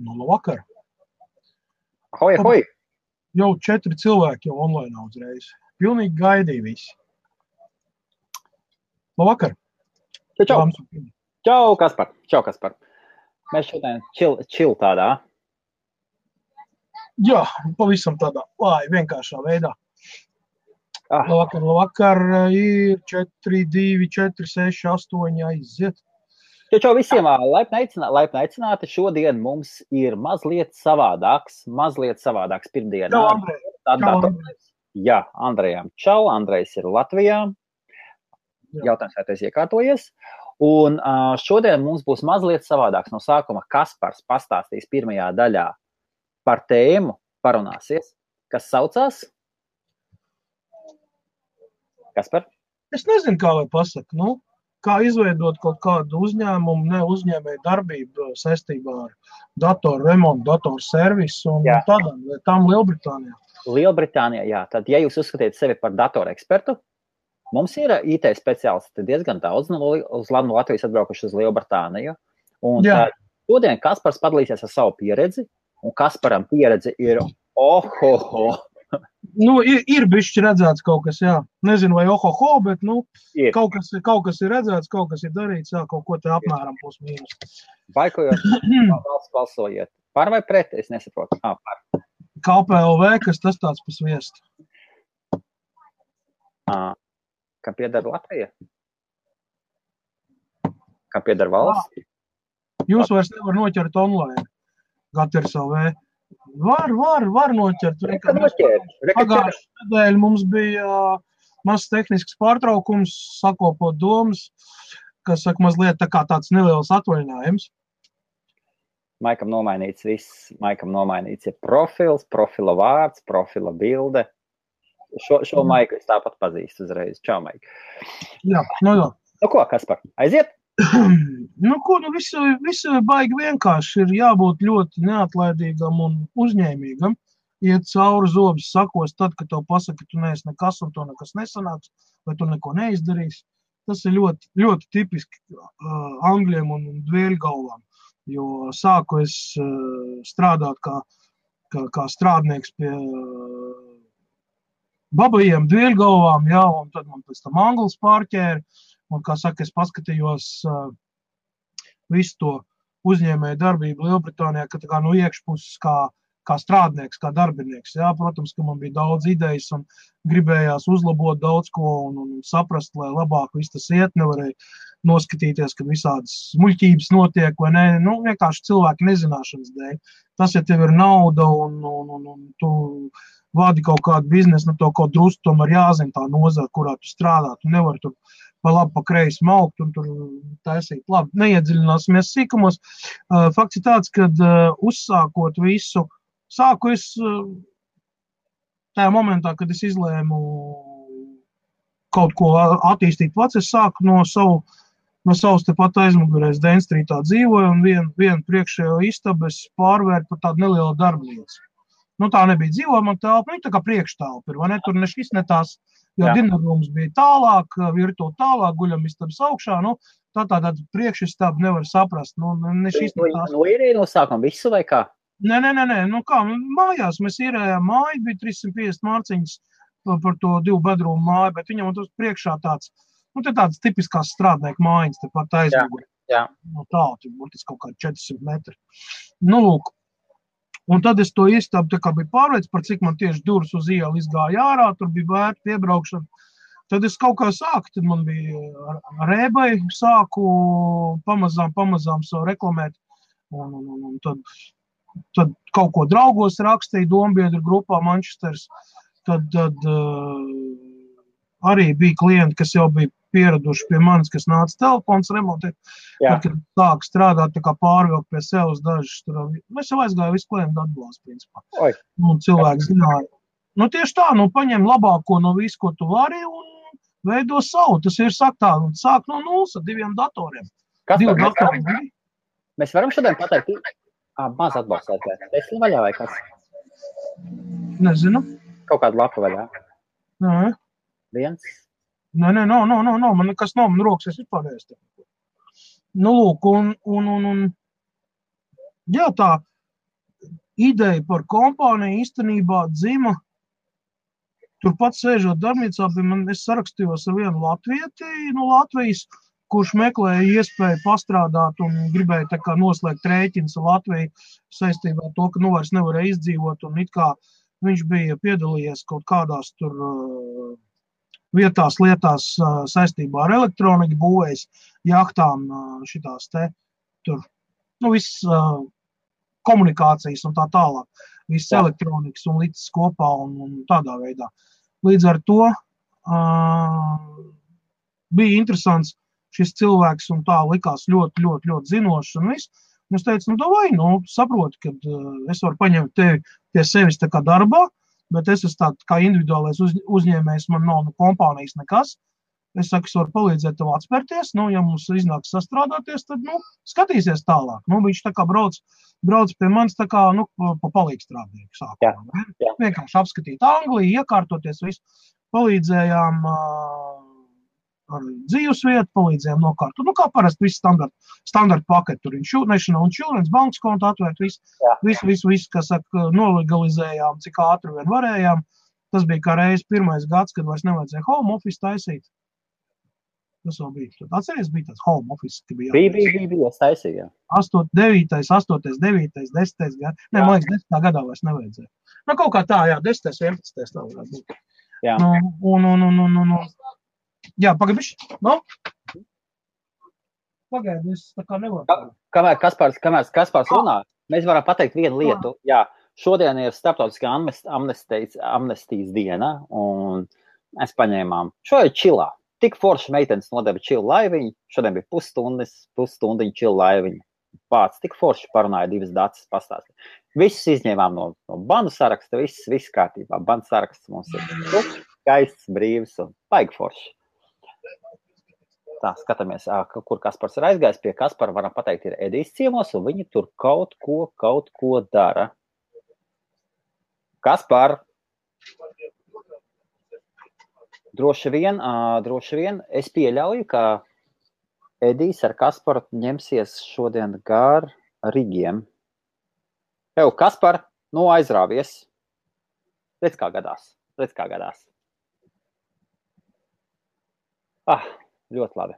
Nu, labvakar. Hoi, hoi! Jau 4 cilvēki jau online uzreiz. Pilnīgi gaidīja visi. Labvakar. Čau! Čau, Kaspar! Čau, Kaspar! Mēs šodien čil tādā. Jā, pavisam tādā vienkāršā veidā. Labvakar, ir 4, 2, 4, 6, 8 aiziet. Čau visiem, laipni aicināti. Šodien mums ir mazliet savādāks pirmdienā. Čau, Andrej. Jā, Andrejam. Čau, Andrejs ir Latvijā. Jautājums, vai tu esi iekārtojies. Un šodien mums būs mazliet savādāks. No sākuma Kaspars pastāstīs pirmajā daļā par tēmu, parunāsies, kas saucās? Kaspar? Es nezinu, kā lai pasaka, kā izveidot kaut kādu uzņēmumu, ne uzņēmēju darbību saistībā ar datoru remontu, datoru servisu un tādām Lielbritānijā. Lielbritānijā, jā. Tad, ja jūs uzskatiet sevi par datoru ekspertu, mums ir IT speciālisti diezgan daudz no Latvijas atbraukuši uz Lielbritāniju. Un šodien Kaspars padalīsies ar savu pieredzi, un Kasparam pieredze ir Ir bišķi redzēts kaut kas, jā. Nezinu, vai ohoho, bet, kaut kas ir redzēts, kaut kas ir darīts, jā, kaut ko te apmēram plus mīnus. Baikojot, balsojiet. Par vai pret? Es nesaprotu. Par. KPLV, kas tas tāds pa sviestu? Kam pieder Latvija? Kam pieder valsts? Jūs vairs nevar noķert online. Gaters LV. Var noķert. Pagājušajā nedēļā mums bija mazs tehnisks pārtraukums, sakopot domas, kas saka mazliet tā kā tāds neliels atvaļinājums. Maikam nomainīts viss. Maikam nomainīts ir profils, profila vārds, profila bilde. Šo Maiku es tāpat pazīstu uzreiz. Čau, Maik. Jā. Ko, Kaspar? Aiziet? Visu baigi vienkārši ir jābūt ļoti neatlaidīgam un uzņēmīgam. Iet cauri zobus sakos tad, kad tev pasaka, ka tu neesi nekas un to nekas nesanāks, vai tu neko neizdarīsi. Tas ir ļoti, ļoti tipiski angļiem un dvēļgalvām, jo sāku es strādāt kā strādnieks pie babajiem dvēļgalvām, un tad man pēc tam anglis pārķēra. Un, kā saka, es paskatījos visu to uzņēmēju darbību Lielbritānijā, ka tā kā no iekšpuses kā strādnieks, kā darbinieks. Jā, protams, ka man bija daudz idejas un gribējās uzlabot daudz ko un saprast, lai labāk viss tas iet. Nevarēja noskatīties, kad visādas muļķības notiek vai ne. Vienkārši cilvēku nezināšanas dēļ. Tas, ja tev ir nauda un tu vadi kaut kādu biznesu, to kaut drusku tomēr jāzina tā nozara, kurā tu strādā. Tu nevari tur pa labi, pa kreisi maukt un tur taisīt. Labi, neiedziļināsimies sīkumos. Fakts ir tāds, kad uzsākot visu, sāku es tajā momentā, kad es izlēmu kaut ko attīstīt pats, es sāku no savas tepat aizmugurēs Dēn Strītā dzīvoju un vienu priekšējo istabu es pārvērt par tādu nelielu darbnīcu. Tā nebija dzīvojama telpa, tā kā priekštelpa ir, vai ne? Tur ne šis, ne tās, jo dinarrums bija tālāk, virtuve tālāk, guļamistabas augšā, tāda priekšistaba nevar saprast, ne šis, ne tās. Ir no sākuma visu vai kā? Nē, mājās mēs īrējām māju, bija 350 mārciņas par to 2 bedrūmu māju, bet viņam tur priekšā tāds tipiskās strādnieku mājiņas, tepat aizmugurē. Tālu, tur būtiski kaut kādi 400 metri. Lūk. Un tad es to istabu biju pārveicis, par cik man tieši durvis uz ielu izgāja ārā, tur bija vērta piebraukšana. Tad es kaut kā sāku, tad man bija ar eBay, sāku pamazām savu reklamēt. Un tad kaut ko draugos rakstīju Dombiedru grupā Manchesteras. Tad arī bija klienti, kas jau bija pieraduši pie manis, kas nāca telefons remontēt. Tad, kad sāk strādāt, tā kā pārvilkt pie sevis dažas. Es jau aizgāju visu klientu atbalstu, principā. Un cilvēki zināja. Tieši tā, paņem labāko no visu, ko tu vari un veido savu. Tas ir sāk no nulles ar 2 datoriem. Mēs varam šodien pateikt, maz atbalstēt. Es vaļā vai kas? Nezinu. Kaut kādu lapu vaļā? Nē. Viens? Nē, man nekas nav, man rokas es vispār neesmu. Lūk, jā, tā, ideja par kompāniju īstenībā dzima turpat sēžot darbnīcā, es sarakstījos ar vienu latvieti no Latvijas, kurš meklēja iespēju pastrādāt un gribēja tā kā noslēgt rēķins ar Latviju saistībā ar to, ka vairs nevarēja izdzīvot, un it kā viņš bija piedalījies kaut kādās tur vietās, lietās saistībā ar elektroniku, būvējis jahtām šitās te tur, viss komunikācijas un tā tālāk, viss elektronikas un līdzes kopā un tādā veidā. Līdz ar to bija interesants šis cilvēks un tā likās ļoti, ļoti, ļoti zinošs un viss. Un es teicu, davai, saproti, ka es varu paņemt tevi pie sevis tā kā darbā, bet es esmu tāds kā individuālais uzņēmējs, man nav kompānijas nekas. Es saku, es varu palīdzēt tev atspērties, ja mums iznāks sastrādāties, tad, skatīsies tālāk. Viņš tā kā brauc pie manis tā kā, pa palīgstrādnieku sākumā. Vienkārši apskatīt Angliju, iekārtoties visu, palīdzējām ar dzīvesvietu, palīdzējām nokārtot. Kā parasti viss standarta paketi, tur National Insurance, bankas kontu atvērt, visu, kas saka, nolegalizējām, cik ātri vien varējām. Tas bija kā reiz pirmais gads, kad vairs nevajadzēja home office taisīt. Tas vēl bija. Atceries, bija tāds home office, ka bija Bija, es taisīju, jā. 8, 9, 10. gadā. Man liekas, 10. gadā vairs nevajadzēja. Kaut kā tā, jā, 10, 11. tā varētu būt. Jā. Jā, pagaidīši. Pagaidi, es tā kā nevaru. Kamēr Kaspars runā, mēs varam pateikt vienu lietu. Jā, šodien ir starptautiskā amnestijas diena, un mēs paņēmām šo ir čilā. Tik forši meitenes nodeva čilu laiviņu, šodien bija pusstundiņu čilu laiviņu. Pāc, tik forši parunāja divas dacis pastāstīt. Visus izņēmām no bandu saraksta, viss kārtībā. Bandu saraksts mums ir skaists, brīvs un baigi forši. Tā, skatāmies, kur Kaspars ir aizgājis. Pie Kaspara varam pateikt, ir Edijs ciemos, un viņi tur kaut ko dara. Kaspar! Droši vien es pieļauju, ka Edijs ar Kasparu ņemsies šodien gar Rigiem. Kaspar, aizrāvies. Redz, kā gadās. Ļoti labi.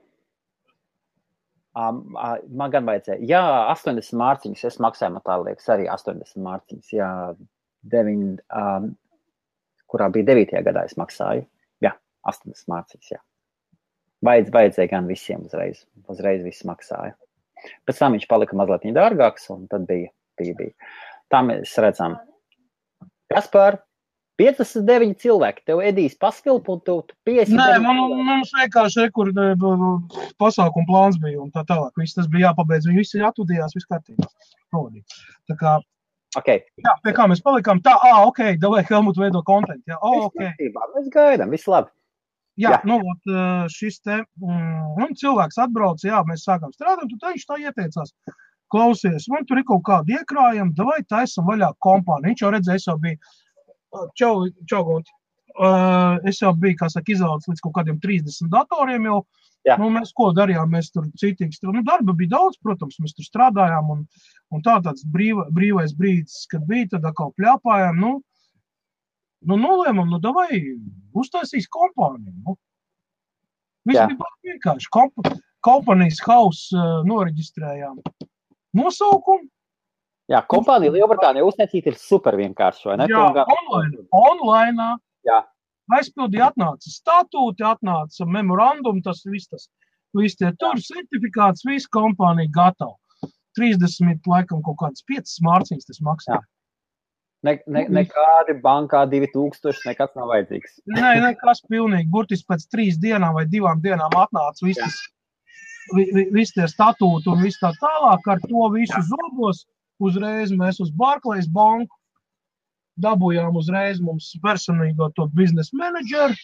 Man gan vajadzēja. Jā, 80 mārciņas. Es maksāju, man tā liekas, arī 80 mārciņas. Jā, kurā bija 9. gadā es maksāju. Jā, 80 mārciņas, jā. Vajadzēja gan visiem uzreiz. Uzreiz viss maksāja. Pēc tam viņš palika mazliet dārgāks, un tad bija. Tā mēs redzam. Kaspar, 59 cilvēki, tev Edijs paskilp, un tu 59. Nē, mums vienkārši pasākuma plāns bija, un tā tālāk. Viss tas bija jāpabeidz, viņi visi atvadījās, viss kārtībā. Tā kā, okay. Jā, pie kā mēs palikām, tā, davai Helmut veido kontentu, jā, Mēs gaidām, viss labi. Jā. Šis te, cilvēks atbrauc, jā, mēs sākām strādāt, un viņš tā ieteicās. Klausies, man tur ir kaut kādi iekrājumi, davai taisam vaļā kompāniju. Viņš jau redzēja, es jau biju, čau, Gunti. Es jau biju, kā saka, izaudzis līdz kaut kādiem 30 datoriem jau. Mēs ko darījām, mēs tur citīgi strādājām. Darba bija daudz, protams, mēs tur strādājām, un tāds brīvais brīdis, kad bija, tad atkal pļāpājām, nolēmam, davai uztaisīs kompāniju. Viss bija vienkārši. Kompānijas house noreģistrējām. Nosaukumu. Jā, kompānija Lielbritānija uztaisīt ir super vienkārši, vai ne? Jā, online. Jā. Aizpildīja, atnāca statūti, atnāca memorandum, tas viss tie tur certifikāts, viss kompānija gatava. 30, laikam, kaut kādas 5 mārciņas tas maksā. Nekādi bankā 2000, nekas nav vajadzīgs. Nē, nekas pilnīgi. Burtiski pēc 3 dienām vai 2 dienām atnāca viss tie statūti un viss tā tālāk. Ar to visu zobos uzreiz mēs uz Barclays banku dabūjām uzreiz mums personīgo to biznesa menedžeru.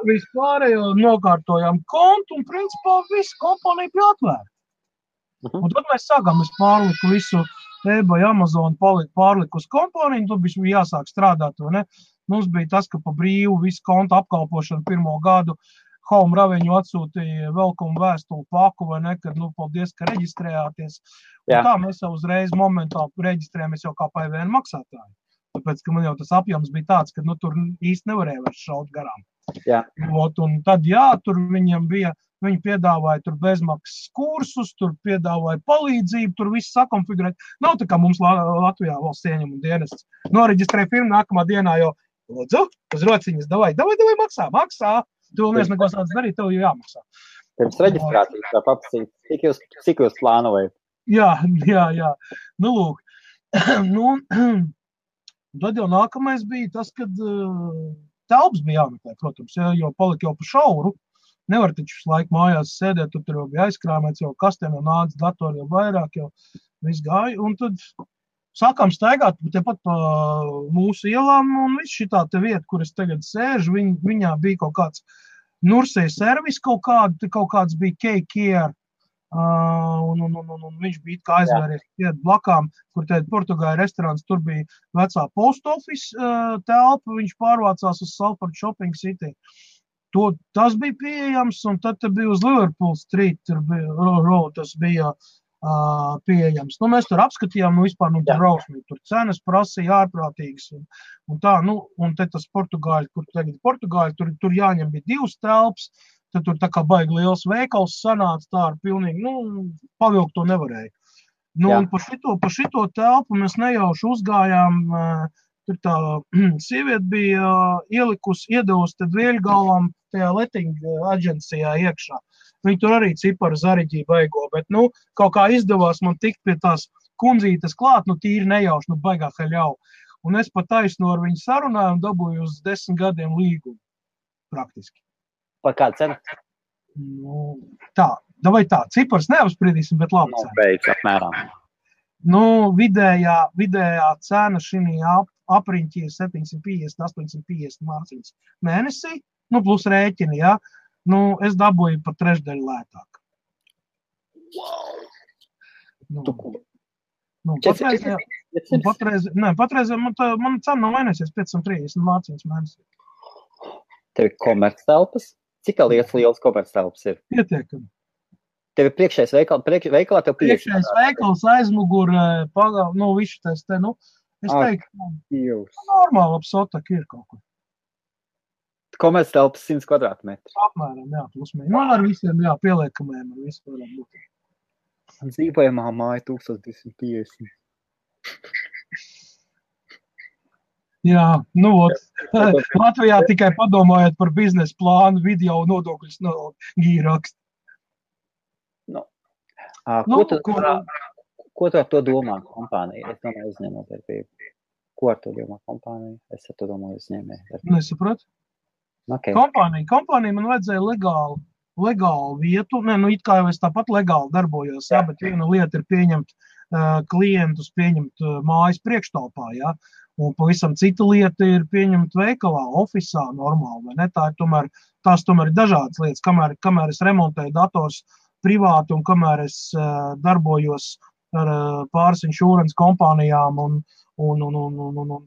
Vispārējo nokārtojām kontu un principā visu kompāniju bija atvērta. Un tad mēs sākām, es pārliku visu eBay, Amazon, pārliku uz kompāniju, tad bija jāsāk strādāt, vai ne? Mums bija tas, ka pa brīvu visu kontu apkalpošanu 1. gadu Home Revenue atsūtīja welcome vēstuli paku, vai ne, kad, paldies, ka reģistrējāties. Tā mēs jau uzreiz momentāli reģistrējamies jau kā PVN maksātāji. Tāpēc, ka man jau tas apjoms bija tāds, ka tur īsti nevarēja vairs šaut garām. Un tad, tur viņam bija, viņi piedāvāja tur bezmaksas kursus, tur piedāvāja palīdzību, tur viss sakonfigurēt. Nav tā kā mums Latvijā valsts ieņem un dienests. Noreģistrēja firmu nākamā dienā jau, lūdzu, uz rociņas, davai, maksā. Tu vēl neesi neko sāc darīt, tev jau jāmaksā. Pirms reģistrācijas tā paprasīt, cik jūs plānojat? Jā. Nu, lūk. Tad jau nākamais bija tas, kad telpas bija jāmeklē, protams, jo palika jau pa šauru. Nevar taču visu laiku mājās sēdēt, tur jau bija aizkrāmēts, jau kastēm jau nāca datori jau vairāk, jau viss gāja. Un tad sākām staigāt tepat pa mūsu ielām, un viss šitā te vieta, kur es tagad sēžu, viņā bija kaut kāds Nursei servis, kaut kāds bija K-Care, un viņš bija kā aizvēries blakām, kur tēd Portugāļu restorāns, tur bija vecā post office telpa, viņš pārvācās uz Salford Shopping City. Tas bija pieejams, un tad bija uz Liverpool Street, tas bija pieejams. Mēs tur apskatījām, vispār, tur rausmīgi, tur cenas prasīja ārprātīgas, un tā, un te tas Portugāļi, kur tagad Portugāļi, tur jāņem bija 2 telpas, tad tur tā kā baigi liels veikals sanāca, tā ar pilnīgi, pavilkt to nevarēja. Un pa šito telpu mēs nejauši uzgājām, tur tā sieviete bija iedevusi tad Vieļgalvam tajā letting aģencijā iekšā. Viņi tur arī ciparu zariģīja baigo, bet, kaut kā izdevās man tikt pie tās kundzītes klāt, tīri nejauši, baigā haļau. Un es pat taisnu ar viņu sarunāju un dabūju uz 10 gadiem līgumu, praktiski. Par kādu cenu? Tā, cipars neapspriedīsim, bet labi cena. Beidz, apmēram. Vidējā cena šī apriņķi ir 750–850 mārciņas mēnesī, plus rēķini, jā. Es dabūju par trešdaļu lētāk. Patreiz man cena nav mainīsies 530 mārciņas mēnesī. Tev ir komerctelpas? Cik lielas komerctelpas ir? Pietiekami. Tev ir priekšējais veikalā, tev priekšējais veikals, aizmugur, visu tas te, es teiktu, normāli apsotak ir kaut kur. Komerctelpas 100 kvadrātmetri. Apmēram, jā, plusmēr. Ar visiem, pieliekamiem, ar visu varam būt. Dzīvojamā māja 1250. Jā, Latvijā tikai padomājot par biznesa plānu, video nodokļus gīrakst. Ko tu ar to domā kompānija? Es domāju uzņēmējdarbību. Ko ar to domā kompānija? Es ar to domāju uzņēmējdarbību. Nesapratu? Okay. Kompānija man vajadzēja legālu vietu, it kā jau es tāpat legāli darbojos, bet viena lieta ir pieņemt klientus, pieņemt mājas priekštalpā, un pavisam cita lieta ir pieņemt veikalā, ofisā normāli, vai ne? Tās tomēr ir dažādas lietas, kamēr es remontēju dators privāti un kamēr es darbojos ar pāris insurance kompānijām un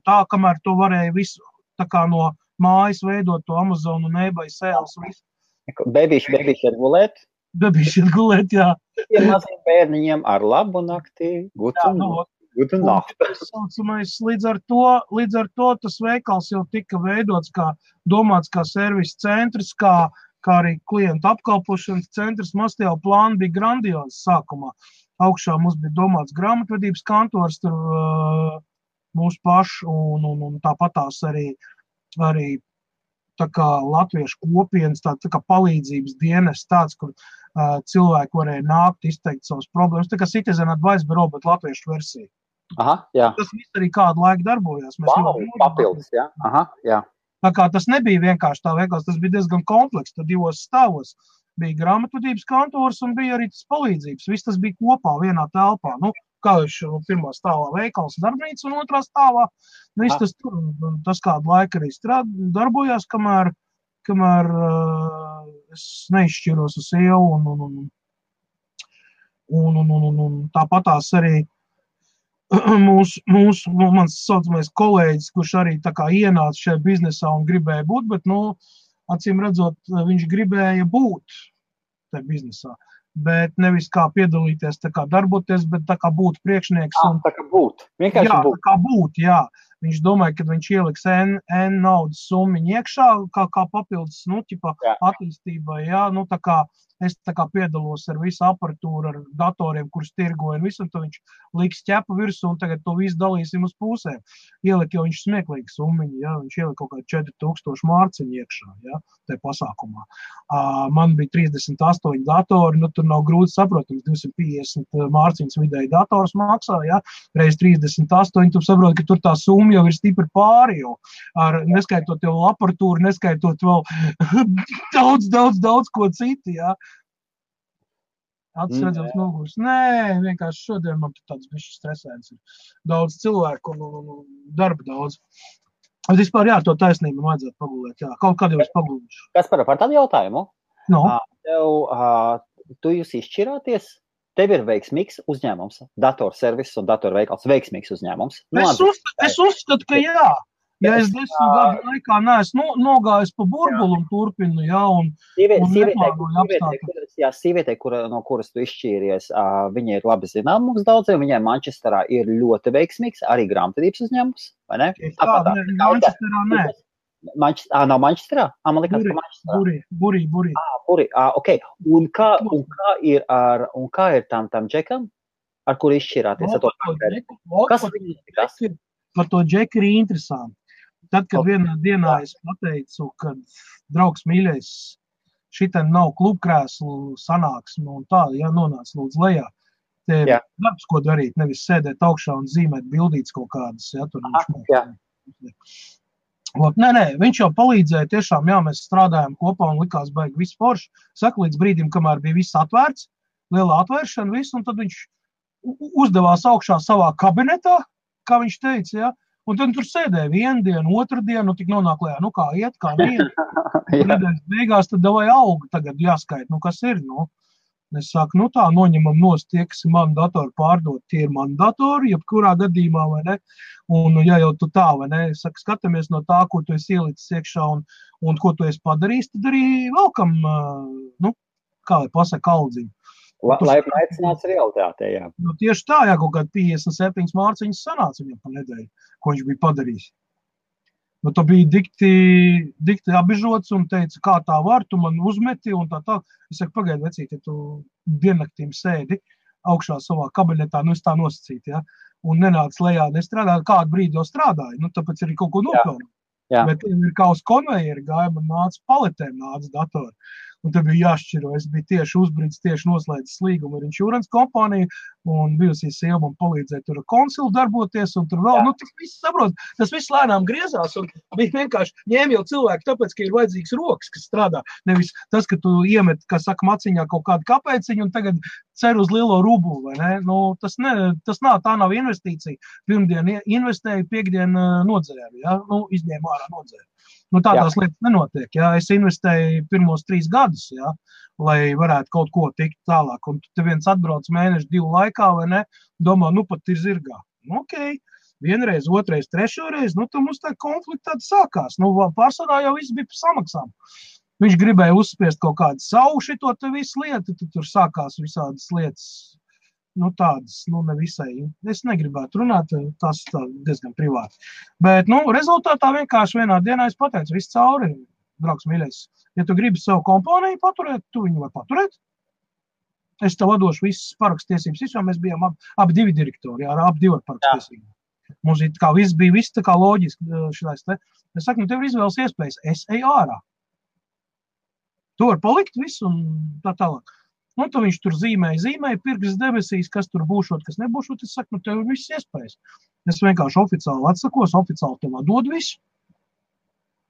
tā, kamēr to varēja visu tā kā no mājas veidot to Amazon un eBay sales visu. Bebīši ir gulēt? Bebīši ir gulēt, jā. Tiem maziem bērniņiem ar labu nakti, gudu nakti. Līdz ar to tas veikals jau tika veidots domāts kā servis centrs, kā arī klientu apkalpošanas centrs. Mums jau plāni bija grandiozi sākumā. Augšā mums bija domāts grāmatvedības kantors, tur mūsu pašu un tāpatās arī tā kā latviešu kopienas, tā kā palīdzības dienas tāds, kur cilvēki varēja nākt, izteikt savas problēmas. Tā kā Citizen Advice Bureau, bet latviešu versija. Aha, jā. Tas viss arī kādu laiku darbojās. Papildus, jā. Aha, jā. Tā kā tas nebija vienkārši tā veikals, tas bija diezgan kompleks, tad 2 stāvos. Bija grāmatvedības kantors un bija arī tas palīdzības. Viss tas bija kopā vienā telpā. Kā jau pirmā stāvā veikals darbnīca un otrā stāvā. Viss tas tur, tas kādu laiku arī darbojās, kamēr es neizšķiros uz sievu un tāpatās arī mans saucamais kolēģis, kurš arī tā kā ienāca šajā biznesā un gribēja būt, bet, acīm redzot, viņš gribēja būt tajā biznesā. bet nevis kā piedalīties, tā kā darboties, bet tā kā būt priekšnieks. Tā kā būt. Vienkārši jā, būt. Tā kā būt, jā. Viņš domāja, ka viņš ieliks N naudas summiņu iekšā, kā papildus, attīstībai, jā, tā kā es tā kā piedalos ar visu aparatūru, ar datoriem, kurus tirgoju un visu, un tad viņš liks ķepu virsū, un tagad to visu dalīsim uz pusēm. Ielika jau viņš smieklīgi summiņu, jā, viņš ielika kaut kā 4000 mārciņu iekšā, jā, tajā pasākumā. Man bija 38 datori, tur nav grūti saprotams, 250 mārciņas vidēji dators maksā, jā, reiz 38, tu saproti, ka tur tā summa jau ir stipri pāri, jo neskaitot jau aparatūru, neskaitot vēl daudz ko citu, jā. Acis redzams nogurs. Nē, vienkārši šodien man tāds bišķi stresēns ir. Daudz cilvēku un darba daudz. Bet vispār, jā, to taisnību vajadzētu pagulēt, jā. Kaut kad jau es pagulīšu. Kas par tādu jautājumu? No. Tu jūs izšķirāties? Tev ir veiksmīgs uzņēmums, datorservis un datorveikals veiksmīgs uzņēmums. Es uzskatu, ka jā. Ja es 10 gadu laikā neesmu nogājis pa burbulu un turpinu, jā, un neplānoju apstākļus. Jā, sievietei, no kuras tu izšķīries, viņa ir labi zinām mums daudziem, viņai Manchesterā ir ļoti veiksmīgs, arī grāmatvedības uzņēmums, vai ne? Manchesterā nē. Nav Manchesterā? Man likās, ka Manchesterā. Burī. Burī, ok. Un kā ir tam džekam, ar kuru izšķirāties? Kas viņas ir? Par to džeku ir interesanti. Tad, kad vienā dienā es pateicu, ka draugs mīļais, šitam nav klubkrēslu sanāksme un tā, ja nonāc lūdzu lejā, te darbs, ko darīt, nevis sēdēt augšā un zīmēt bildītes kaut kādas, ja, tur Nē, viņš jau palīdzēja tiešām, jā, mēs strādājām kopā un likās baigi viss forši. Saka, līdz brīdim, kamēr bija viss atvērts, liela atvēršana, viss, un tad viņš uzdevās augšā savā kabinetā, kā viņš teica, ja, un tad tur sēdēja vienu dienu, otru dienu, tik nonāk lejā, kā iet, kā neiet. Nedēļas beigās tad davai auga tagad jāskait, kas ir, Es saku, tā, noņemam nost tie, kas ir mani datoru pārdot, tie ir mani datori, jebkurā gadījumā, vai ne, un ja jau tu tā, vai ne, es saku, skatāmies no tā, ko tu esi ielicis iekšā un ko tu esi padarījis, tad arī velkam, kā lai pasaka, aldziņu. Lai aicināts realitātē, jā. Tieši tā, jā, kaut kādi 57 mārciņas sanāca viņam pa nedēļu, ko viņš bija padarījis. Tu biji dikti apbežots un teica, kā tā var, tu man uzmeti un tā. Es saku, pagaidi, vecīt, ja tu diennaktīm sēdi augšā savā kabinetā, es tā nosacītu, ja, un nenāc lejā, nestrādāju, kādu brīdi jau strādāju, tāpēc arī kaut ko nopelnu. Bet ir kā uz konvejeri gāja, man nāca paletēm, nāca datori. Un tad bija jāšķiro. Es biju tieši uzbrīdis, tieši noslēdzis līgumu ar insurance kompāniju, un bijusī sieva man palīdzēja tur konsilu darboties, un tur vēl, tas viss saprot, tas viss lēnām griezās, un bija vienkārši ņēma jau cilvēki, tāpēc, ka ir vajadzīgs rokas, kas strādā. Nevis tas, ka tu iemet, kā saka, maciņā kaut kādu kapēciņu, un tagad cer uz lielo rublu, vai ne? Tā nav investīcija. Pirmdien investēju, piekdien nodzēru, ja? Izņēmu ārā nodzēru. Tādās lietas nenotiek, ja? Es investēju pirmos 3 gadus, ja? Lai varētu kaut ko tikt tālāk. Un te viens atbrauc mēnešu 2 laikā, vai ne? Domā, pat ir zirgā. Ok, vienreiz, otrais, trešoreiz, tad mums tā konflikta tāda sākās. Pārsvarā jau viss bija par samaksām. Viņš gribēja uzspiest kaut kādu savu šito te visu lietu, tad tur sākās visādas lietas. Tādas, nevisai. Es negribētu runāt, tas diezgan privāti. Bet, rezultātā vienkārši vienā dienā es pateicu, viss cauri, draugs mīļais. Ja tu gribi savu kompāniju paturēt, tu viņu var paturēt. Es tev atdošu visas parakstiesības, jo mēs bijām abi 2 direktori, jā, abi 2 parakstiesības. Mums bija viss tā kā loģiski šitais te. Es saku, tev ir izvēles iespējas, es eju ārā. Tu var palikt visu un tā tālāk. Tad viņš tur zīmēja pirks debesīs, kas tur būšot, kas nebūšot. Es saku, tev ir viss iespējas. Es vienkārši oficiāli atsakos, oficiāli tev atdod visu,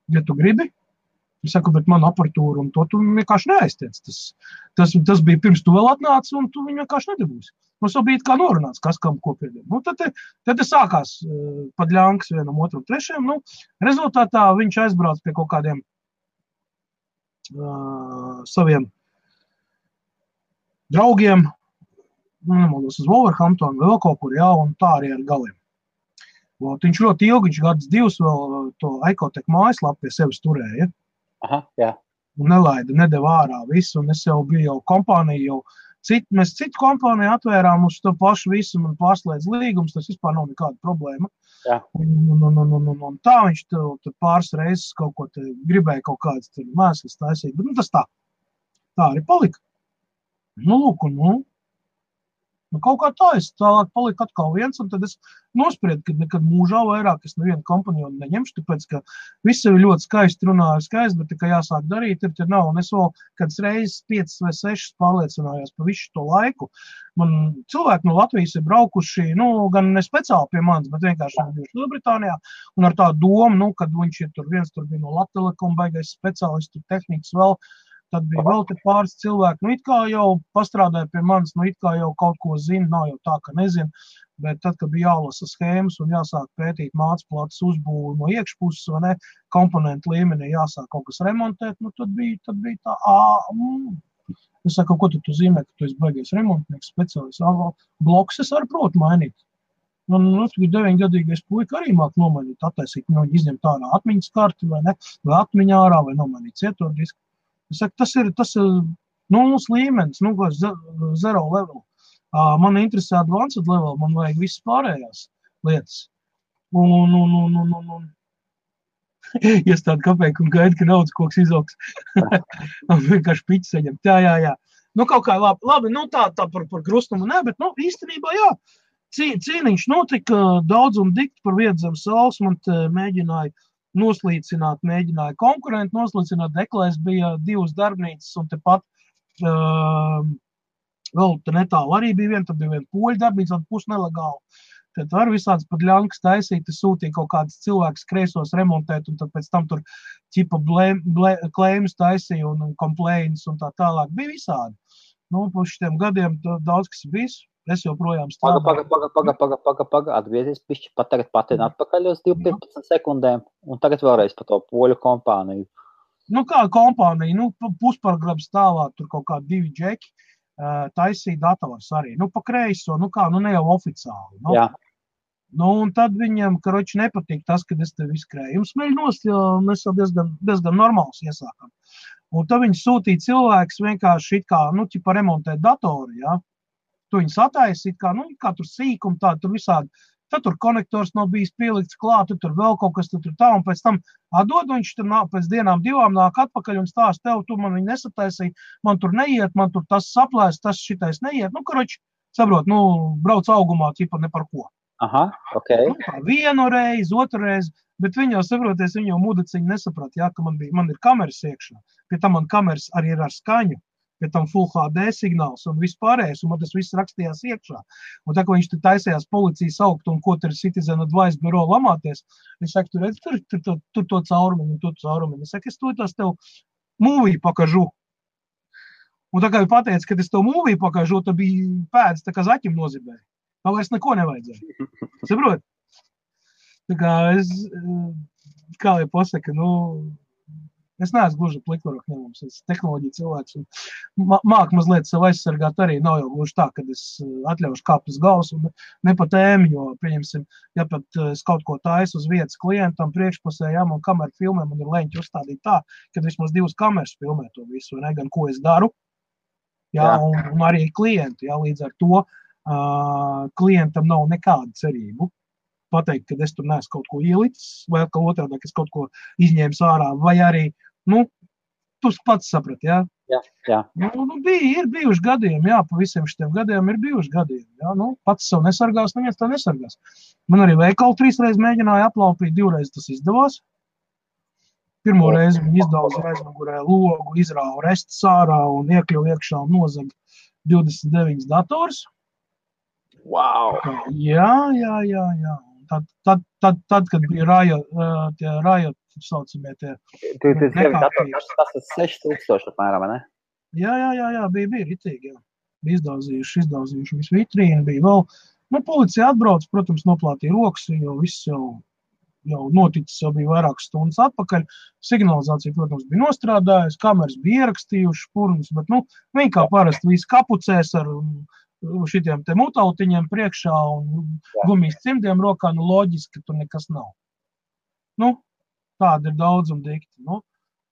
ja tu gribi. Es saku, bet man aparatūra un to tu vienkārši neaiztiec. Tas bija pirms tu vēl atnāci un tu viņu vienkārši nedabūsi. Mums jau bija kā norunāts, kas kam ko piedod. Tad sākās padļānkas vienam, otram, trešajam. Rezultātā viņš aizbrauc pie kaut kādiem saviem draugiem, nemaldos uz Wolverhamptonu, vēl kaut kur, jā, un tā arī ar galiem. Viņš ļoti ilgi, viņš gadus 2 vēl to Icotech mājaslapu pie sevis turēja. Aha, jā. Un nedeva ārā visu, un es jau biju kompāniju jau Mēs citu kompāniju atvērām uz to pašu visu un pārslēdz līgums, tas vispār nav nekāda problēma. Jā. Un tā viņš tur pāris reizes kaut ko te gribēja kaut kādas mēslas taisīt, bet tas tā arī palika. Lūk, kaut kā tā, es tālāk paliku atkal viens, un tad es nospriedu, ka nekad mūžā vairāk es nevienu kompanionu neņemšu, tāpēc, ka viss ir ļoti skaisti runāju skaisti, bet tikai jāsāk darīt, ir nav, un es vēl kāds reizes 5 vai 6 pārliecinājās pa visu to laiku. Man cilvēki no Latvijas ir braukuši, gan ne speciāli pie manis, bet vienkārši bijuši Lielbritānijā, un ar tā domu, kad viņš ir viens tur bija no Latelekom, baigais speciālists, tur tehnikas vēl, tad bija vēl te pāris cilvēki, it kā jau pastrādāja pie manis, it kā jau kaut ko zina, nav jau tā, ka nezinu, bet tad, kad bija jālasa schēmas un jāsāk pētīt mācplātas uzbūvi no iekšpuses, vai ne, komponentu līmenī jāsāk kaut kas remontēt, tad bija tā, Es saku, ko tu zīmē, ka tu esi baigies remontnieks, speciālists, bloks es arī protu mainīt. Man 9-gadīgais puika arī māk nomainīt, attaisīt, izņemt ārā atmiņas karti, vai ne, vai atmiņā ārā, vai nomainīt cietodisku. Es saku, tas ir nulles līmenis, zero level. Man interesē advanced level, man vajag visas pārējās lietas. Un iestādi kapeiku un gaida, ka naudas koks izaugs. Vienkārši piķi saņemt. Jā. Kaut kā labi, tā par krustumu ne, bet īstenībā jā. Cīniņš notika daudz un dikti par vietu zem saules, man mēģināja noslīcināt, mēģināja konkurenti noslīcināt, Deklēs bija 2 darbnīcas un tepat vēl te netālu arī bija viena, tad bija viena poļu darbnīca, pusnelegāla. Tad var visāds pat ļankas taisīt, sūtīja kaut kādas cilvēkus kreisos remontēt un tad pēc tam tur ķipa klēmus taisīja un complaints un tā tālāk. Bija visādi. Pa šitiem gadiem daudz kas bijis. Es joprojām strādāju. Paga, atgriezies pišķi, pat tagad patina atpakaļ uz 15 sekundēm, un tagad vēlreiz par to poļu kompāniju. Kā kompānija, puspargrabu stāvā, tur kaut kā 2 džeki, taisīja dators arī. Pa kreiso, ne jau oficiāli. Jā. Un tad viņam, karoči, nepatīk tas, kad es tev izkrēju. Smeļ nost, jo mēs jau diezgan normāls iesākam. Un tad viņi sūtīja cilvēks vienkārši ķipa remontēt datoru, jā. Tu viņus attaisi, kā tur sīkumi, tur visādi. Tad tur konektors nav bijis pielikts klāt, tur vēl kaut kas tur tā, un pēc tam atdod, viņš tur pēc dienām 2 nāk atpakaļ un stāst tev, tu man viņu nesataisīji, man tur neiet, man tur tas saplēs, tas šitais neiet. Karoči, saprot, brauc augumā, ķipa ne par ko. Aha, ok. Vienu reizi, otru reizi, bet viņi jau saproties, viņi jau mudeciņi nesaprat, jā, ka man ir kameras iekšā, pie tam man kameras arī ir ar skaņu. Pēc tam Full HD signāls un vispārējais, un man tas viss rakstījās iekšā. Un tā, ka viņš te taisījās policijas augt un ko tur Citizen Advice Bureau lamāties, es saku, tur redz, tur to caurumiņu un to caurumiņu. Es saku, es to tev mūviju pakažu. Un tā kā viņi pateica, ka es tev mūviju pakažu, tad bija pēdas, tā kā zaķim nozibēja. Tā vairs neko nevajadzēja. Saprot? Tā kā kā lai pasaka, es neesmu gluži plikvaroku ņemums, es tehnoloģiju cilvēks un māk mazliet sev aizsargāt arī, nav jau gluži tā, kad es atļaušu kāpt uz galvas un ne pa tēmu, jo, pieņemsim, ja pat es kaut ko taisu uz vietas klientam priekšpusē, jā, man kamera filmē, man ir leņķi uzstādīt tā, kad vismaz 2 kameras filmē to visu, vai ne, gan ko es daru, jā. Un arī klienti, jā, līdz ar to klientam nav nekāda cerību pateikt, ka es tur neesmu kaut ko ielicis, vai ka otrādā, ka es kaut ko izņēmu ārā, vai arī, tu pats saprat, jā? Jā. Ir bijuši gadījumi, jā, pa visiem šitiem gadiem ir bijuši gadījumi, jā, pats sev nesargās, neviens tā nesargās. Man arī veikalu 3 reizes mēģināja aplaupīt, 2 reizes tas izdevās. Pirmo reizi viņi izdauzīja aizmugurē logu, izrāva restus ārā un iekļuva iekšā un nozaga 29 dators. Wow! Jā. Tad, kad bija Riot, saucamie tie nekārtības. Tas ir 6000 apmēram, ne? Jā, bija ritīgi, jā. Bija izdauzījuši visu vitrīnu, bija vēl. Policija atbrauc, protams, noplātīja rokas, jo viss jau noticis, jau bija vairākas stundas atpakaļ. Signalizācija, protams, bija nostrādājusi, kameras bija ierakstījuši špurnas, bet, viņi kā parasti visi kapucēs ar šitiem te mutautiņiem priekšā un gumijas cimdiem rokā, loģiski, ka tur nekas nav. Tāda ir daudz un dikti.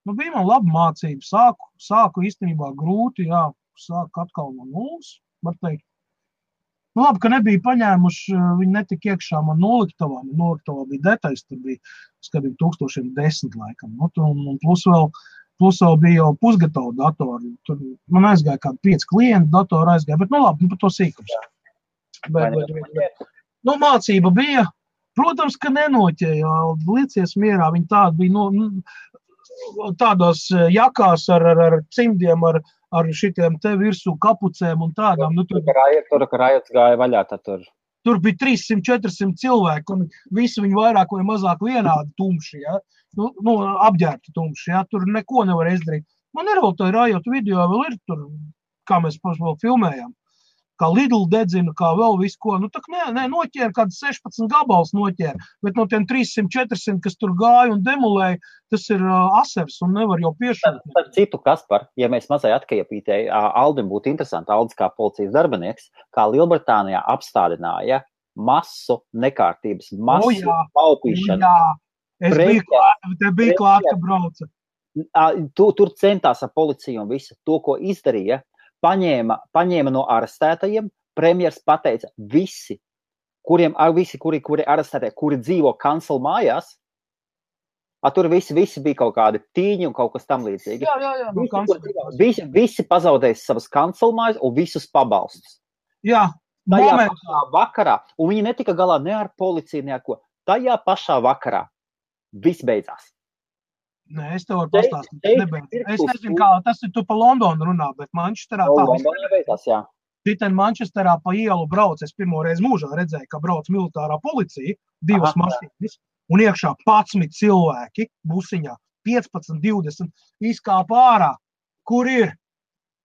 Bija man laba mācība. Sāku īstenībā grūti, jā. sāk atkal no nulles, var teikt. Nu, labi, ka nebija paņēmuši, viņi netika iekšā man noliktavā bija detaļas, tur bija, skatīt, 1010 laikam, nu, un plus vēl bija jau pusgatavu datoru, tur man aizgāja kādi 5 klienti datoru aizgāja, bet, nu, labi, par to sīkums. Bet, nu, mācība bija, protams, ka nenoķēja, liecies mierā, viņi tādi bija, tādos jakās ar cimdiem, ar šitiem te virsū kapucēm un tādām. Nu, tur rajots gāja vaļā, tad tur. Tur bija 300-400 cilvēki, un visi viņi vairāk vai mazāk vienādi tumši, ja? Nu, apģērbti tumši, ja? Tur neko nevar izdarīt. Man ir vēl tā rajotu video, vēl ir tur, kā mēs vēl filmējām, kā Lidl dedzina, kā vēl visu ko. Nu, tak noķēra, kāds 16 gabals noķēra, bet no tiem 300-400, kas tur gāja un demolēja, tas ir asers un nevar jau piešūt. Tad citu, Kaspar, ja mēs mazai atkiepītēji, Aldim būtu interesanti, Aldis kā policijas darbinieks, kā Lielbritānijā apstādināja masu nekārtības, masu paupīšanu. Jā, es biju klāt, ka brauca. Tur centās ar policiju un visu to, ko izdarīja, paņēma no arestētajiem, premjers pateica visi, kuri arestētie, kuri dzīvo kancela mājās, tur visi bija kaut kādi tīņi un kaut kas tam līdzīgi. Jā, visi pazaudēja savas kancela mājas un visus pabalstus. Jā, tajā pašā vakarā, un viņi netika galā ne ar policiju, ne ar ko. Tajā pašā vakarā viss beidzās. Nē, es tev varu pastāstīt. Es nezinu, kā tas ir tu pa Londonu runā, bet Manchesterā tā beidzās, jā. Šitien Manchesterā pa ielu brauc, es pirmo reizi mūžā redzēju, ka brauc militārā policija, 2 mašīnas, un iekšā 11 cilvēki busiņā, 15, 20, izkāpa ārā. Kur ir?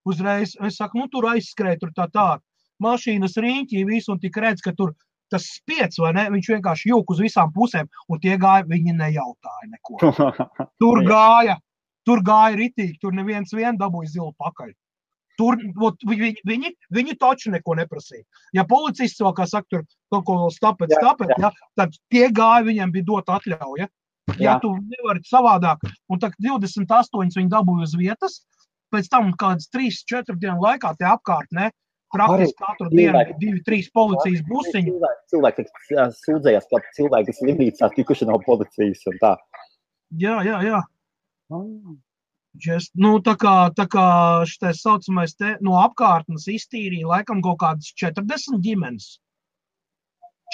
Uzreiz, es saku, nu tur aizskrēja, tur tā. Mašīnas riņķī visu, un tik redz, ka tur tas spiec, vai ne? Viņš vienkārši jūk uz visām pusēm, un tie gāja, viņi nejautāja neko. Tur gāja ritīgi, tur neviens dabūja zilu pakaļ. Tur, viņi taču neko neprasīja. Ja policists vēl, kā saka, tur kaut ko vēl stapēt, ja, tad tie gāja, viņiem bija dot atļauja. Ja tu nevari savādāk, un tad 28 viņi dabūja uz vietas, pēc tam kādas 3-4 dienu laikā tie apkārt, ne? Praktiski katru dienu 2-3 policijas busiņi. Cilvēki sūdzējās, ka cilvēki slimnīcā tikuši no policijas un tā. Jā. Nu, tā kā šitais saucamais te no apkārtnes iztīrīja laikam kaut kādas 40 ģimenes.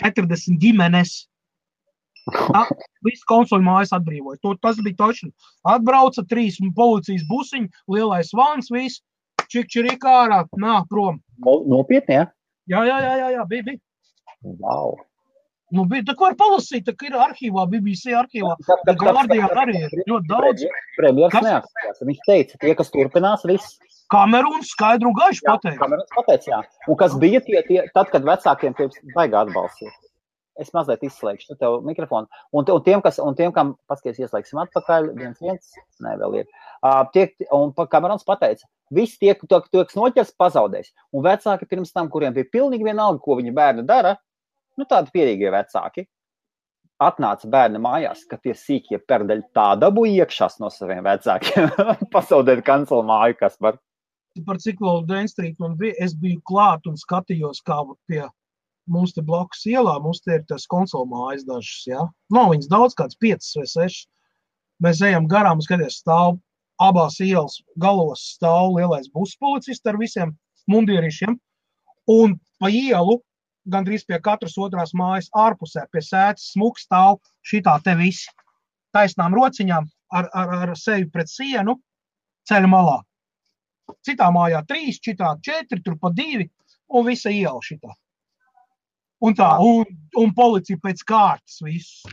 40 ģimenes. Viss konsoļu mājas atbrīvoja. Tas bija točni. Atbrauca 3 policijas busiņi, lielais vans, viss. Čikčirika ārā, prom. Nopietni, ja? Jā, bija. Wow. Nu, bija, tā var palasīt, tā ir arhīvā, BBC arhīvā. Guardian arī ir ļoti daudz. Premjers neatstājās. Viņš teica, tie, kas turpinās, viss. Kamerūns skaidru un gaišu pateica. Kamerūns pateica, jā. Un kas bija tad, kad vecākiem pēc baigā atbalstīt. Es mazliet izslēgšu tev mikrofonu. Un tiem, kam paskaties ieslēgsim atpakaļ, viens, ne, vēl ir. Un Kamerons pateica, visi tie, kas noķers, pazaudēs. Un vecāki pirms tam, kuriem bija pilnīgi vienalga, ko viņa bērni dara, nu tādi pierīgie vecāki, atnāca bērni mājās, ka tie sīkie perdeļi tā dabūja iekšās no saviem vecākiem. Pazaudēt kancela māju, kas var. Par cik vēl Dēn Street man bija, es biju klāt un skatījos, kā pie mums te blakus ielā, mums te ir tas konsola mājas dažas, jā. Nav viņas daudz, kāds 5 vai 6. Mēs ejam garām, skaties, stāv abās ielas galos stāv lielais buspolicists ar visiem mundierīšiem, un pa ielu, gandrīz pie katras otrās mājas ārpusē, pie sētas smuks stāv šitā te visi taisnām rociņām ar sevi pret sienu ceļa malā. Citā mājā 3, šitā 4, tur pa 2, un visa iela šitā. Un tā, un policija pēc kārtas visu.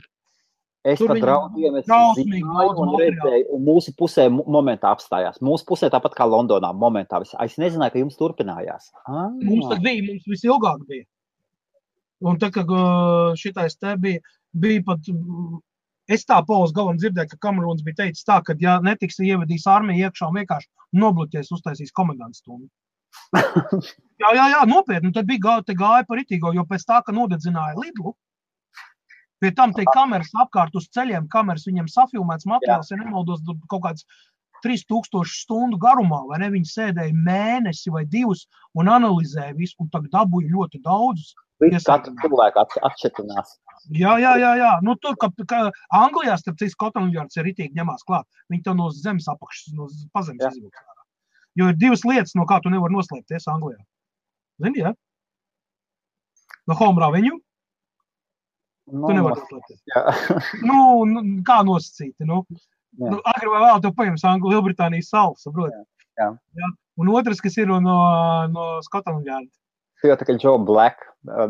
Es pat draudiem un redzēju, un mūsu pusē momentā apstājās. Mūsu pusē tāpat kā Londonā momentā. Es nezināju, ka jums turpinājās. Mums tad bija, mums visilgāk bija. Un tā, ka šitais te bija pat, es tā Pols galam dzirdēju, ka Kamerūns bija teicis tā, ka ja netiks ievedīs armiju iekšā un vienkārši nobloķēs uztaisīs komendants stundu. Jā, nopietni, tad bija gāja par itīgo, jo pēc tā, ka nodedzināja Lidlu, pie tam te kameras apkārt uz ceļiem, kameras viņiem safilmēts materiāls, ja nemaldos kaut kāds 3000 stundu garumā, vai ne? Viņi sēdēja mēnesi vai 2 un analizēja visu, un tagad dabūja ļoti daudzus. Katru cilvēku atšķirtinās. Jā. Nu, tur, ka Anglijā, starp citu, Scotland Yards ir ritīgi ņemās klāt. Viņi tev no zemes apakšas, no pazemes izvilks. Jo ir 2 lietas, no kā tu nevar noslēpties Anglijā. Zini, jā? No home revenue. Tu nevar noslēpties. Nu, kā nosacīti, nu. Agri vai vēl tev paņems Lielbritānijas salu, saproti? Jā. Un otrs, kas ir no Scotland Yard. Tu jau tā kā Joe Black,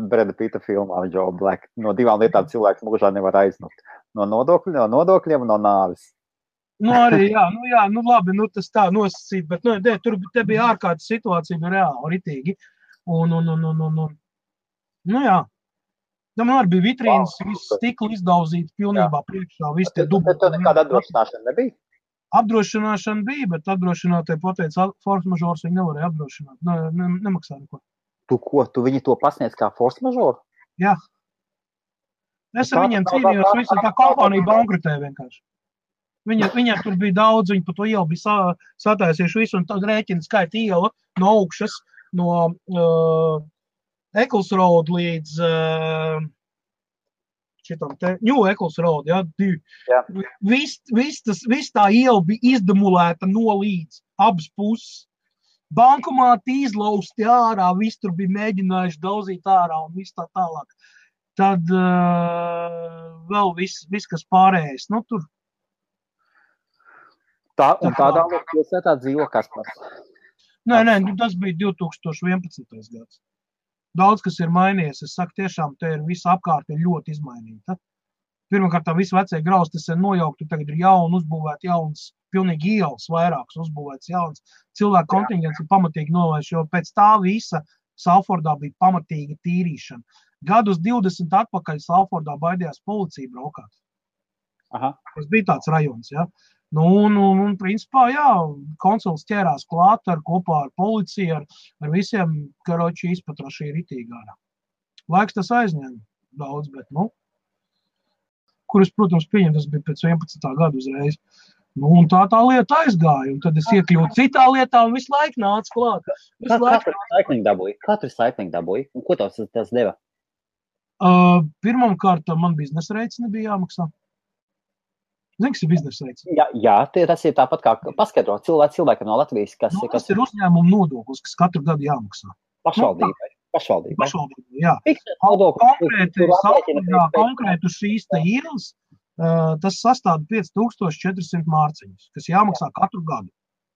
Breda Pitta filmā Joe Black. No 2 lietām cilvēks mūžā nevar aiznot. No nodokļiem un no nāvis. Nu, arī, nu labi, nu tas tā nosacīt, bet tur te bija ārkārtas situācija, bija reāli, ritīgi. Nu jā. Man arī bija vitrīnas, viss stikli izdauzīti pilnībā priekšā, viss tie dubli. Bet tev nekāda apdrošināšana nebija? Apdrošināšana bija, bet apdrošinātāji pateica, force majeure viņi nevarēja apdrošināt, nemaksā neko. Tu viņi to pasniedz kā force majeure? Jā. Es ar viņiem cīnījos, visa tā kompānija bankrutē vienkārši. Viņiem tur bija daudz, viņi pa to ielu bija sataisījuši visu, un tad rēķina skaita iela no augšas, no Eccles Road līdz šitam te, New Eccles Road, jā, 2. Jā. Viss tā iela bija izdemulēta no līdz, abas puses. Bankomāti izlausti ārā, viss tur bija mēģinājuši dauzīt ārā un viss tā tālāk. Tad vēl viss kas pārējais, nu tur. Tādā pilsētā dzīvo Kaspars. Nē, tas bija 2011. gads. Daudz, kas ir mainījies, es saku, tiešām te ir visa apkārt ir ļoti izmainīta. Pirmkārt, tā visi vecie grausti ir nojaukti, tagad ir jauni uzbūvēti jauns, pilnīgi ielas vairākas uzbūvēts jauns. Cilvēku kontingents ir pamatīgi novērš, jo pēc tā visa Salfordā bija pamatīga tīrīšana. Gadus 20 atpakaļ Salfordā baidījās policija braukāt. Aha. Tas bija tāds rajons, ja. Nu, un principā, jā, konsuls ķērās klāt kopā ar policiju, ar visiem, karoči izpatrašī ritīgā. Laiks tas aizņēma daudz, bet, kuras, protams, pieņem, tas bija pēc 11. gadu uzreiz. Nu, un tā lieta aizgāja, un tad es iekļūtu citā lietā un visu laiku nāca klāt. Katru recycling dabūja? Un ko tas deva? Pirmkārt, man biznesa reids nebija jāmaksā. Zini, kas ir biznesa reids? Jā, tas ir tāpat kā paskaidro cilvēkam no Latvijas, kas ir uzņēmuma nodoklis, kas katru gadu jāmaksā. Pašvaldībai, jā. Konkrētu šīs te ielas, tas sastāda 5400 mārciņus, kas jāmaksā katru gadu.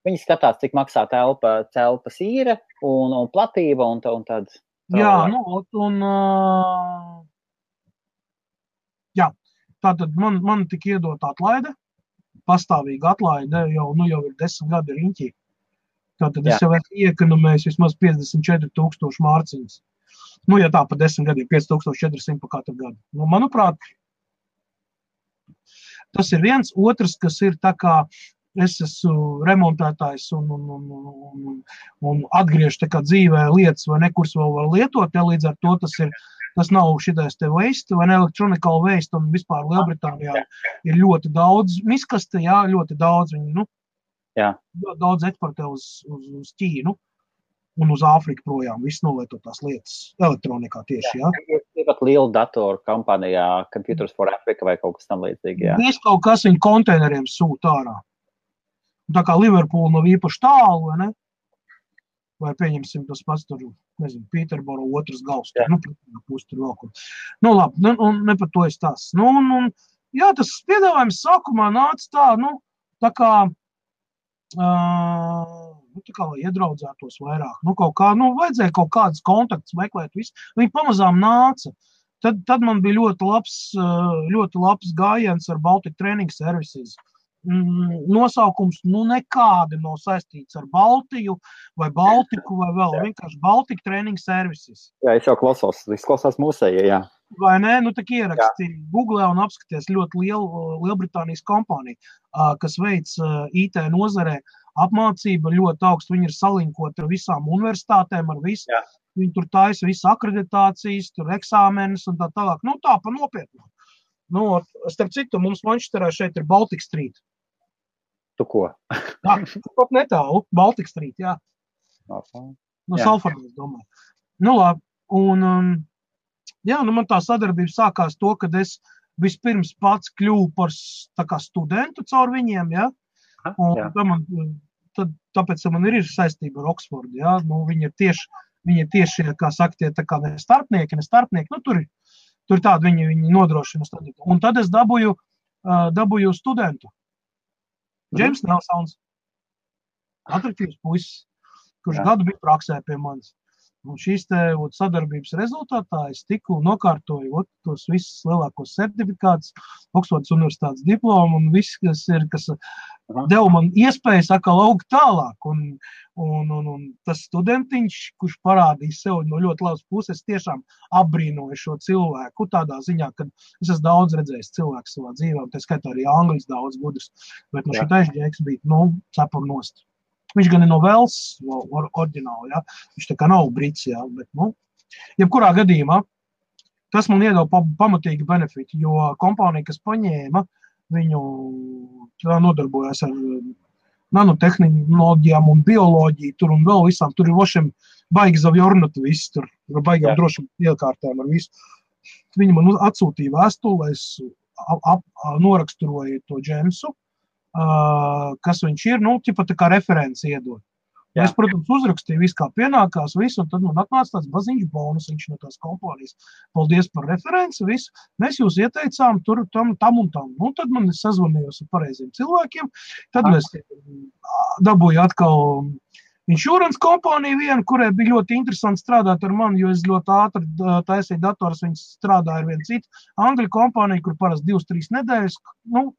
Viņi skatās, cik maksā telpas īre un platība un tad... Jā, jā. Tātad man tika iedot atlaide, pastāvīga atlaide, jau ir 10 gadi riņķī. Tātad es jau esmu iekonomējis vismaz 54,000 mārciņas. Ja tā pa 10 gadiem, 5400 pa katru gadu. Manuprāt, tas ir viens. Otrs, kas ir tā kā es esmu remontētājs un atgriežu tā kā dzīvē lietas vai nekurs vēl var lietot, līdz ar to tas nav šitais te waste vai electronical waste, un vispār Lielbritānijā ir ļoti daudz miskaste, jā, ļoti daudz viņi, daudz eksportē uz Ķīnu un uz Āfriku projām, viss nolietotās lietas elektronikā tieši, jā. Ir pat liela datoru kompānijā, Computers for Africa vai kaut kas tam līdzīgi, jā. Viss kaut kas viņi konteineriem sūta ārā. Tā kā Liverpool nav īpaši tālu, vai ne? Vai pieņemsim tas pats tur, nezinu, Pīterboro otrs gals, pusi tur vēl kur. Labi, ne par to es tās. Jā, tas piedāvājums sākumā nāca tā kā, lai iedraudzētos vairāk. Vajadzēja kaut kādas kontaktus meklēt visu. Viņi pamazām nāca. Tad man bija ļoti labs gājiens ar Baltic Training Services. Nosaukums nekādi nav saistīts ar Baltiju vai Baltiku vai vēl, vienkārši Baltic Training Services. Jā, es jau klausos, izklausās mūsējie, jā. Vai ne? Tak ieraksti Google un apskaties ļoti Lielbritānijas kompāniju, kas veic IT nozarē apmācība ļoti augstu. Viņi ir salinkoti ar visām universitātēm, ar visu. Jā. Viņi tur taisa visu akreditācijas, tur eksāmenes un tā tālāk. Tā pa nopietnu. Starp citu, mums Manchesterā šeit ir Baltic Street. Tu ko? Jā, pat netālu, Baltic Street, jā. No Salfordas, domāju. Nu, labi, un, jā, nu man tā sadarbība sākās to, kad es vispirms pats kļuvu par tā kā studentu caur viņiem, jā. Un tāpēc man ir saistība ar Oksfordu, jā. Nu, viņi ir tieši, kā saka, tie tā kā ne starpnieki, nu, tur tādi viņi nodrošina studiju. Un tad es dabūju studentu. Džeims Nelsons, atraktīvs puisis, kurš gadu bija praksē pie manis. Un šīs sadarbības rezultātā es tiku nokārtoju tos visus lielākos certifikātus, Oksfordas universitātes diplomu un viss, kas deva man iespēju atkal augt tālāk. Un tas studentiņš, kurš parādīja sev no ļoti labas puses, tiešām apbrīnoja šo cilvēku tādā ziņā, ka es esmu daudz redzējis cilvēku savā dzīvē, un tā skaitā arī angļus daudz gudrs, bet šitais džeks bija, cepam nost. Viņš gan ir no Velsas, oriģināli, jā. Viņš tā kā nav brits, jā, bet, jebkurā gadījumā, tas man iedeva pamatīgi benefiti, jo kompānija, kas paņēma, viņu nodarbojas ar nanotehnoloģijām un bioloģiju tur un vēl visām, tur ir vošiem baigi zavjornatu viss, tur ir baigām drošam iekārtēm ar visu. Viņi man atsūtīja vēstuli, lai es noraksturoju to Džemsu, kas viņš ir, ķipa tā kā referenci iedod. Ja es, protams, uzrakstīju visu, kā pienākās, visu, un tad man atnāca tāds baziņš bonus, viņš no tās kompānijas. Paldies par referenci, visu. Mēs jūs ieteicām tur, tam un tam. Tad man sazvanījos ar pareiziem cilvēkiem, tad mēs dabūju atkal insurance kompāniju vienu, kurai bija ļoti interesanti strādāt ar mani, jo es ļoti ātri taisīju dators, viņas strādāja ar vienu citu angļu kompāniju, kur parasti 2-3 nedēļas,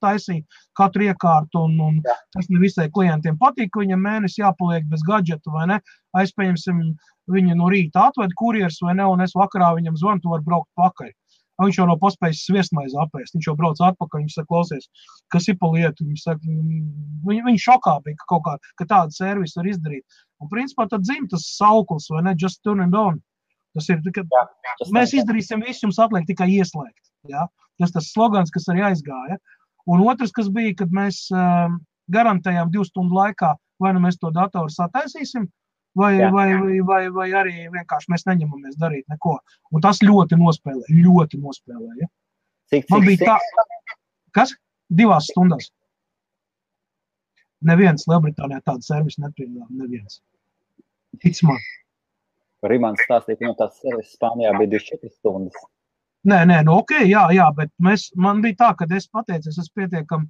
taisīja katru iekārtu, un tas ne visai klientiem patīk, ka viņam mēnesi jāpaliek bez gadžeta, vai ne, aizpējamsim, viņa no rīta atved kurjers, vai ne, un es vakarā viņam zvanu, tu var braukt pakaļ. Viņš jau nav paspējis sviestmaizi apēst, viņš jau brauc atpakaļ, viņš saka, klausies, kas ir pa lietu, viņš šokā bija, ka tādu servisu var izdarīt. Un principā tad dzim tas sauklis, vai ne, just turn and on. Tas ir, ka mēs izdarīsim visu, jums atliek tikai ieslēgt, jā. Tas slogans, kas arī aizgāja. Un otrs, kas bija, kad mēs garantējām 2 stundu laikā, vai nu mēs to datoru sataisīsim, vai arī vienkārši mēs neņemamies darīt neko. Un tas ļoti nospēlē, ja? Man bija tā... Kas? 2 stundās. Neviens Lielbritānijā tādu servisu nepiedāvā, neviens. Tic man. Rimants stāstīja, ka no tās servises Spānijā bija 24 stundas. Nē, okay, jā, bet man bija tā, ka es pateicu, es esmu pietiekami,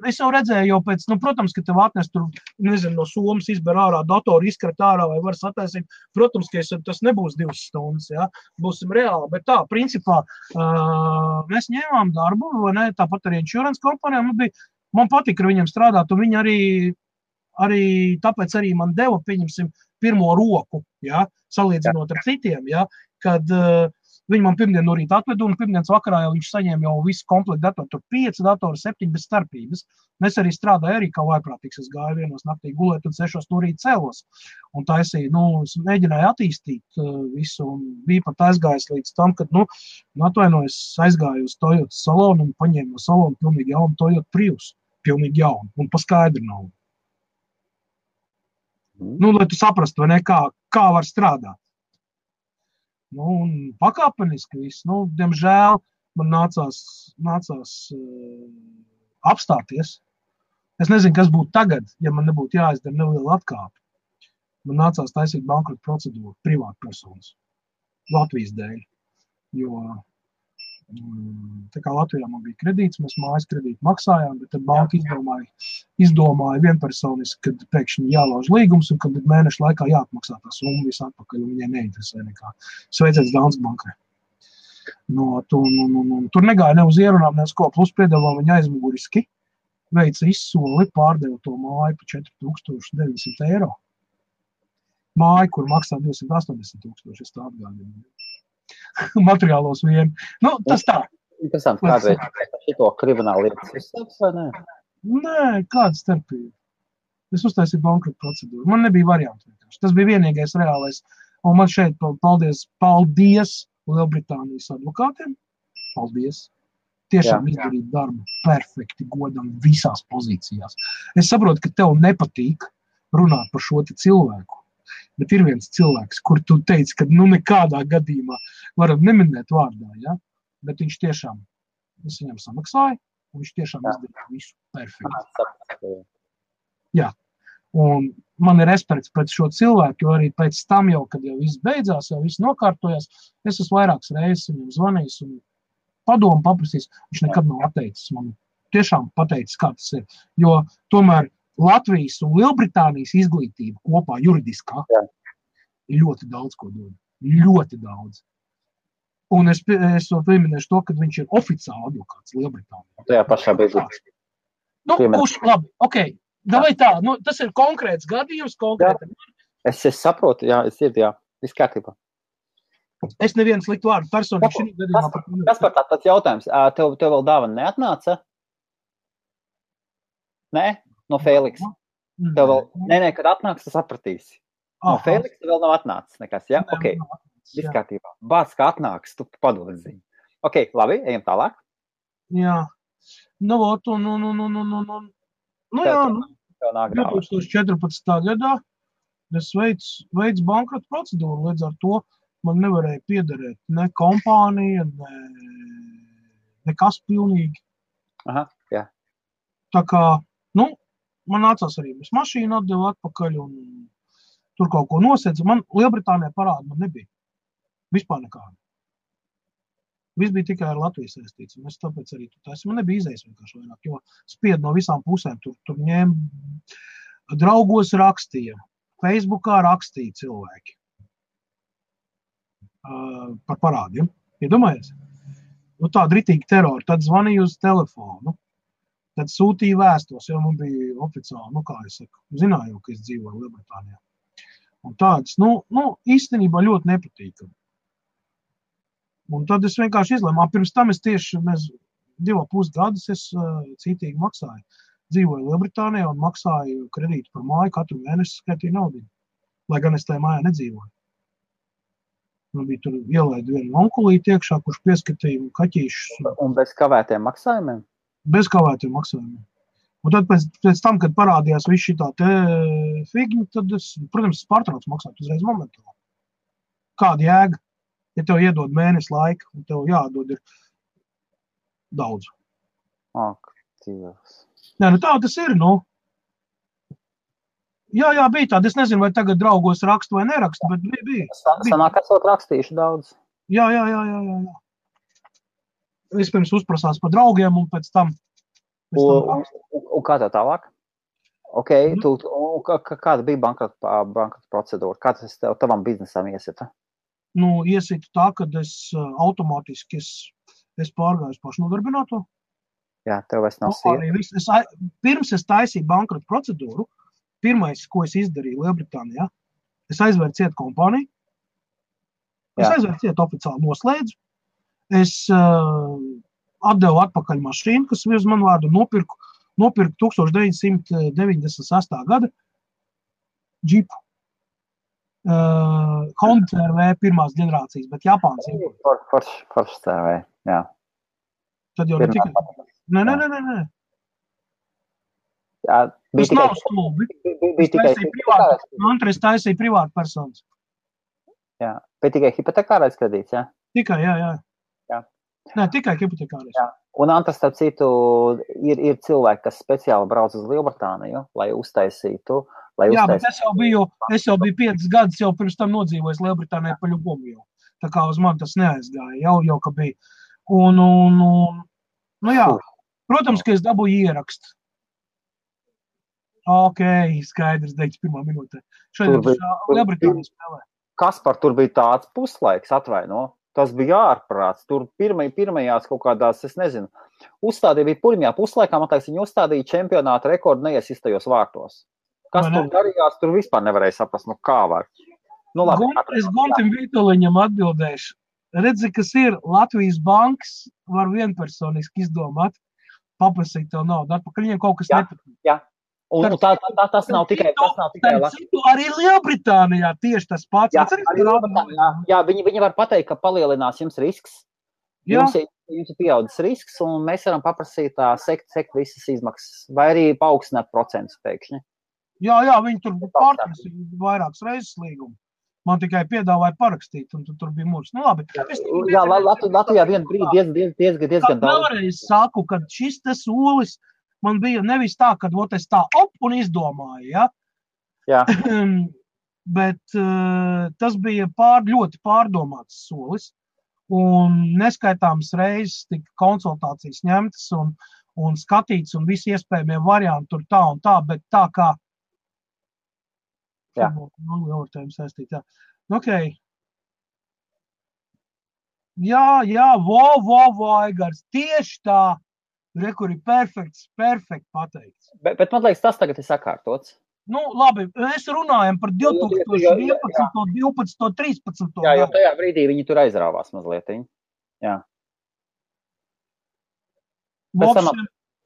es jau redzēju jau pēc, protams, ka tev atnes tur, no somas izber ārā, datoru izkrat ārā vai var sataisīt, protams, ka tas nebūs 2 stundas, jā, būsim reāli, bet tā, principā, mēs ņēmām darbu, vai ne, tāpat arī insurance kompānijā, man patika ar viņiem strādāt, un viņi arī tāpēc arī man deva, pieņemsim, pirmo roku, jā, salīdzinot ar citiem, jā, kad viņi man pirmdien no rīta atvedu, un pirmdienas vakarā jau viņš saņēma jau visu komplektu datoru, tur 5 datoru, 7 bez starpības. Mēs arī strādāju arī kā vaiprātīgs, es gāju 1 naktī gulēt un 6 no rīta cēlos. Un taisīju, es mēģināju attīstīt visu, un bija pat aizgājis līdz tam, kad, atvainojos, aizgāju uz Toyota salonu un paņēmu no salonu pilnīgi jaunu Toyota Prius, pilnīgi jaunu, un pa skaidru naudu. Lai tu saprastu, vai ne, kā var strādāt. Un pakāpeniski viss. Diemžēl man nācās apstāties. Es nezinu, kas būtu tagad, ja man nebūtu jāizdara neliela atkāpe. Man nācās taisīt bankrota procedūru privātpersonas Latvijas dēļ. Jo tā kā Latvijā man bija kredīts, mēs mājas kredītu maksājām, bet tad banka izdomāja vienpersoniski, kad pēkšņi jālauž līgums un kad mēnešu laikā jāatmaksā tā summa visu atpakaļ, un viņai neinteresē nekā. Sveiciens Danske bankai. Tur negāja ne uz ierunām, ne uz ko, plus piedāvā viņa aizmuguriski, veica izsoli, pārdeva to māju pa 4900 eiro. Māju, kur maksā 280 000, es tā atgādinu. Materiālos vien. Tas tā. Interesanti, kādreiz šito kriminālu lietas izsāks, vai ne? Nē, kāda starpība. Es uztaisīju bankrota procedūru. Man nebija variantu vienkārši. Tas bija vienīgais reālais. Un man šeit paldies Lielbritānijas advokātiem. Paldies. Tiešām izdarīt darbu perfekti, godam visās pozīcijās. Es saprotu, ka tev nepatīk runāt par šo cilvēku, bet ir viens cilvēks, kur tu teici, ka nekādā gadījumā varam neminēt vārdā, ja? Bet viņš tiešām, es viņam samaksāju, un viņš tiešām izdarīja visu perfekti. Jā, un man ir respekts pret šo cilvēku, jo arī pēc tam jau, kad jau viss beidzās, jau viss nokārtojās, es esmu vairākas reizes viņam zvanījis un padomu paprasīs, viņš nekad nav atteicis man. Tiešām pateicis, kā tas ir. Jo tomēr Latvijas un Lielbritānijas izglītība kopā juridiskā ir ļoti daudz, ko dod. Ļoti daudz. Un es pieminēšu to, ka viņš ir oficiāli advokāts Lielbritānijā. Tajā pašā brīdī. Labi, ok. Davai tā, tas ir konkrēts gadījums, konkrēti. Es saprotu, jā, es dzirdu, jā. Viss kārtībā. Es nevienu sliktu vārdu personīgi šī gadījumā. Kas par tāds jautājums? Tev vēl dāvana neatnāca? Nē? No Fēliksa? Tev vēl, nē, kad atnāks, tu sapratīsi. No Fēliksa vēl nav atnācis nekas, jā? Ok, viss kārtībā. Bāc, kā atnāks, tu padod ziņu. Ok, labi, ejam tālāk. Jā. Jā, 2014. gadā es veicu bankrota procedūru, līdz ar to man nevarēja piederēt ne kompānija, nekas pilnīgi. Aha, jā. Tā kā, man nācās arī mēs mašīnu atdevu atpakaļ un tur kaut ko nosedzu. Man Lielbritānijā parāda man nebija. Vispār nekāda. Viss bija tikai ar Latvijas saistīts. Un es tāpēc arī man nebija izējas vienkārši vairāk, jo spied no visām pusēm. Tur ņēma draugos rakstīja, Facebookā rakstīja cilvēki. Par parādiem. Iedomājies? Tāda ritīga terora. Tad zvanīja uz telefonu. Tad sūtīja vēstos, jo man bija oficiāli, kā es saku, zināju, ka es dzīvoju Lielbritānijā. Un tādas, īstenībā ļoti nepatīkami. Un tad es vienkārši izlēmu. Pirms tam mēs 2,5 gadus es citīgi maksāju. Dzīvoju Lielbritānijā un maksāju kredītu par māju, katru mēnesi skaitīju naudu. Lai gan es tajā mājā nedzīvoju. Man bija tur ielaida vienu onkulīti iekšā, kurš pieskatīja kaķīšus. Un bez kavētiem maksājumiem? Bez kavētiem maksājumiem. Un tad pēc tam, kad parādījās viss šitā te figņa, tad es, protams, pārtraucu maksāt uzreiz momentāli. Kāda jēga? Ja tev iedod mēnesi laika, un tev jādod ir daudz. Ak, Dievs. Nē, tā tas ir, Jā, bija tāda. Es nezinu, vai tagad draugos rakstu vai nerakstu, bet bija. Sanāk, esot rakstījuši daudz. Jā. Vispirms uzprasās par draugiem, un pēc tam... Un kā tā tālāk? Ok, kāda bija bankrota procedūra? Kā tas tavam biznesam iesita? Iesita tā, kad es automātiski es pārgāju pašnodarbināto. Jā, tev vairs nav sieva. Pirms es taisīju bankrota procedūru, pirmais, ko es izdarīju Lielbritānijā, es aizvēru cietu kompāniju. Es aizvēru cietu oficiāli noslēdzu. Es atdevu atpakaļ mašīnu, kas uz manu vārdu nopirku 1998. gada džipu. Honda CR-V pirmās ģenerācijas, bet Japāns. Foršs CR-V, jā. Tad jau ne tikai... Nē. Jā, tas nav stulbi. Es taisīju privātu personas. Jā, bet tikai hipotekārais kredīts, jā? Tikai, jā. Nē, tikai hipotekārais. Jā. Un Antras, starp citu, ir cilvēki, kas speciāli brauc uz Lielbritāniju, lai uztaisītu. Jā, bet es jau biju 5 gadus jau pirms tam nodzīvojis Lielbritānijā pa ļubumu jau. Tā kā uz mani tas neaizgāja, jau ka bija. Jā, protams, ka es dabūju ierakstu. Ok, skaidrs, 91. minūtē. Šodien Lielbritānija spēlē. Kaspar, tur bija tāds puslaiks, atvaino. Tas bija ārprāts. Tur pirmajās kaut kādās, es nezinu, uzstādīja bija pirmajā puslaikā, man liekas, viņi uzstādīja čempionāta rekordu neiesistajos vārtos. Kas tur darījās, tur vispār nevarēja saprast, kā var. Labi, es Guntim Vītoliņam atbildēšu. Redzi, kas ir Latvijas bankas, var vienpersoniski izdomāt, paprasīt tev naudu atpakaļ, viņiem kaut kas nepatīk. Jā. Un tas nav tikai arī Lielbritānijā tieši tas pats. Jā, viņi var pateikt, ka palielinās jums risks. Jums jums ir pieaudzis risks, un mēs varam paprasīt sekt visas izmaksas, vai arī paaugstināt procentus pēkšņi. Jā, viņi tur pārtrasi vairākas reizes līgumu. Man tikai piedāvāja parakstīt, un tur bija mūrs. Nu, labi. Jā, Latvijā vienu brīdi diezgan daudz. Vēlreiz saku, ka šis te solis man bija nevis tā, kad es tā un izdomāju, ja? Jā. Bet tas bija ļoti pārdomāts solis, un neskaitāmas reizes tika konsultācijas ņemtas un skatīts, un visi iespējamie varianti tur tā un tā, bet tā kā jā. Saistīt, jā. Okay. Jā, Aigars, tieši tā, kur ir perfekts pateikts. Bet man liekas, tas tagad ir sakārtots. Nu, labi, mēs runājam par 2011, 12, 13. Jā, jo tajā brīdī viņi tur aizrāvās mazliet. Jā.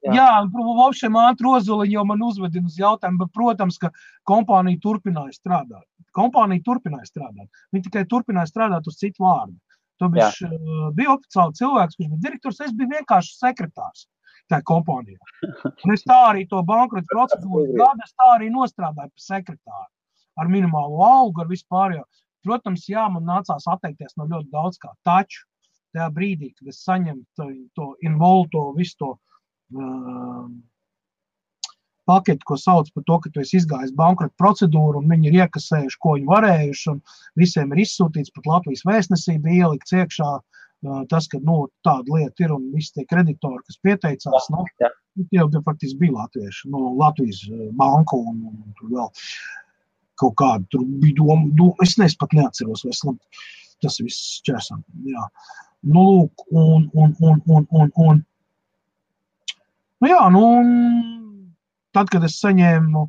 Vopšiem ātri Ozoliņi jau man uzvedina uz jautājumu, bet, protams, ka kompānija turpināja strādāt. Viņi tikai turpināja strādāt uz citu vārdu. To bija oficiāli cilvēks, kurš bija direktors, es biju vienkārši sekretārs tajā kompānijā. Un es tā arī to bankrota procedūru gadu, es tā arī nostrādāju par sekretāru. Ar minimālo algu, ar vispārējo. Protams, jā, man nācās atteikties no ļoti daudz kā. Taču tajā brīdī, kad es saņemu to involto, visu to paketi, ko sauc par to, ka tu esi izgājis bankrota procedūru, un viņi ir iekasējuši, ko viņi varējuši, un visiem ir izsūtīts, pat Latvijas vēstnesība ielikt iekšā tas, ka, tāda lieta ir, un visi tie kreditori, kas pieteicās, tie jau faktiski bija latvieši, Latvijas banku, un tur vēl kaut kādu, tur bija doma, es pat neatceros, tas viss šķērsam, jā. Lūk, tad, kad es saņēmu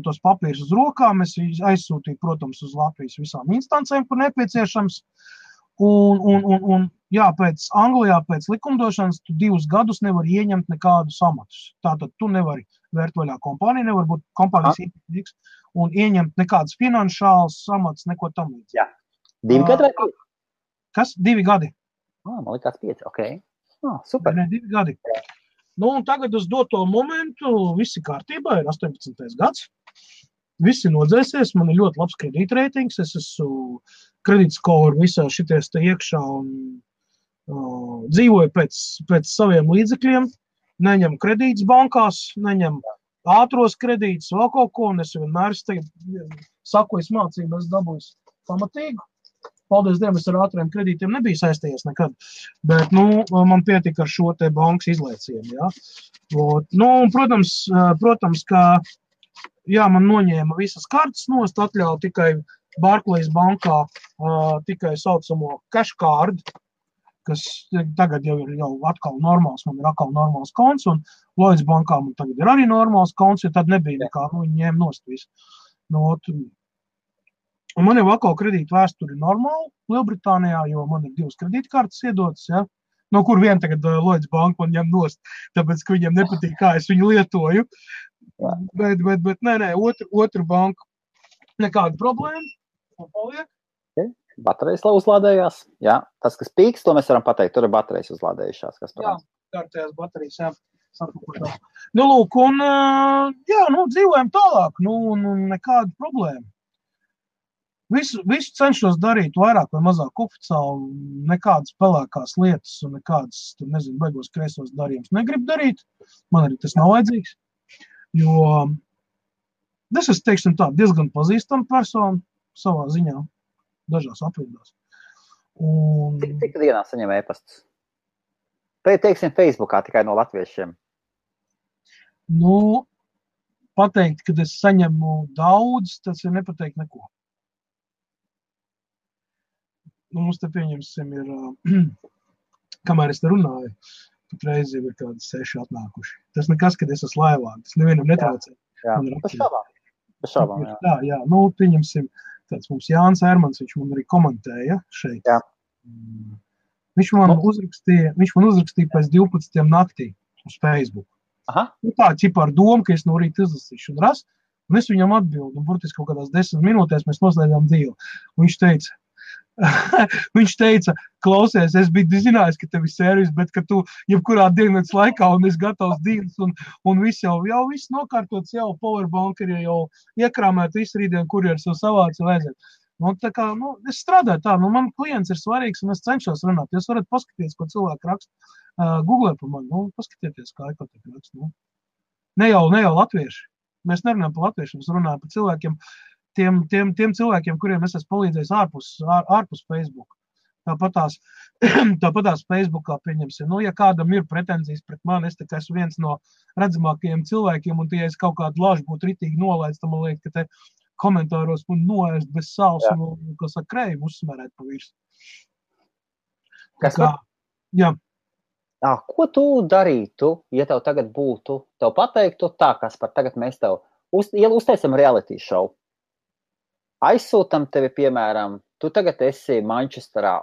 tos papīrus uz rokām, es aizsūtīju, protams, uz Latvijas visām instancēm, kur nepieciešams. Anglijā pēc likumdošanas tu 2 gadus nevari ieņemt nekādus amatus. Tātad tu nevari vērt vaļā kompāniju, nevar būt kompānijas īpašnieks un ieņemt nekādas finanšālas amatus, neko tam līdz. Jā. 2 gadi vai 5? Kas? 2 gadi. Man likās 5, ok. Super. 2 gadi. Un tagad uz doto momentu viss ir kārtībā, ir 18. gads. Viss ir nodzēsies, man ir ļoti labs kredītreitings, es esmu kredītskoru visā šities te iekšā un dzīvoju pēc saviem līdzekļiem, neņem kredītus bankās, neņem ātros kredītus, vēl kaut ko, un es vienmēr saku, es mācību, es dabūju pamatīgu. Paldies Dievam, es ar ātriem kredītiem nebiju saistījies nekad, bet, man pietika ar šo te bankas izlaicienu, jā. Protams, ka, jā, man noņēma visas kartes nost, atļauja tikai Barclays bankā, tikai saucamo cash card, kas tagad jau ir atkal normāls, man ir atkal normāls konts, un Lloyds bankā man tagad ir arī normāls konts, jo tad nebija nekā, viņi ņēma nost visu. Un man jau atkal kredīta vēsturi normāli Lielbritānijā, jo man ir 2 kredītkartes iedotas, ja? No kur vien tagad Lloyds banka man ņem nost, tāpēc, ka viņiem nepatīk, kā es viņu lietoju. Bet nē, otru banku nekāda problēma. Paliek. Baterijas uzlādējās. Jā, tas, kas pīks, to mēs varam pateikt, tur ir baterijas uzlādējušās. Jā, kārtējās baterijas, jā. Lūk, un dzīvojam tālāk, nekāda problēma. Visu cenšos darīt vairāk vai mazāk oficiāli, nekādas pelēkās lietas un nekādas, baigos kreisos darījumus negribu darīt. Man arī tas nav vajadzīgs, jo es esmu, teiksim tā, diezgan pazīstama persona savā ziņā, dažās aprindās. Cik dienā saņem e-pastus? Teiksim, Facebookā tikai no latviešiem. Pateikt, kad es saņemu daudz, tas ir nepateikt neko. Mums te pieņemsim ir, kamēr es te runāju, pat reizi jau ir kādi 6 atnākuši. Tas nekas, kad es esmu laivā, tas nevienam netraucē. Jā, bez šaubām, jā. Jā, pieņemsim, tāds mums Jānis Ermans, viņš man arī komentēja šeit. Jā. Viņš man uzrakstīja pēc 12 naktī uz Facebook. Aha. Tā ķipa ar domu, ka es no rīta izlasīšu un ras, un es viņam atbildu, un burtiski kaut kādās 10 minūtēs mēs noslēdzām dzīvi. Un viņš teica, Viņš teica, klausies, es biju zinājis, ka tev ir servis, bet ka tu jebkurā dienas laikā un es gatavs dienas un viss jau viss nokārtots, jau powerbank ir jau iekrāmēt, visu rītdien kurjers jau savāca vajadzēt. Tā kā, es strādāju tā, man klients ir svarīgs un es cenšos runāt. Jūs varat paskatīties, ko cilvēki raksta. Googlē par mani, paskatieties, kā ekotika raksta. Ne jau latvieši. Mēs nerunājam par latviešiem, mēs runājam par cilvēkiem, tiem cilvēkiem, kuriem es esmu palīdzējis ārpus Facebook. Tāpatās Facebookā pieņemsim. Ja kādam ir pretenzijas pret mani, es esmu viens no redzamākajiem cilvēkiem, un ja es kaut kādu lažu būtu ritīgi nolaids, tad man liekas, ka te komentāros man noēst bez sāls un, kas ar kreivu uzsmerēt pa virs. Jā. Ko tu darītu, ja tev tagad būtu, tev pateiktu tā, Kaspar, tagad mēs tev uztaisam reality show. Aizsūtam tevi, piemēram, tu tagad esi Manchesterā,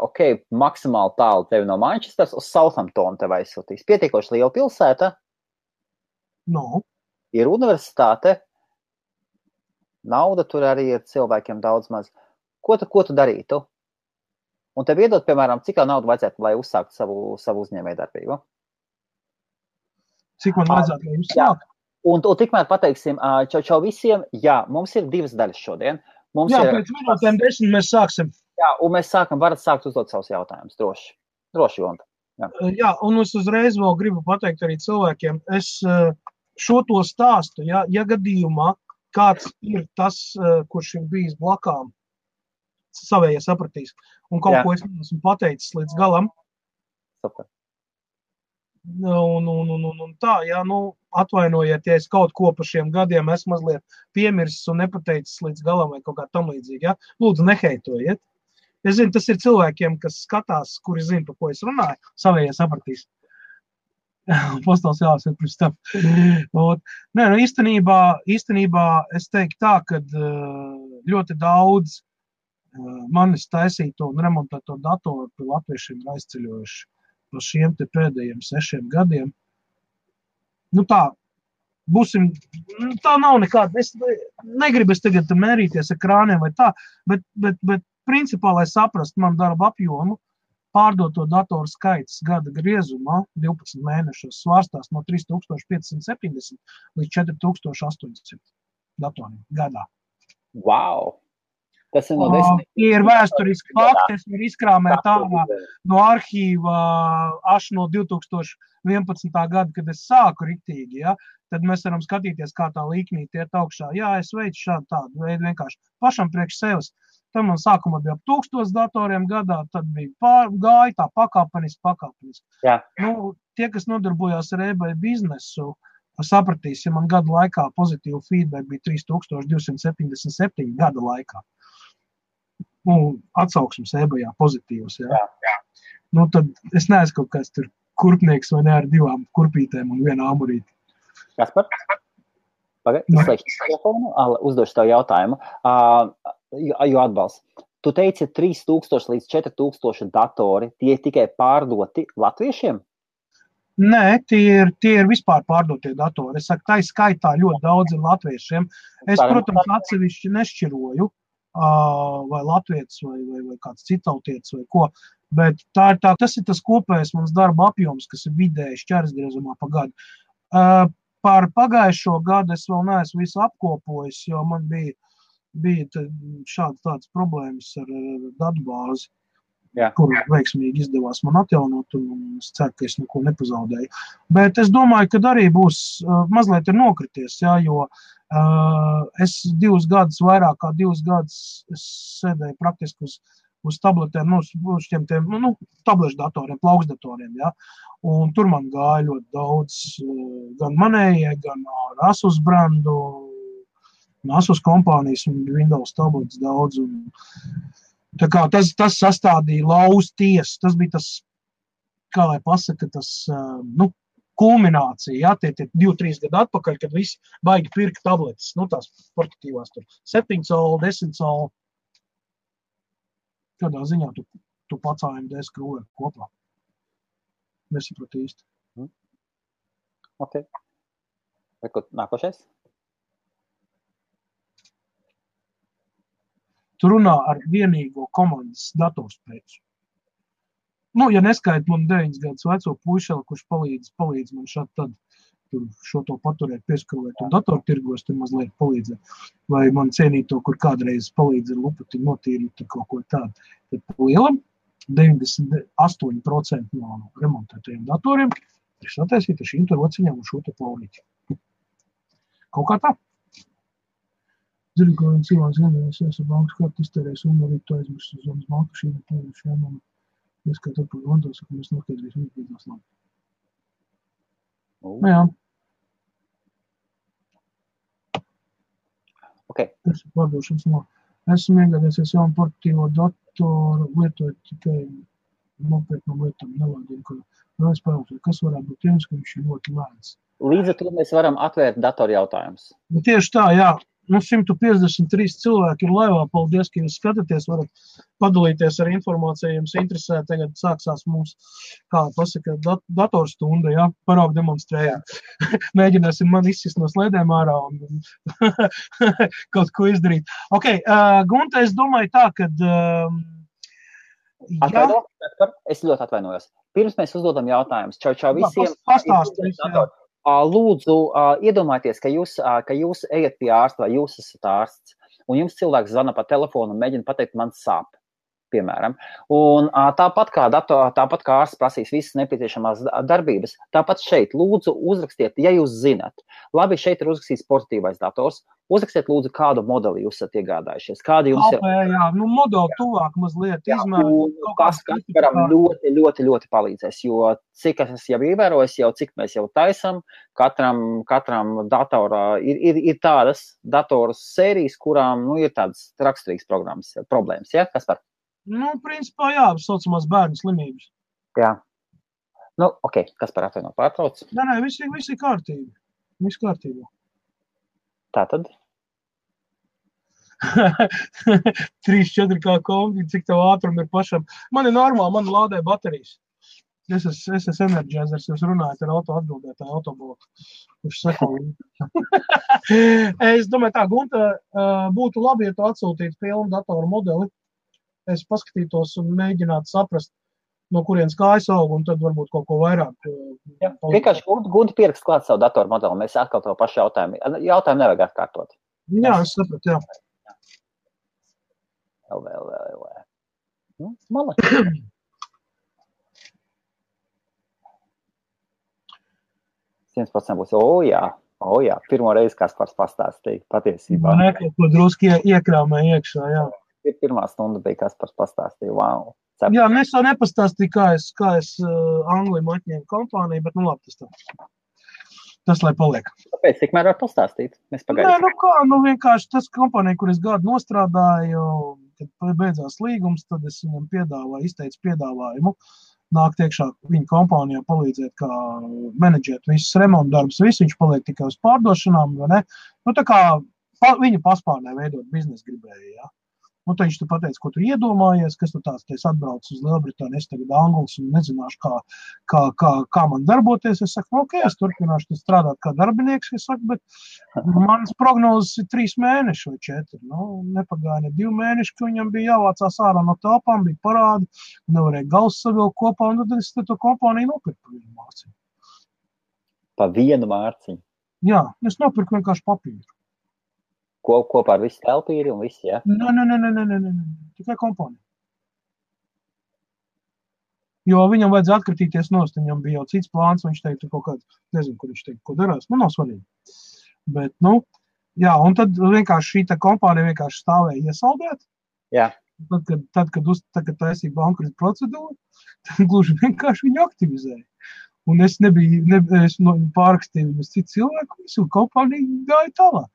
maksimāli tālu tevi no Manchesteras uz Southamptonu tev aizsūtīs. Pietiekoši liela pilsēta. Ir universitāte. Nauda tur arī ir cilvēkiem daudz maz. Ko tu darītu? Un tev iedot, piemēram, cik naudu vajadzētu, lai uzsākt savu uzņēmējdarbību? Cik man vajadzētu, lai uzsākt? Un tikmēr pateiksim, čau visiem, mums ir 2 daļas šodien. Pēc minūtēm 10 mēs sāksim. Un mēs varat sākt uzdot savus jautājumus, droši, Jonta. Un es uzreiz vēl gribu pateikt arī cilvēkiem, es šo to stāstu, ja gadījumā kāds ir tas, kurš ir bijis blakām, savējie sapratīs. Un kaut ko es esmu pateicis līdz galam. Super. Un tā, atvainojiet, ja es kaut ko par šiem gadiem esmu mazliet piemirsis un nepateicis līdz galam vai kaut kā tam līdzīgi. Lūdzu, neheitojiet. Es zinu, tas ir cilvēkiem, kas skatās, kuri zina, par ko es runāju, savējie sapratīs. Postāls jāsaka pirms tam. Īstenībā es teiktu tā, ka ļoti daudz manis taisīto un remontēto datoru pie latviešiem ir aizceļojuši par šiem te pēdējiem 6 gadiem. Tā, būsim, tā nav nekāda, es negribu tagad mērīties ar krāniem vai tā, bet principā, lai saprast man darba apjomu, pārdoto datoru skaits gada griezumā 12 mēnešos svārstās no 3570 līdz 4800 datoriem gadā. Wow! Tas ir no 10. Tie ir vēsturiski fakti, es varu izkrāmēt ārā no arhīva no 2011. Gada, kad es sāku riktīgi, tad mēs varam skatīties, kā tā līknīte iet augšā. Es veicu šādu tādu veidu vienkārši pašam priekš sevis. Tad man sākumā bija 1000 datoriem gadā, tad bija gāja tā pakāpeniski. Tie, kas nodarbojās ar eBay biznesu, sapratīs, ja man gada laikā pozitīvu feedback bija 3277 gada laikā. Atsauksmes eBayā pozitīvas. Tad es neesmu kaut kāds tur kurpnieks vai ne ar 2 kurpītēm un 1 āmurīti. Kaspar? Izslēgšu telefonu, uzdošu tev jautājumu. Jo atbalsts. Tu teici 3000 līdz 4000 datori, tie tikai pārdoti latviešiem? Nē, tie ir vispār pārdotie datori. Es saku, tā skaitā ļoti daudz ir latviešiem. Es, protams, atsevišķi nešķiroju, vai latvietis, vai kāds citautietis, vai ko. Bet tas ir tas kopējais mans darba apjoms, kas ir vidēji šķērsgriezumā pa gadu. Par pagājušo gadu es vēl neesmu visu apkopojis, jo man bija tādas problēmas ar datubāzi, kur veiksmīgi izdevās man atjaunot, un es ceru, ka es neko nepazaudēju. Bet es domāju, ka arī būs mazliet ir nokrities, jo es 2 gadus, vairāk kā 2 gadus sēdēju praktiski uz tabletēm, uz šiem tablešu datoriem, plauksdatoriem, un tur man gāja ļoti daudz, gan manējie, gan Asus brandu, Asus kompānijas un Windows tablets daudz, un tā kā tas sastādīja lauzu tiesu, tas bija tas, kā lai pasaka, tas, kulminācija, tie 2-3 gadu atpakaļ, kad visi baigi pirka tabletes, tās portatīvās tur, 7 colu, 10 colu. Kādā ziņā tu pats AMD skrūvē kopā? Nesapratu īsti. Ok. Nākošais? tu runā ar vienīgo komandas datorspēju. Nu, ja neskait man 9 gadus veco puišeli, kurš palīdz man šādi tad šo to paturēt, pieskarot un datortirgos, tur mazliet palīdzēt. Vai man cienīto, kur kādreiz palīdz ar lupati notīrīt kaut ko tādu. Tad lielam 98% no remontētajiem datoriem ir sataisīti ar šīm rociņām un šo te plaurīti. Kaut kā tā. Zinu, ka viens cilvēks vienreiz bankas kartu iztērēs un arī to aizmirst uz zonas banku šīm un ieskatāt par Londons, ka mēs noskaidrīsim izbīdās labi. Nu jā. Okay. Tas ir pārdošanas no. Esmu iegādājies jaunu portatīvo datoru, lietojot tikai nopietnām lietām, nelādiem, ka vēl spēlēt, kas varētu būt tiems, ka viņš ir ļoti lēns. Līdz ar to mēs varam atvērt datoru jautājumus. Tieši tā, jā. 153 cilvēki ir laivā. Paldies, ka jūs skatāties. Varat padalīties ar informāciju. Jums interesē. Tagad sāksās mums, kā pasaka, datorstunda, jā, paraugu demonstrējam. Mēģināsim man izsist no slēdēm ārā un kaut ko izdarīt. Ok, Gunta, es domāju tā, kad... Es ļoti atvainojos. Pirms mēs uzdodam jautājumus. Čau visiem. Pastāstīs, jā. Lūdzu, iedomājieties, ka jūs ejat pie ārsta vai jūs esat ārsts, un jums cilvēks zvana pa telefonu un mēģina pateikt, man sāp, piemēram. Un tāpat kā ārsts prasīs visas nepieciešamās darbības, tāpat šeit lūdzu uzrakstiet, ja jūs zinat. Labi, šeit ir uzrakstīts portatīvais dators. Uzrakstiet lūdzu, kādu modeli jūs esat iegādājušies. Kādi jums ir? Jā, modeli tuvāk mazliet izmēru. Tas varam ļoti palīdzēs, jo cik es jau ievēroju, cik mēs jau taisam, katram datorā ir tādas datoras sērijas, kurām ir tādas raksturīgas problēmas. Ja? Kas var? Principā, jā, saucamās bērnu slimības. Jā. Ok, kas par atvaino pārtrauc? Nē, viss ir kārtībā. Viss kārtībā. Tātad? 3-4 kā kombi, cik tev ātrum ir pašam. Man ir normāli, man lādē baterijas. Es esmu energizers, jūs runājat ar atbildētāju autobloku. Kurš seko. Es domāju tā, Gunta, būtu labi, ja tu atsūtītu pilnu datoru modeli. Es paskatītos un mēģinātu saprast, no kurienes kājas aug, un tad varbūt kaut ko vairāk. Jā, vienkārši Gunta pierakst klāt savu datoru modeli, mēs atkal to pašu jautājumu. Jautājumu nevajag atkārtot. Jā, es sapratu, jā. Vēl. Malaki. Būs, jā, pirmo reizi Kaspars pastāstīja patiesībā. Nē, kaut ko druski iekrāmē iekšā, jā. Pirmā stunda bija Kaspars pastāstīja, wow. Jā, es to nepastāstīju, kā es Anglijam atņēmu kompāniju, bet labi, tas lai paliek. Tāpēc tikmēr var pastāstīt? Mēs pagaidām. Nē, vienkārši tas kompānija, kur es gadu nostrādāju, kad beidzās līgums, tad es viņam izteicu piedāvājumu. Nākt iekšā viņa kompānijā palīdzēt, kā menedžēt visas remontu darbus, viņš paliek tikai uz pārdošanām, vai ne? Tā kā viņa paspārnē veidot biznesu gribēja, jā. Tad viņš tu pateica, ko tu iedomājies, kas tu tāds, es atbraucu uz Lielbritāniju, es tagad Anglis un nezināšu, kā man darboties. Es saku, ok, es turpināšu strādāt kā darbinieks, es saku, bet manas prognozes ir 3 mēneši vai 4. Nepagāja ne 2 mēneši, ka viņam bija jāvācās ārā no telpām, bija parādi, nevarēja gals savilkt kopā, un tad es to kompāniju nopirku pa 1 mārciņu. Pa 1 mārciņu? Jā, es nopirku vienkārši papīru. Kopā ar visu telpīri un visu, jā? Nē, tikai kompānija. Jo viņam vajadzēja atkritīties nost, viņam bija jau cits plāns, viņš teica kaut kāds, nezinu, kur viņš teica, ko darās, nav svarīgi. Bet, jā, un tad vienkārši šī kompānija vienkārši stāvēja iesaldēt. Jā. Tad, kad taisīja bankrota procedūru, tad gluži vienkārši viņu aktivizēja. Un es pārakstīju viņus citu cilvēku, visu kompāniju gāja tālāk.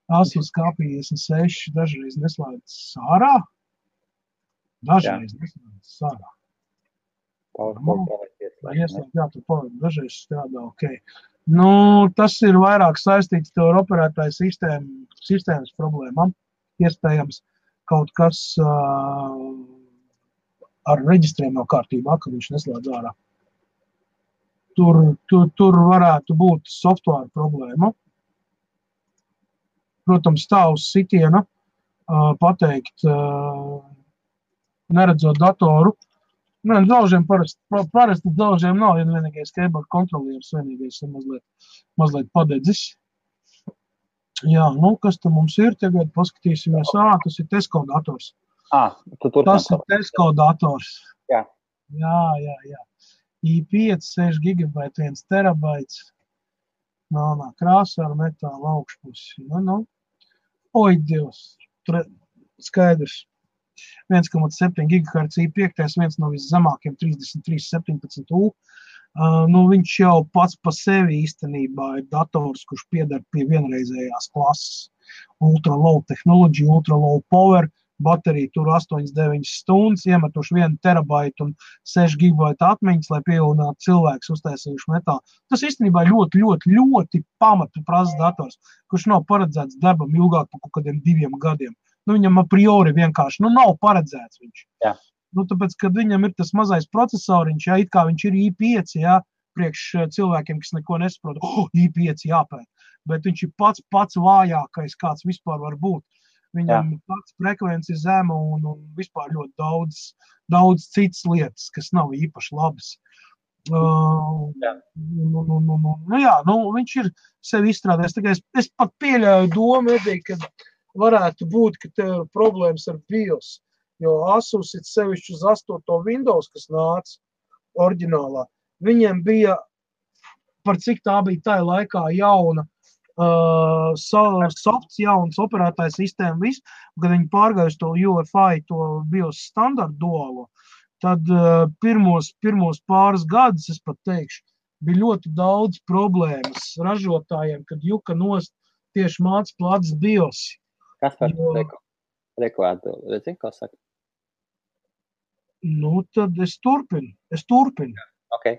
Asus K56 dažreiz neslēdz sārā. Dažreiz neslēdz sārā. Dažreiz strādā, ok. Tas ir vairāk saistīts ar operētāju sistēmas problēmām. Iespējams, kaut kas ar reģistriem nav kārtībā, ka viņš neslēdz ārā. Tur varētu būt software problēma. Protams, tā uz sitiena pateikt, neredzot datoru. Nē, daužiem parasti daužiem nav, ja vienīgais keyboard kontrolieris vienīgais ir mazliet padedzis. Jā, nu, kas te mums ir tagad, paskatīsimies. Tas ir Tesco dators. Tas ir Tesco dators. Jā. Jā. i5, 6 GB, 1 terabaits. Melnā krāsā ar metāla augšpusi. Oi, Dievs. Skaidrs. 1,7 GHz i5, viens no viszemākiem 3317U. Viņš jau pats pa sevi īstenībā ir dators, kurš pieder pie vienreizējās klases. Ultra low technology, ultra low power, baterija tur 8-9 stundas, iemetuši 1 terabaitu un 6 gigabaita atmiņas, lai pievienātu cilvēks uztaisījuši metālu. Tas īstenībā ļoti pamatu prasa dators, kurš nav paredzēts darbam ilgāk par kaut kādiem 2 gadiem. Viņam a priori vienkārši, nav paredzēts viņš. Jā. Tāpēc, kad viņam ir tas mazais procesoriņš, it kā viņš ir i5, priekš cilvēkiem, kas neko nesaprot, i5 jāpēt, bet viņš ir pats vājākais, kāds vispār var būt. Viņam ir pats frekvenci zema un vispār ļoti daudz citas lietas, kas nav īpaši labas. Viņš ir sevi izstrādājis. Es pat pieļauju domu, ka varētu būt, ka tev ir problēmas ar BIOS, jo Asus ir sevišķi uz 8. Windows, kas nāca oriģinālā. Viņiem bija, par cik tā bija tajā laikā jauna, softs, jauns operētājs sistēma, viss, kad viņi pārgājuši to UEFI, to BIOS standartu duālo, tad pirmos pāris gadus, es pat teikšu, bija ļoti daudz problēmas ražotājiem, kad juka nost tieši māc plats BIOS. Kas par reklātu? Redzi, ko saka? Tad es turpinu. Okay,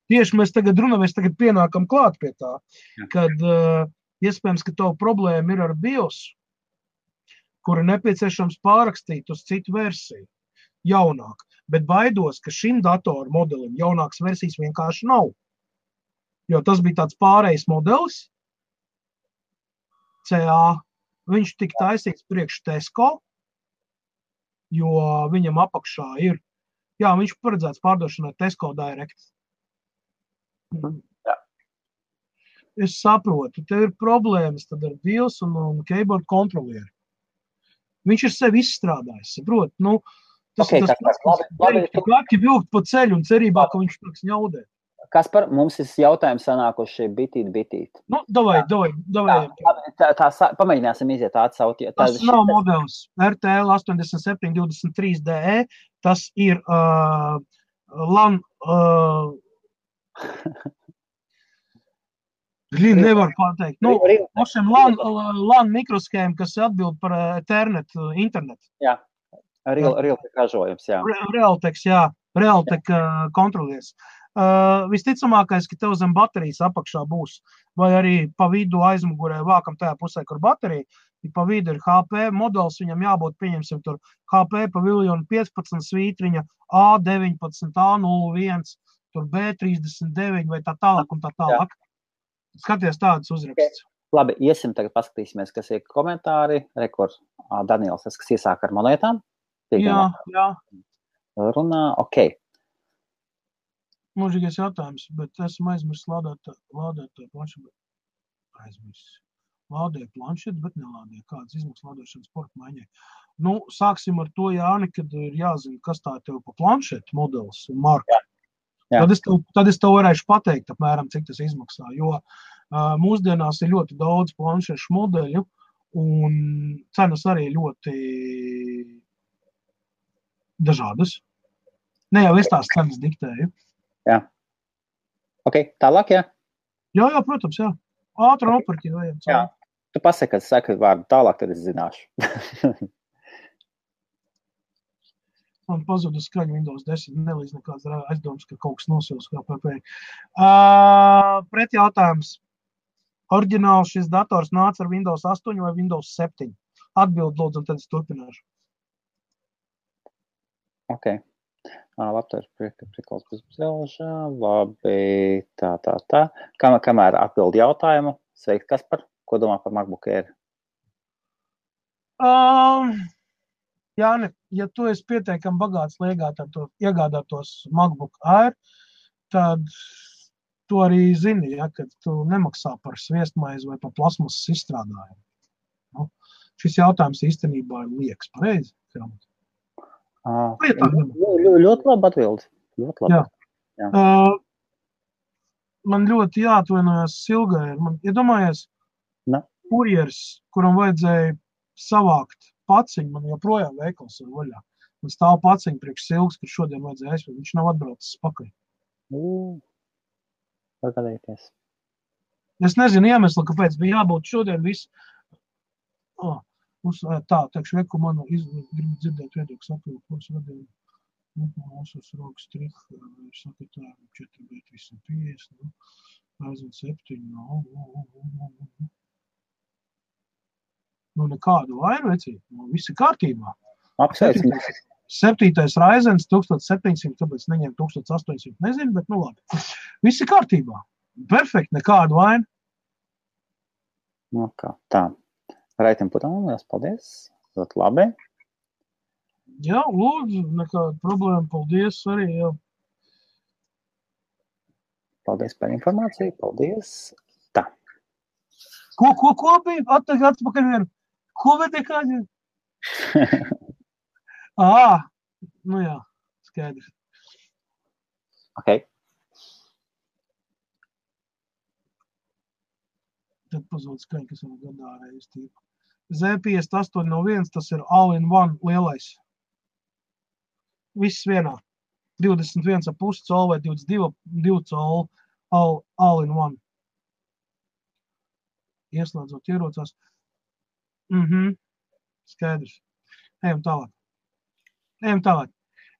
tieši mēs tagad pienākam klāt pie tā, kad iespējams, ka tavu problēma ir ar BIOS, kuru nepieciešams pārrakstīt uz citu versiju, jaunāk. Bet baidos, ka šim datoru modelim jaunākas versijas vienkārši nav. Jo tas bija tāds pārējais modelis, CA, viņš tika taisīts priekš Tesco, jo viņam apakšā ir, viņš paredzēts pārdošanai Tesco Direct. Jā. Es saprotu, tev ir problēmas tad ar BIOS un keyboard kontrolieri. Viņš ir sevi izstrādājis, saprot? Tas vilkt pa ceļu un cerībā, ka viņš tiks ņaudēt. Kaspar, mums ir jautājums sanākuši bitīt. Davai. Pamēģināsim iziet atsaut. Tas nav modelis RTL 8723DE, tas ir LAN... Nevar pateikt. LAN mikroskēma, kas atbild par Ethernet, internetu. Jā, Realtek ražojums, jā. Realtek kontrolies. Visticamākais, ka tev zem baterijas apakšā būs, vai arī pa vidu aizmugurē vākam tajā pusē, kur baterija, pa vidu ir HP modelis, viņam jābūt, pieņemsim, tur HP paviljonu 15 svītriņa, A19, A01, tur B39 vai tā tālāk un tā tālāk. Skaties tādas uzrakstus. Labi, iesim tagad paskatīsimies, kas ir komentāri. Rekord Daniels, kas iesāk ar monētām. Jā. Runā, ok. Mūžīgais jautājums, bet esmu aizmirsis lādēt planšetu. Lādēju planšetu, bet nelādēju. Kādas izmaksas lādēšanas sporta maiņai? Sāksim ar to, Jāni, kad ir jāzina, kas tā tev pa planšetu modelis un marka. Tad es tev varēšu pateikt, apmēram, cik tas izmaksā, jo mūsdienās ir ļoti daudz planšešu modeļu un cenas arī ļoti dažādas. Ne jau es tās cenas diktēju. Jā. Ok, tālāk, jā? Jā, protams, jā. Ātri nopirkt, vajag. Jā. Tu pasaki, kad saki vārdu tālāk, tad es zināšu. Man pazuda skaņa Windows 10, nelīdz nekāds aizdoms, ka kaut kas nosils kā PP. Pret jautājums. Oriģināls šis dators nāca ar Windows 8 vai Windows 7? Atbild, lūdzu, un tad es turpināšu. Ok. Laptops prikals pusbraužā. Labi, tā. Kamēr atbild jautājumu, sveikt, Kaspar, ko domā par MacBook Air? Jāni, ja tu esi pietiekami bagāts, lai iegādātos MacBook Air, tad tu arī zini, ja, ka tu nemaksā par sviestmaizi vai par plasmasas izstrādājumu. Nu, šis jautājums īstenībā ir liekas, pareizi? Ļoti labi atbildi. Ļoti labi. Jā. Man ļoti jāatvainojas Silgai. Man iedomājies, kurjers, kuram vajadzēja savākt paciņu, man joprojām veikals ir vaļā. Man stāv paciņu priekš Silgas, kur šodien vajadzēja aizvēt. Viņš nav atbraucis pakaļ. Pagadēties. Es nezinu iemeslu, kāpēc bija jābūt šodien viss. Teikšu, reku manu gribu dzirdēt viedokļu saprotu, ko es vadīju. Mūsos rokas triha, saka tā, 4,350, aizvien 7, nekādu vainu, vecīt, viss ir kārtībā. Apsveicam. 7. Ryzens 1700, tāpēc neņem 1800, nezinu, bet labi. Viss ir kārtībā. Perfekt, nekādu vainu. Tā. Raitim Putam, liels paldies. Ļoti labi. Jā, lūdzu, nekāda problēma. Paldies arī. Jā. Paldies par informāciju. Paldies. Tā. Ko bija? Atpakaļ vien. Ko vedi kādi? Nu jā, skaidrs. Ok. Tad pazūd skaņa, kas vēl gadā reiz tīpa. Z5801, tas ir all-in-one lielais. Viss vienā. 21,5 colu vai 22 colu all-in-one. Ieslēdzot ierocās. Skaidrs. Ejam tālāk.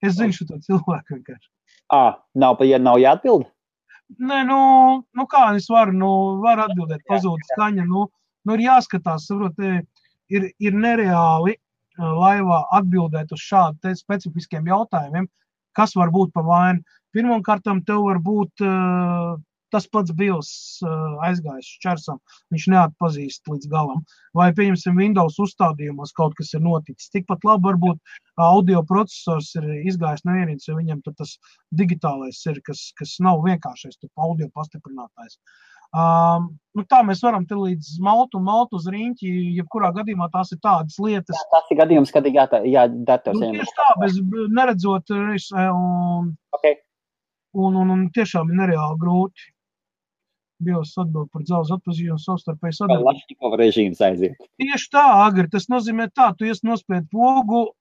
Es zinu šo cilvēku vienkārši. Nav jāatbild? Nē, kā es varu atbildēt, pazūd skaņa. Ir jāskatās, saprot, ir nereāli laivā atbildēt uz šādu specifiskiem jautājumiem, kas var būt pa vainu. Pirmkārtam tev var būt tas pats BIOS aizgājis šķersam, viņš neatpazīst līdz galam. Vai, pieņemsim, Windows uzstādījumos kaut kas ir noticis. Tikpat labi varbūt audio procesors ir izgājis no ierīces, jo viņam tas digitālais ir, kas nav vienkāršais, audio pastiprinātājs. Tā mēs varam te līdz maltu uz riņķi, jebkurā gadījumā tās ir tādas lietas. Tas ir gadījums, kad ir jādators. Tieši tā, bez neredzot, un tiešām ir nereāli grūti. BIOS atbild par dzelzs atpazīšanu savstarpēji sadarbību. Lašņikova režīms aiziet. Tieši tā, Agri, tas nozīmē tā, tu nospied pogu,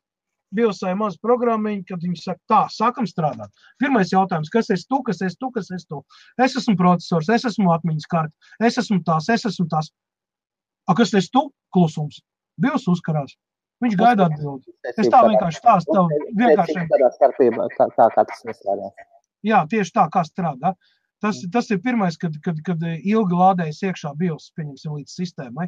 BIOSai maz programmiņu, kad viņi saka, tā, sākam strādāt. Pirmais jautājums, kas esi tu? Es esmu procesors, es esmu atmiņas karte, es esmu tās. Kas esi tu? Klusums. BIOS uzkarās. Viņš gaida atbildi. Es tā vienkārši stāstu tev. Tā kā tas nestrādās. Jā, tieši tā, kā strādā. Tas ir pirmais, kad ilgi lādējas iekšā BIOS, pieņemsim, līdz sistēmai.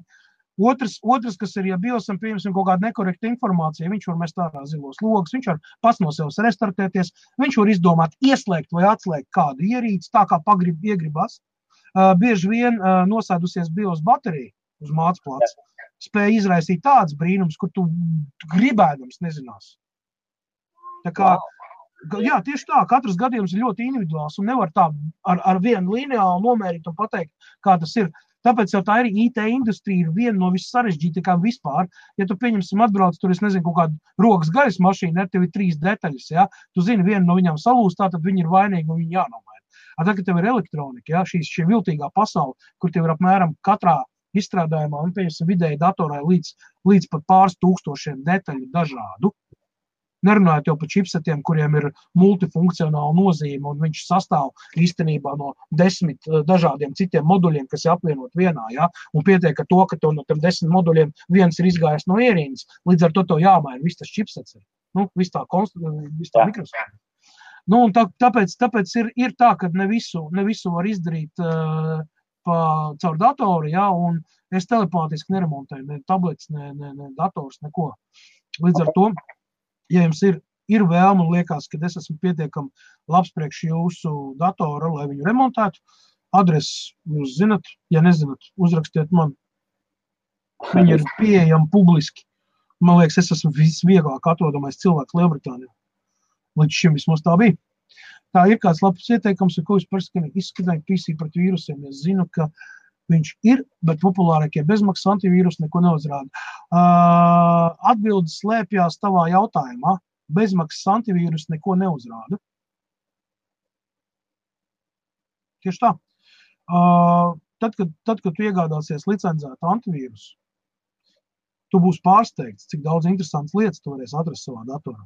Otrs, kas ir, ja BIOSam pieņemsim kaut kādu nekorektu informāciju, viņš var mest ārā zilos logus, viņš var pats no sevis restartēties, viņš var izdomāt ieslēgt vai atslēgt kādu ierīci, tā kā iegribas. Bieži vien nosēdusies BIOS baterija uz mācplāts, spēja izraisīt tāds brīnums, kur tu gribēdams nezinās. Tā kā, jā, tieši tā, katrs gadījums ir ļoti individuāls un nevar tā ar vienu lineālu nomērīt un pateikt, kā tas ir. Tāpēc jau tā ir IT industrija ir viena no vissarežģītākām vispār. Ja tu pieņemsim atbrauc, tur es nezinu, kaut kādu rokas gaļas mašīnu, tev ir 3 detaļas, ja? Tu zini, viena no viņām salūst, tātad viņi ir vainīgi un viņi jānomaina. Tagad tev ir elektronika, ja? Šī viltīgā pasaule, kur tev ir apmēram katrā izstrādājumā un pieņemsim vidēji datorā līdz pat pāris tūkstošiem detaļu dažādu. Nerunājot jau par čipsetiem, kuriem ir multifunkcionāla nozīme, un viņš sastāv īstenībā no 10 dažādiem citiem moduļiem, kas ir apvienot vienā, ja? Un pietiek ar to, ka tev no tiem 10 moduļiem viens ir izgājis no ierīces, līdz ar to tev jāmaina viss tas čipsets, viss tā mikrosfēra. Un tāpēc ir tā, ka ne visu var izdarīt caur datoru, ja? Un es telepātiski neremontēju, ne tablets, ne dators, neko. Līdz ar to, ja jums ir vēlme un liekas, ka es esmu pietiekami labs priekš jūsu datora, lai viņu remontētu, adresi jūs zinat, ja nezinat, uzrakstiet man. Viņi ir pieejami publiski. Man liekas, es esmu visvieglāk atrodamais cilvēks Lielbritānijā. Līdz šim vismaz tā bija. Tā ir kāds labs ieteikums, ko es izskatīju PC pret vīrusiem. Es zinu, ka viņš ir, bet populārākie bezmaksas antivīrusi neko neuzrāda. Atbildes slēpjās tavā jautājumā. Bezmaksas antivīrusi neko neuzrāda. Tieši tā. Tad, kad tu iegādāsies licencētu antivīrusu, tu būsi pārsteigts, cik daudz interesantas lietas tu varēsi atrast savā datorā.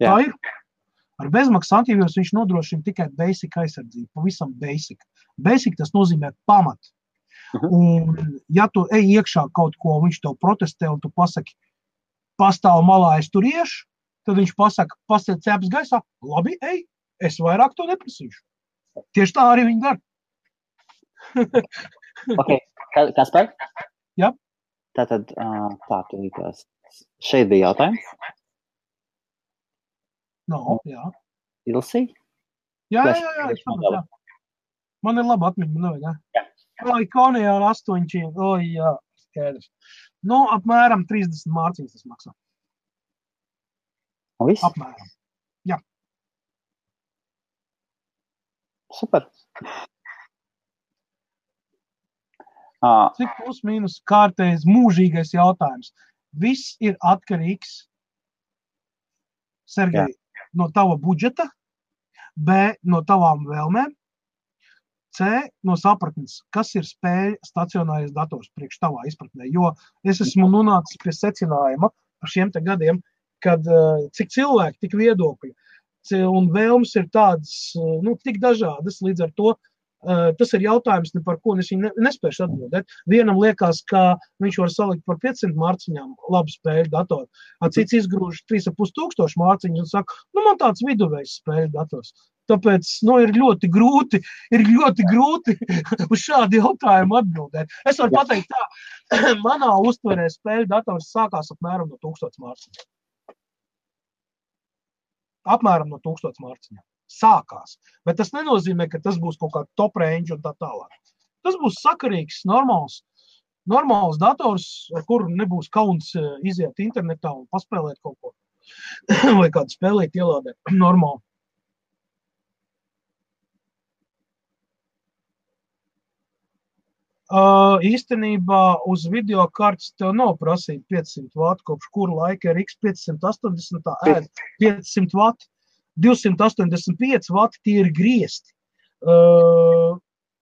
Jā. Tā ir. Ar bezmaksas antivīrusu viņš nodrošina tikai basic aizsardzību, pavisam basic. Basic tas nozīmē pamat. Un ja tu ej iekšā kaut ko, viņš tev protestē un tu pasaki, pastāv malā, es tur iešu, tad viņš pasaka, pasaka cēpas gaisā, labi, ej, es vairāk to neprasīšu. Tieši tā arī viņi dara. Ok, Kaspar? Jā. Tātad, tu likās. Šeit bija jautājums? No, jā. Ilsi? Jā. Man ir laba atmiņa, man nevajag, jā. Ikonijā ar 8, jā, skaidrs. Nu, apmēram 30 mārciņas tas maksā. Un viss? Apmēram, jā. Super. Cik plus mīnus kārtējs mūžīgais jautājums. Viss ir atkarīgs, Sergej, no tava budžeta, B, no tavām vēlmēm, C, no sapratnes, kas ir spēļu stacionārais dators priekš tavā izpratnē. Jo es esmu nonācis pie secinājuma par šiem te gadiem, kad cik cilvēki, tik viedokļi un vēlmes ir tādas, tik dažādas, līdz ar to tas ir jautājums, par ko es viņu nespēšu atbildēt. Vienam liekas, ka viņš var salikt par 500 mārciņām labu spēļu datoru, cits izgrūž 3500 mārciņu un saka, man tāds viduvējs spēļu dators. Tāpēc, ir ļoti grūti uz šādu jautājumu atbildēt. Es varu pateikt tā, manā uztverē spēļu dators sākās apmēram no 1000 mārciņām. Apmēram no 1000 mārciņām. Sākās. Bet tas nenozīmē, ka tas būs kaut kā top range un tā tālāk. Tas būs sakarīgs, normāls dators, ar kuru nebūs kauns iziet internetā un paspēlēt kaut ko. Vai kādu spēlīt ielādēt. Normāli. Īstenībā uz videokartes tev nav prasīt 500 vatu, kopš kuru laika RX 580 ēd 500 vatu. 285 vati tie ir griesti.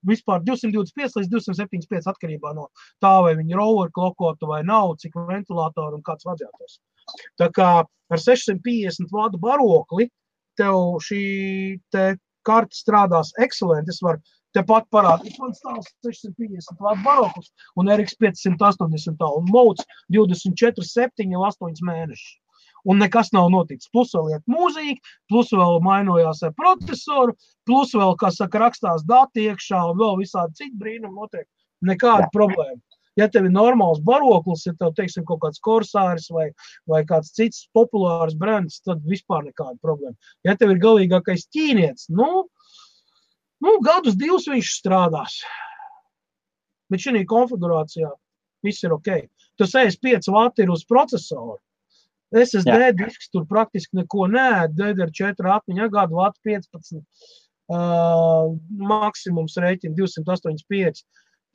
Vispār 225 līdz 275 atkarībā no tā, vai viņi ir overclockota vai nav, cik ventilātoru un kāds radiators. Tā kā ar 650 vatu barokli tev šī te karte strādās excelenti. Es varu tepat parādīt, man stāv 650 vatu baroklis un RX 580 un mods 24/7 jau 8 mēnešus. Un nekas nav noticis. Plus vēl iet mūzika, plus vēl mainojās ar procesoru, plus vēl, kā saka, rakstās dati iekšā un vēl visādi citi brīnumi notiek. Nekāda problēma. Ja tev ir normāls baroklis, ja tev, teiksim, kaut kāds Corsairs vai kāds cits populārs brands, tad vispār nekāda problēma. Ja tev ir galīgākais ķīnietis, gadus 2 viņš strādās. Bet šī konfigurācijā viss ir ok. Tas 65 vati ir uz procesoru. SSD disks tur praktiski neko neēd, DDR4 atmiņa gadu vatu 15, maksimums rēķina 285,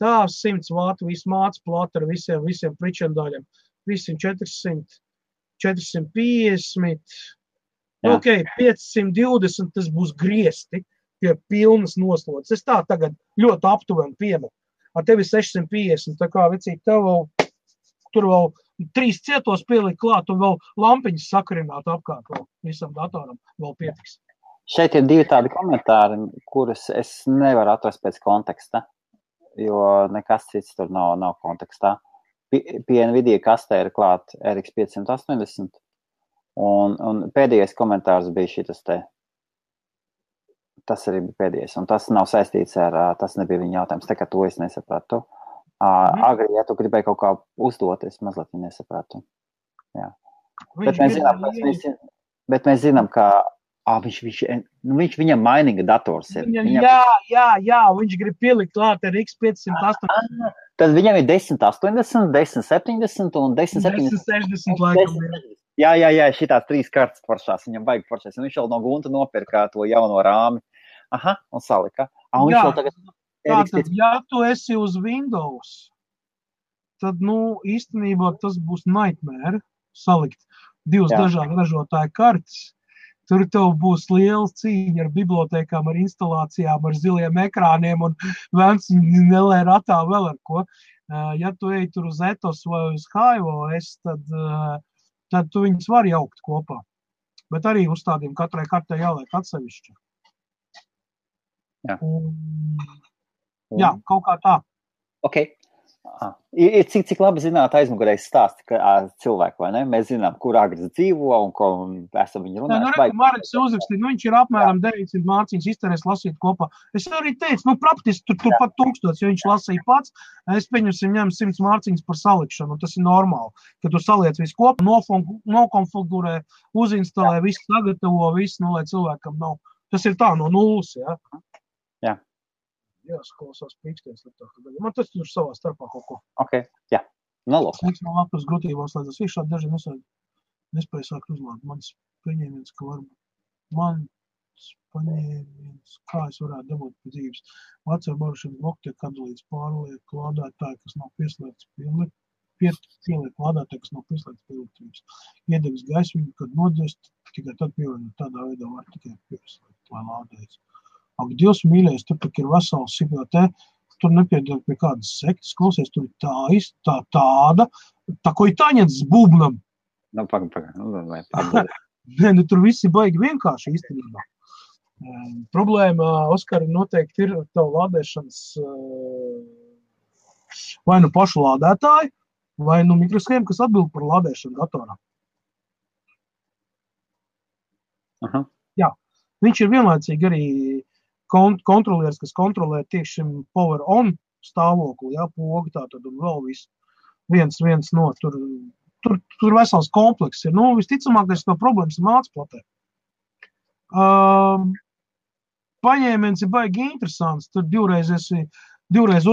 tā 100 vatu visu māc plata ar visiem pričendaļiem, visiem 400, 450, ok, 520 tas būs griesti pie pilnas noslodzes. Es tā tagad ļoti aptuveni piemetu. Ar tevi 650, tā kā vecīgi tev vēl, tur vēl 3 cietos pielikt klāt un vēl lampiņas sakarināt apkārt vēl visam datoram vēl pietiks. Šeit ir 2 tādi komentāri, kurus es nevaru atrast pēc konteksta, jo nekas cits tur nav kontekstā. Pie Nvidia kastē ir klāt RX 580 un pēdējais komentārs bija šitas te. Tas arī bija pēdējais, un tas nav saistīts ar, tas nebija viņa jautājums, tā kā to es nesapratu. Agri, ja tu gribēji kaut kā uzdot, es mazliet nesapratu. Jā. Bet mēs zinām, ka Viņš viņam mainīga dators ir. Jā, viņš grib pielikt klāt ar X580. Tad viņam ir 1080, 1070 un 1070. 1060 laikam. Jā, šitās 3 kartas foršās, viņam vajag foršās. Un viņš vēl no Gunta nopirka to jauno rāmi. Aha, un salika. Un viņš vēl tagad... Tātad, ja tu esi uz Windows, tad, īstenībā tas būs nightmare salikt 2 dažādu ražotāju kartes. Tur tev būs liela cīņa ar bibliotēkām, ar instalācijām, ar ziliem ekrāniem un vēns nelē ratā vēl ar ko. Ja tu ej tur uz Ethos vai uz HiOS, tad tu viņus var jaukt kopā. Bet arī uzstādījumi katrai kartē jāliek atsevišķi. Jā, kaut kā tā. Ok. Ir cik labi zināt aizmugurējs stāsti cilvēku, vai ne? Mēs zinām, kur agres dzīvo un ko esam viņu runājuši. Mareks uzrakstīt, viņš ir apmēram 900 mārciņas izterēs lasīt kopā. Es arī teicu, praktiski tur pat 1000, jo viņš lasīja pats. Es pieņemsim ņem 100 mārciņas par salikšanu, un tas ir normāli. Kad tu saliec visu kopā, nokonfigurē, uzinstalē, visu sagatavo, visu, lai cilvēkam nav. Tas ir tā no nulles, jā? Jā. Jā, klausās pīksties. Man tas tur savā starpā kaut ko. Ok, jā. Nolūk. Es no lapas grūtībās slēdzas. Viņš šādi daži nespēja sākt uzlāt. Mans paņēmiens, ka varbūt kā es varētu dabūt pēc dzīves. Vecā barušana bloku tiek atdalīts pārliek lādētāji, kas nav pieslēgts pieliek lādētāji, kas nav pieslēgts pie elektrības. Iedegs gaismiņu, kad nodzt, tikai tad pievienot tādā veidā var tikai pieslēgt, lai lādējas. Ak, Dievs mīļais, tur ir vesels sipjā tur nepiedod pie kādas sektas, klausies, tur ir tāda, ko ir tāņets z būbnam. Nē, tur viss ir baigi vienkārši īstenībā. Problēma, Oskari, noteikti ir tavu lādēšanas vai pašu lādētāju, vai mikroshēmu, kas atbild par lādēšanu datorā. Aha. Jā, viņš ir vienlaicīgi arī kontrolieris, kas kontrolē tieši šim power on stāvokli, pogu tātad un vēl viens no tur vesels komplekss ir. Visticamākais no problēmas ir mācplatē. Paņēmiens ir baigi interesants, tur divreiz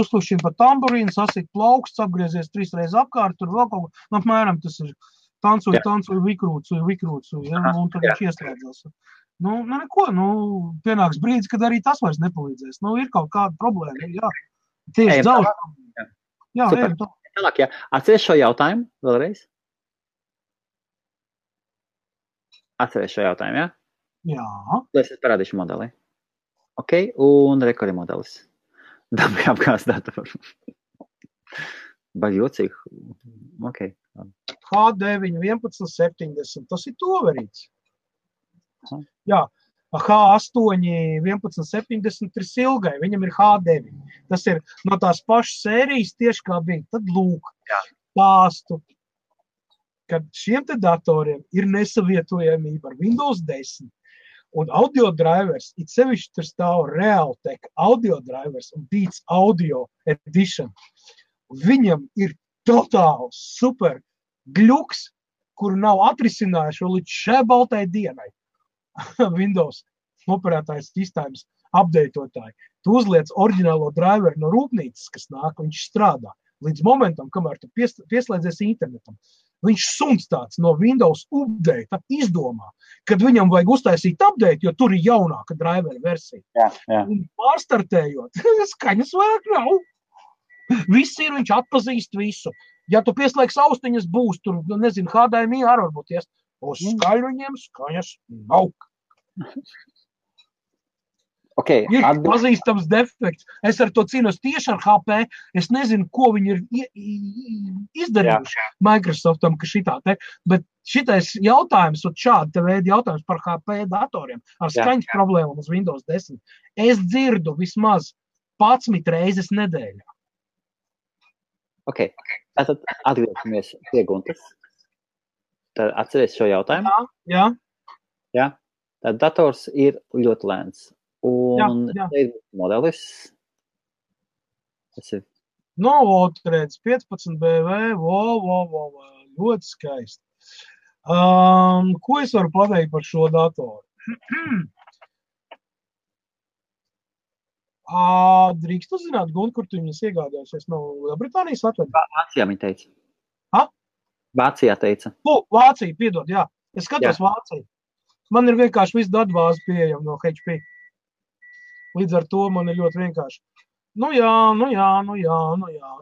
uzklušķina pa tamburīnu, sasit plauksts, apgriezies 3 reizes apkārt, tur vēl kaut ko, apmēram tas ir tancoju, vikrūcu, un tad viņš iestrēdzās. Neko, pienāks brīdis, kad arī tas vairs nepalīdzēs. Ir kaut kāda problēma, jā. Tieši daudz. Jā, ejam tā. Tālāk, jā. Atceries šo jautājumu vēlreiz? Atceries šo jautājumu, jā? Jā. Es parādīšu modeli. Ok, un rekori modelis. Dabī apgāst datoru. Baigi jocīgi. Ok. H9 1170, tas ir toverīts. Jā, H8 1170 ir silgai, viņam ir H9. Tas ir no tās pašas sērijas tieši kā bija. Tad lūk, stāstu, kad šiem te datoriem ir nesavietojamība ar Windows 10 un audio drivers, it sevišķi tur stāv Realtek audio drivers un Beats Audio Edition. Viņam ir totāls super gļuks, kuru nav atrisinājuši vēl līdz šai baltai dienai. Windows operētājs sistēmas updateotāji. Tu uzliec oriģinālo driveru no rūpnīcas, kas nāk, viņš strādā. Līdz momentam, kamēr tu pieslēdzies internetam, viņš suns tāds no Windows update izdomā, kad viņam vajag uztaisīt update, jo tur ir jaunāka driveru versija. Jā. Un pārstartējot, skaņas vajag nav. Viss ir, viņš atpazīst visu. Ja tu pieslēgs austiņas būs, tur, nezinu, HDMI arī varbūt ies. Uz skaļruņiem skaņas nav. Okay, ir pazīstams defekts. Es ar to cīnos tieši ar HP. Es nezinu, ko viņi ir izdarījuši Microsoftam, ka šitā te. Bet šitais jautājums, un šāda veida jautājums par HP datoriem ar skaņas problēmām uz Windows 10, es dzirdu vismaz 11 reizes nedēļā. Ok, tātad atgriežamies pie Guntas. Tad atceries šo jautājumu? Jā. Tad dators ir ļoti lēns. Un ir modelis. Tas ir. Otrēdz 15 BV, ļoti skaisti. Ko es varu pateikt par šo datoru? Drīkst uzzināt, Gun, kur tu viņas iegādājusies no Lielbritānijas atvedu? Vācijā viņa teica. Ha? Vācijā teica. Vācija, piedod, jā. Es skatos Vāciju. Man ir vienkārši viss datbāze pieejama no HP. Līdz ar to man ir ļoti vienkārši. Nu jā.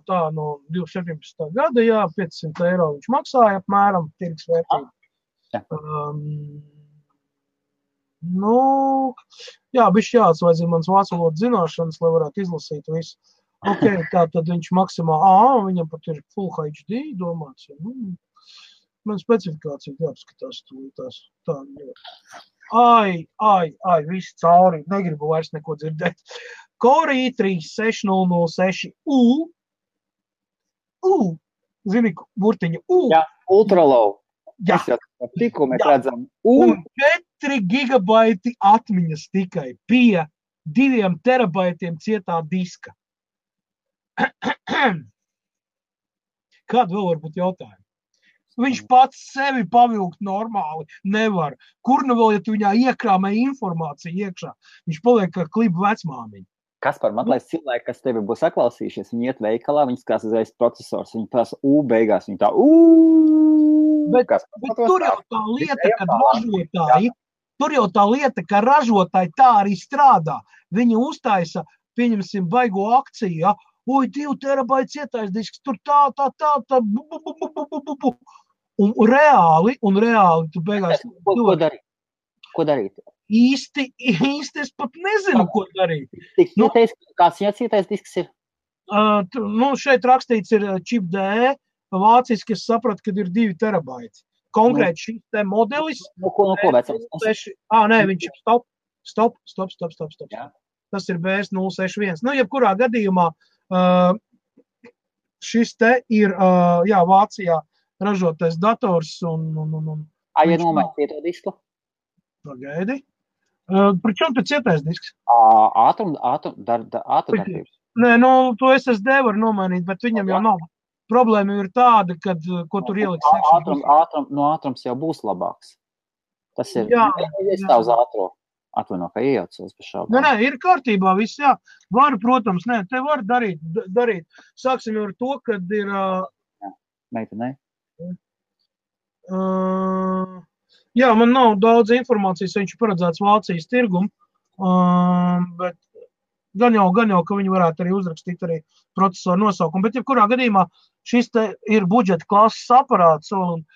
Tā no 2017. gada, jā, 500 eiro viņš maksāja apmēram, tirgus vērtība. Bišķi jāatsvaidzina mans vācu valodas zināšanas, lai varētu izlasīt visu. Ok, tā tad viņš maksimāli, viņam pat ir Full HD domāts. Man specifikācija jāapskatās tūlītās. Tā, viss cauri, negribu vairs neko dzirdēt. Core i3-6006U. Zini, burtiņa U. Jā, ultra low. Jā. Tikko mēs redzam. Un 4 gigabaiti atmiņas tikai pie 2 terabaitiem cietā diska. Kāda vēl var būt jautājuma? Viņš pats sevi pavilkt normāli nevar. Kur nu vēl, ja tu viņā iekrāmē informāciju iekšā? Viņš paliek kā klibu vecmāmiņa. Kaspar, man liekas, cilvēki, kas tevi būs saklausījušies, viņi iet veikalā, viņi skās uzreiz procesors, viņi prasa beigās, viņi tā Bet tur jau tā lieta, ka ražotāji tā arī strādā. Viņi uztaisa, pieņemsim, baigo akciju, ja? 2 terabaiti cietais disks, tur tā. Un reāli tu beigās... Ko darīt? Īsti es pat nezinu, ko darīt. Kāds cietais disks ir? Šeit rakstīts ir čip D, vāciski es sapratu, kad ir 2 terabaiti. Konkrēti šis te modelis. Ko vecams? Viņš ir stop. Jā. Tas ir BS061. Jebkurā gadījumā šis te ir, Vācijā ražotais dators un ja nomainīt cieto disku? Pagaidi. Pričom te cietais disks? Ātrumdarbības. Nē, to SSD var nomainīt, bet viņam jau nav. Problēma ir tāda, kad, ko tur ieliks. Ātrums jau būs labāks. Tas ir, es tā uz ātro. Atvaino, ka iejaucos pa šādu. Nē, ir kārtībā viss, jā. Var, protams, te var darīt. Sāksim ar to, kad ir... Meitenei? Man nav daudz informācijas, viņš ir paredzēts Vācijas tirgumu, bet gan jau, ka viņi varētu arī uzrakstīt arī procesoru nosaukumu. Bet, jebkurā gadījumā, šis te ir budžeta klases aparāts un,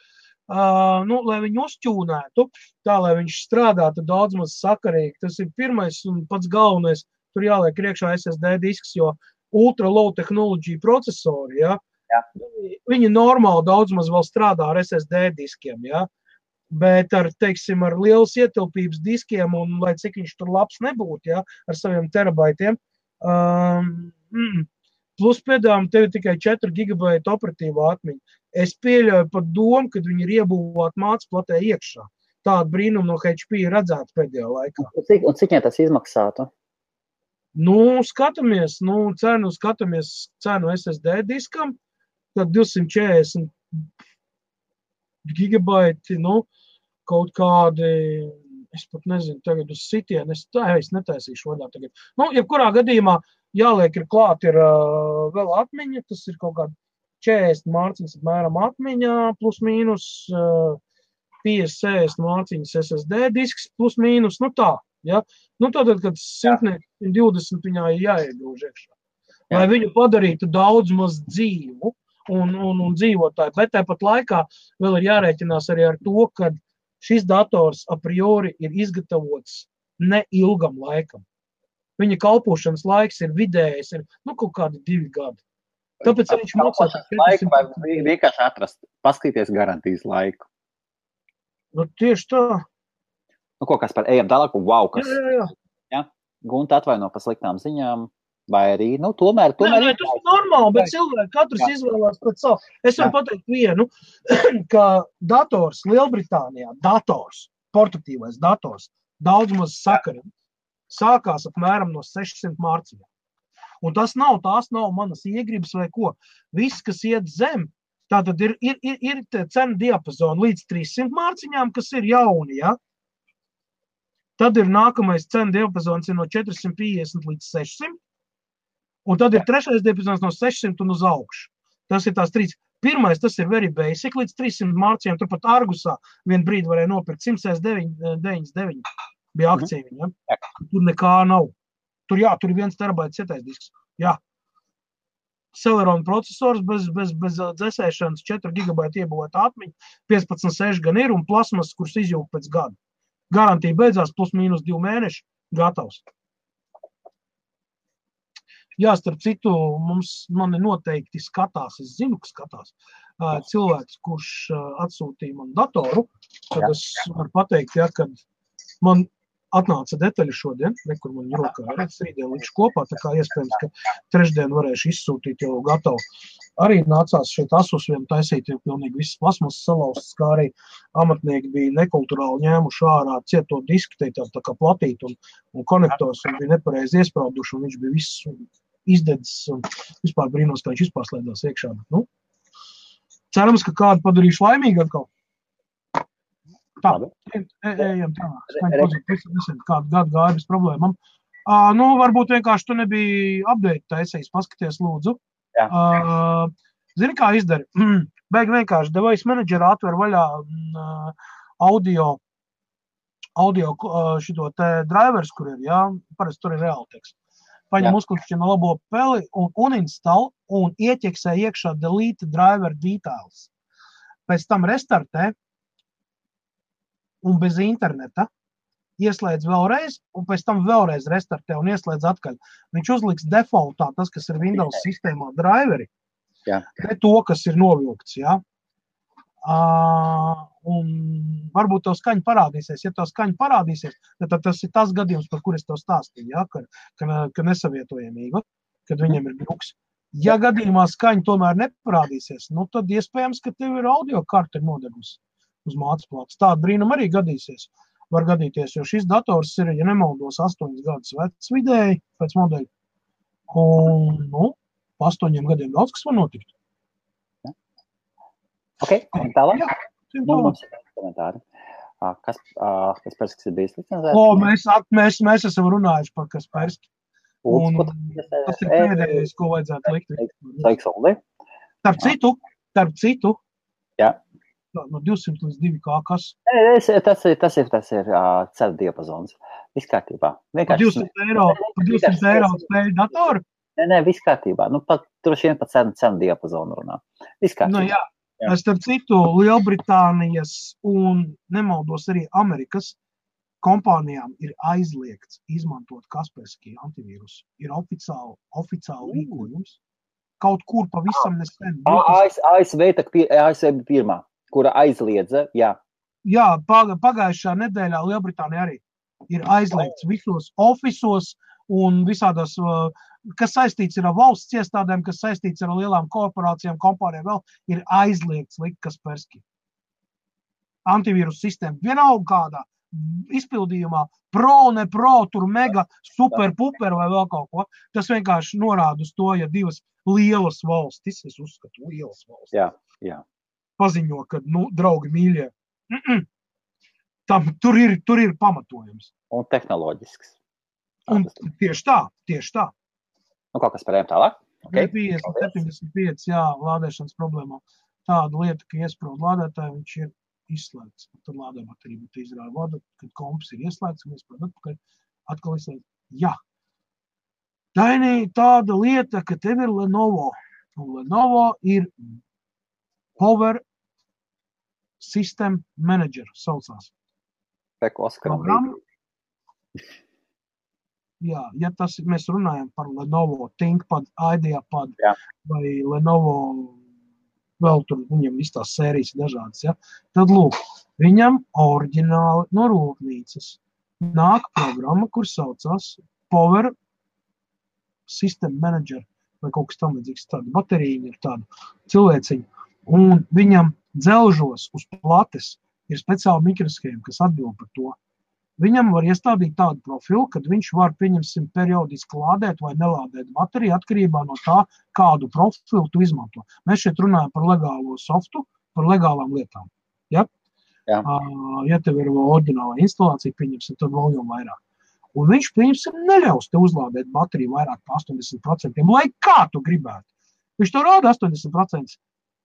lai viņu uzķūnētu, tā, lai viņš strādātu daudz maz sakarīgi. Tas ir pirmais un pats galvenais, tur jāliek iekšā SSD disks, jo ultra low technology procesori, ja, viņi normāli daudz maz vēl strādā ar SSD diskiem, ja. Bet ar lielas ietilpības diskiem un lai cik viņš tur labs nebūtu, ja, ar saviem terabaitiem, plus pēdām tev ir tikai 4 gigabaita operatīvā atmiņa. Es pieļauju pat domu, kad viņi ir iebūvāt mācplatē iekšā. Tādu brīnumu no HP ir redzēts pēdējā laikā. Un cik tas izmaksātu? Skatāmies cenu SSD diskam, tad 240 gigabaiti, kaut kādi, es pat nezinu, tagad uz sitienu, es netaisīšu vaļā tagad. Jebkurā gadījumā jāliek ir klāt ir vēl atmiņa, tas ir kaut kādi 40 mārciņas apmēram atmiņā, plus mīnus 50-60 mārciņas SSD disks, plus mīnus, tā, ja. Tātad, kad 120 viņā ir jāiegrūž iekšā. Lai viņu padarītu daudz maz dzīvu un dzīvotāju, bet tāpat laikā vēl ir jārēķinās arī ar to, ka šis dators a priori ir izgatavots neilgam laikam. Viņa kalpošanas laiks ir vidējais, kaut kādi 2 gadi. Tāpēc viņš maksā... Laiku vai vienkārši atrast, paskatīties garantijas laiku. Tieši tā. Ko, Kaspar, ejam tālāk, wow, kas... Jā. Gunta atvaino pa sliktām ziņām, vai arī, tomēr... Tas ir normāli, bet cilvēki katrs izvēlās pēc savu. Es varu pateikt vienu, ka dators Lielbritānijā, portatīvais dators, daudz maz sakarīgi, sākās apmēram no 600 mārciņām. Un tās nav manas iegribas vai ko. Viss, kas iet zem, tātad ir cena diapazona līdz 300 mārciņām, kas ir jauni, ja? Tad ir nākamais cenu diapazons no 450 līdz 600. Un tad ir trešais diapazons no 600 un uz augšu. Tas ir tās trīs. Pirmais, tas ir very basic, līdz 300 mārciņām. Turpat Argusā vienu brīdi varēja nopirkt 199 bija akcija viņa. Ja? Tur nekā nav. Tur ir 1 terabaits cietais disks. Jā. Celeron procesors bez dzesēšanas, 4 gigabaita iebūvēta atmiņa, 15.6 gan ir un plasmas, kurš izjūg pēc gada. Garantija beidzās plus mīnus 2 mēneši, gatavs. Jā, starp citu, mani noteikti skatās, es zinu, ka skatās cilvēks, kurš atsūtīja man datoru, tad es varu pateikt, ja, kad man atnāca detaļi šodien, kur man rokā ir, rītdien likšu kopā, tā kā iespējams, ka trešdien varēšu izsūtīt jau gatavu. Arī nācās šeit Asus vien taisīt, jo pilnīgi visas plasmas salauztas, kā arī amatnieki bija nekulturāli ņēmuši ārā cieto disku, tā kā platīt un konektors, un bija nepareizi iesprauduši, un viņš bija viss izdedzis, un vispār brīnos, ka viņš vispār slēdās iekšā. Nu, cerams, ka kādu padarīšu laimīgi atkal. Tā, ejam tā. Kādu gadu gāja bez problēmām. Nu, varbūt vienkārši tu nebija update taisījis, paskaties lūdzu. Zini, kā izdari? Beigi vienkārši device managerā atver vaļā audio šito te drivers, kur ir, jā, parasti tur ir Realtek. Paņem uzklikšķina labo peli un uninstall un ieķeksē iekšā delete driver details. Pēc tam restartē un bez interneta ieslēdz vēlreiz un pēc tam vēlreiz restartē un ieslēdz atkaļ. Viņš uzliks defaultā tas, kas ir Windows sistēmā driveri, ne to, kas ir novilkts, jā. Un varbūt tev skaņa parādīsies. Ja tev skaņa parādīsies, tad tas ir tas gadījums, par kur es tev stāstīju, ja? ka nesavietojamība, kad viņiem ir druks. Ja gadījumā skaņa tomēr neparādīsies, nu tad iespējams, ka tev ir audio karte nodegusi uz mātes plātes. Tāda brīnum arī gadīsies. Var gadīties, jo šis dators ir, ja nemaldos, 8 gadus vecs vidēji pēc modeļa. Un, nu, pa 8 gadiem daudz, kas var notikt. Ok, un tālāk? Mums ir komentāri. Kasperskas ir bijis licencēts? Mēs esam runājuši par Kasperski. Un tas ir pēdējais, ko vajadzētu likt. Starp citu. Jā. No 200 līdz 2K kas? Tas ir cenu diapazons. Viss kārtībā. Par 200 eiro spēļu datoru? Nē, viss kārtībā. Nu, droši vien pat cenu diapazonu runā. Viss kārtībā. Nu, jā. Starp citu, Lielbritānijas un nemaldos arī Amerikas kompānijām ir aizliegts izmantot Kaspersky antivīrusu. Ir oficiāli rīkojums. Kaut kur pavisam nesen. ASV bija pirmā, kura aizliedza, jā. Jā, pagājušā nedēļā Lielbritānija arī ir aizliegts visos ofisos un visādās, kas saistīts ir ar valsts iestādēm, kas saistīts ar lielām korporācijām, kompānijām vēl, ir aizliegts likt Kaspersky. Antivīrus sistēma vienalga kādā izpildījumā, ne pro, tur mega, super, puper vai vēl kaut ko. Tas vienkārši norāda uz to, ja divas lielas valstis, es uzskatu, lielas valstis, jā. Paziņo, ka, nu, draugi mīļie, tur ir pamatojums. Un tehnoloģisks. Un tieši tā. Nu, kaut kas parējām tālāk? Okay. 75, jā, lādēšanas problēmā. Tāda lieta, ka iesprūd lādētāji, viņš ir izslēgts. Tad lādē baterija, bet izrāda vadu, kad komps ir ieslēgts un iesprūd atpakaļ, atkal izslēgts. Jā. Dainī, tāda lieta, ka tev ir Lenovo. Un Lenovo ir Power System Manager, saucās. Programma. Jā, ja mēs runājam par Lenovo ThinkPad, IdeaPad vai Lenovo, vēl tur viņam viss tās sērijas dažādas, ja? Tad lūk, viņam oriģināli no rūpnīcas nāk programma, kur saucās Power System Manager vai kaut kas tam līdzīgs, tāda baterija ir tāda cilvēciņa, un viņam dzelžos uz plates ir speciāli mikroshēma, kas atbild par to. Viņam var iestādīt tādu profilu, kad viņš var, pieņemsim, periodiski lādēt vai nelādēt bateriju atkarībā no tā, kādu profilu tu izmanto. Mēs šeit runājam par legālo softu, par legālām lietām. Ja? Ja tev ir oriģināla instalācija, pieņemsim, tad vēl jau vairāk. Un viņš, pieņemsim, neļaus te uzlādēt bateriju vairāk par 80%, lai kā tu gribētu. Viņš to rāda 80%.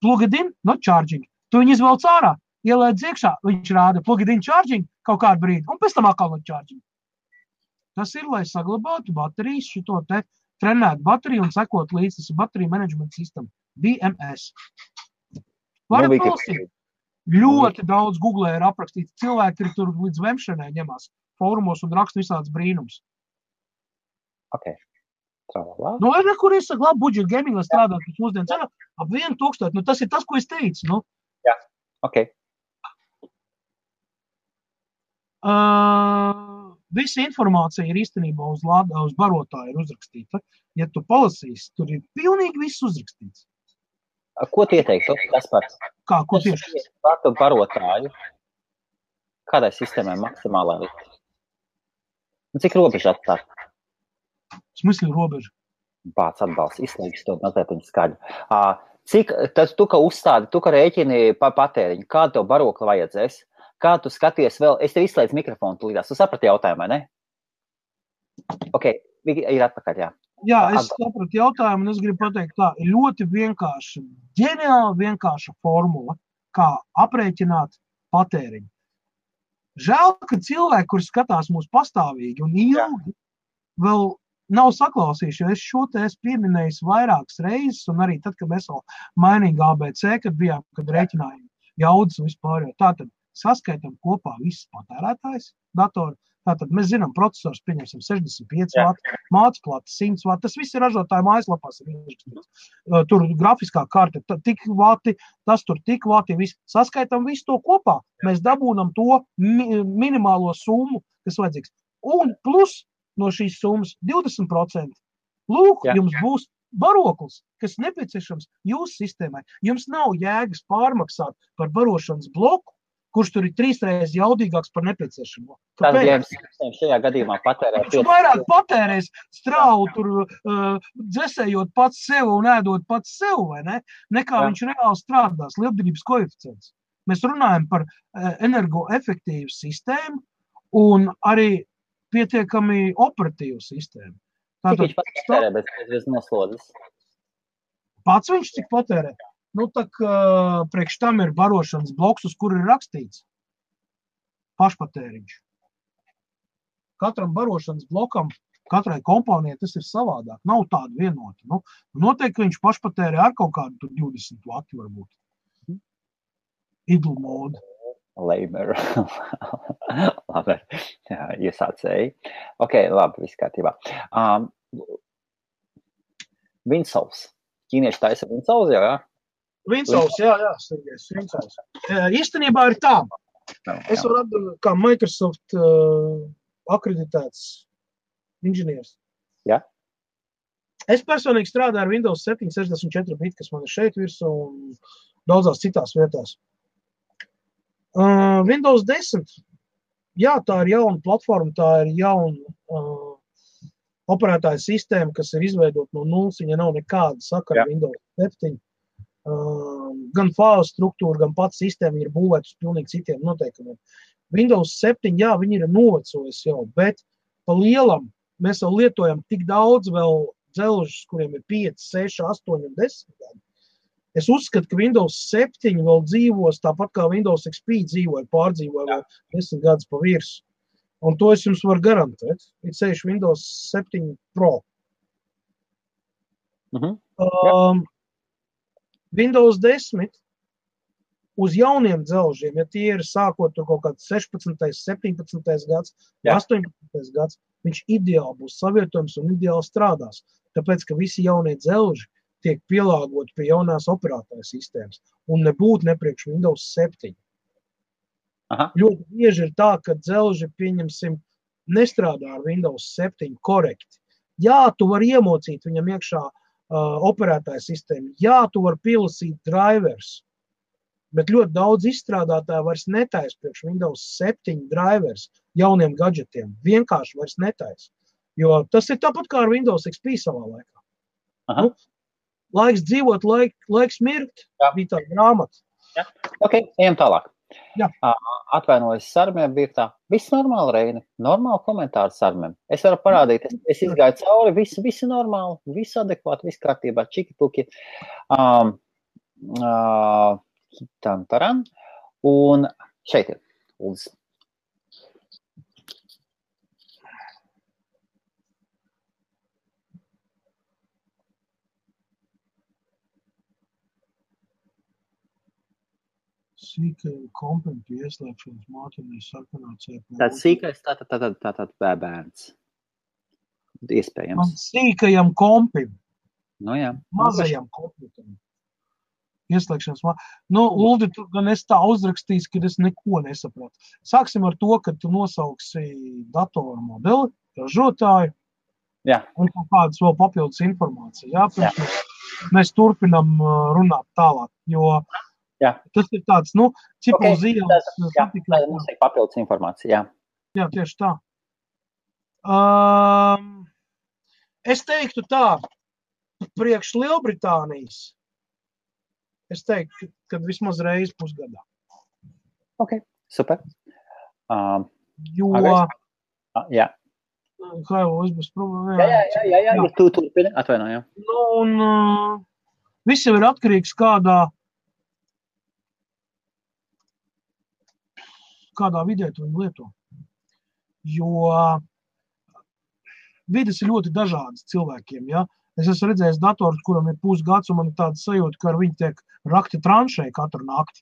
Plug it in, not charging. Tu viņu izvelc ārā, ielēdz iekšā, viņš rāda plug it in charging kaut kādu brīdi, un pēc tam atkal not charging. Tas ir, lai saglabātu baterijas, šito te trenētu bateriju un sekot līdz, tas ir bateriju management system, BMS. Varat palasīt. Ļoti daudz Google ir aprakstīts. Cilvēki ir tur līdz vemšanai ņemās fórumos un raksta visāds brīnums. Ok. Tralala. Nu, ir nekur izsaka, labi, budžet gaming, lai strādāt pēc mūsdienu cenu, ap 1000. Nu, tas ir tas, ko es teicu. Nu. Jā, ok. Visa informācija ir īstenībā uz barotāju ir uzrakstīta. Ja tu palasīsi, tur ir pilnīgi viss uzrakstīts. Ko tu ieteiktu? Kaspar? Kā, ko tieši? Pārtu barotāju. Kādai sistēmai maksimālā likt? Cik robeža atstāt? Smysli robeža. Bāc atbalsts, izslēgis to mazliet skaļu. Cik, tad tu, ka uzstādi, tu, ka rēķini patēriņu, kādu tev barokli vajadzēs? Kā tu skaties vēl? Es tev izslēdzu mikrofonu tulīdās. Tu saprati jautājumu, vai ne? Ok, ir atpakaļ, jā. Jā, es sapratu jautājumu un es gribu pateikt tā, ir ļoti vienkārša, ģeniāli vienkārša formula, kā aprēķināt patēriņu. Žēl, ka cilvēki, kuri skatās mūs pastāvīgi un ilgi, vēl nav saklausījuši, jo es šo te esmu pieminējis vairākas reizes un arī tad, kad mēs vēl mainīgi ABC, kad bijām, kad rēķinājām jaudas un vispār. Tātad saskaitam kopā visas patērētājs datoru. Tātad mēs zinām, procesors pieņemsim 65 vati, mācplāte 100 vati, tas viss ir ražotāju mājaslapās. Tur grafiskā karte, tik vati, tas tur tik vati, viss. Saskaitam visu to kopā, mēs dabūnam to minimālo summu, kas vajadzīgs. Un plus no šīs summas 20%. Lūk, jums būs baroklis, kas nepieciešams jūsu sistēmai. Jums nav jēgas pārmaksāt par barošanas bloku, kurš tur ir 3 reizes jaudīgāks par nepieciešamo. Kāpēc? Šajā gadījumā patērē. Viņš vairāk patērēs strāvu tur dzesējot pats sev un ēdot pats sev, vai ne? Nekā viņš reāli strādās, lietderības koeficients. Mēs runājam par energoefektīvu sistēmu un arī pietiekami operatīvu sistēmu. Cik viņš patērē bez noslodzes? Pats viņš cik patērē? Nu, tak priekš tam ir barošanas bloks, uz kuru ir rakstīts pašpatēriņš. Katram barošanas blokam, katrai komponijai tas ir savādāk. Nav tāda vienota. Nu, noteikti viņš pašpatērē ar kaut kādu 20 vati varbūt. Idle mode. Lamer. Labi, iesācēji. Ok, labi, viss kārtībā. Winsows. Ķīnieši taisa Winsows jau, jā? Winsows, jā, Sergejs, Winsows. Īstenībā ir tā. Es varu atdot kā Microsoft akreditēts inženieris. Jā. Es personīgi strādāju ar Windows 7 64 bit, kas man ir šeit virsū un daudzās citās vietās. Windows 10, jā, tā ir jauna platforma, tā ir jauna operētāja sistēma, kas ir izveidot no nulles, viņa nav nekāda sakara Windows 7. Gan fāzu struktūra, gan pats sistēma ir būvēta uz pilnīgi citiem noteikumiem. Windows 7, jā, viņi ir novecojis jau, bet pa lielam mēs vēl lietojam tik daudz vēl dzelžus, kuriem ir 5, 6, 8 un 10 gadi. Es uzskatu, ka Windows 7 vēl dzīvos tāpat kā Windows XP pārdzīvoja vēl 10 gadus pa virsu. Un to es jums varu garantēt. Ir ceļš Windows 7 Pro. Windows 10 uz jauniem dzelžiem, ja tie ir sākot tur kaut kāds 16, 17 gads, 18 gads, viņš ideāli būs savietojums un ideāli strādās. Tāpēc, ka visi jaunie dzelži tiek pielāgoti pie jaunās operētāja sistēmas un nebūtu nepriekš Windows 7. Ļoti bieži ir tā, ka dzelži, pieņemsim, nestrādā ar Windows 7 korekti. Jā, tu vari iemocīt viņam iekšā operētāja sistēmu. Jā, tu vari pielasīt drivers, bet ļoti daudz izstrādātāji vairs netais priekš Windows 7 drivers jauniem gadžetiem. Vienkārši vairs netais. Jo tas ir tāpat kā ar Windows XP savā laikā. Nu, laiks dzīvot, laiks mirkt, bija tā grāmata. Ok, ejam tālāk. Jā. Atvainojos Sarmiem, bija tā. Viss normāli, Reini. Normāli komentāri Sarmiem. Es varu parādīt, es izgāju cauri, visi normāli, visi adekvāti, viss kārtībā, čiki-puki. Taran. Un šeit ir Uldis. Sīkajam kompim pie ieslēgšanas māķinē sarkanā CPU. Tāds sīkais, tātad bērns. Iespējams. Sīkajam kompim. Nu jā. Mazajam komputeram. Ieslēgšanas māķinē. Nu, Uldi, tu gan esi tā uzrakstījis, ka es neko nesapratu. Sāksim ar to, ka tu nosauksi datoru modeli, ražotāju. Jā. Un kādas vēl papildus informācija. Jā, mēs turpinam runāt tālāk, jo jā. Tas ir tāds, cipels ielas. Jā, mums ir papildus informācija, jā. Jā, tieši tā. Es teiktu tā, priekš Lielbritānijas, es teiktu, ka vismaz reizi pusgadā. Ok, super. Jo... Jā. Haivo, es būs problēma. Jā, tu turpini, atvainojam. Un viss jau ir atkarīgs kādā vidē tu viņu lieto. Jo vides ir ļoti dažādas cilvēkiem, ja. Es esmu redzējis dators, kuram ir pusgads, un man ir tāda sajūta, ka ar viņu tiek rakti tranšē katru nakti.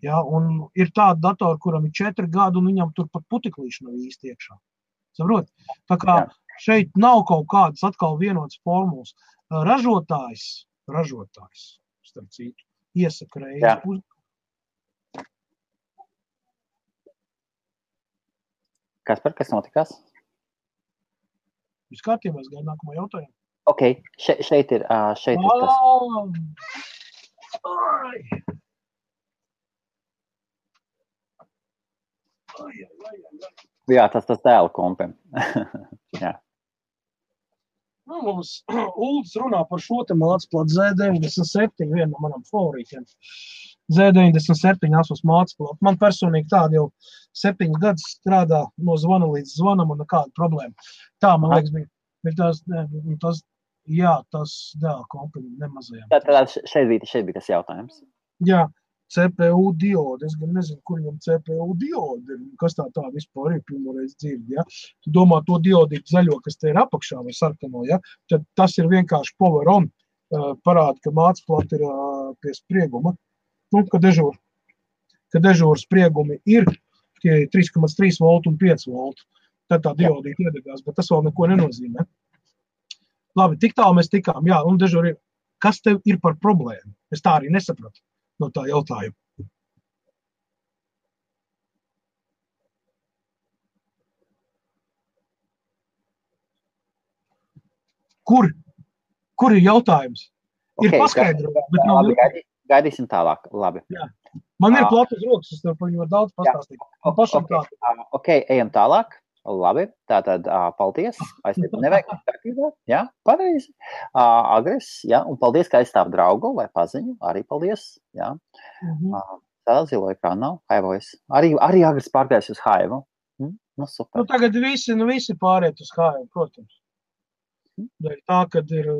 Ja, un ir tāda datora, kuram ir 4 gadi, un viņam tur pat puteklīši nav īsti iekšā. Saprot? Tā kā šeit nav kaut kādas atkal vienotas formulas. Ražotājs, starp citu, iesaka reizi pusgadu. Kas notikās? Viss kārtībā, es gaidu nākamo jautājumu. Ok, šeit ir tas. Jā, tas dēla kompim. Jā. Mums Uldis runā par šo te mācplatu Z97, viena no manam favorītiem. Z97 asos mācplatu. Man personīgi tāda jau 7 gadus strādā no zvana līdz zvanam un nekāda problēma. Tā, man liekas, bija tas dēla kompim nemazajām. Tad šeit bija tas jautājums. Jā. CPU diode. Es gan nezinu, kur viņam CPU diode ir. Kas tā vispār ir pirmoreiz dzirdi, ja? Tu domā to diodītu zaļo, kas te ir apakšā vai sarkano, ja? Tad tas ir vienkārši power on. Parāda, ka mācplata ir pie sprieguma. Ka dežūra spriegumi ir tie 3,3 volt un 5 volt. Tad tā diodīta iedegās, bet tas vēl neko nenozīmē. Labi, tik tālu mēs tikām. Jā, un dežūra ir. Kas tev ir par problēmu? Es tā arī nesapratu. No tā jautājuma. Kur ir jautājums? Ir paskaidrojums, bet nav... Gaidīsim tālāk, labi. Jā. Man ir platas rokas, es tev par viņu daudz pastāstīt. Ok, ejam tālāk. Labi, tātad paldies. Nevajag kārtībā. Jā, pareizi. Agres, jā, un paldies, ka aizstāv draugu vai paziņu. Arī paldies. Jā. Tā zilo ekrāna nav. Haivojas. Arī Agres pārgājis uz Haivu. Nu, super. Tagad visi pāriet uz Haivu, protams. Tā, kad ir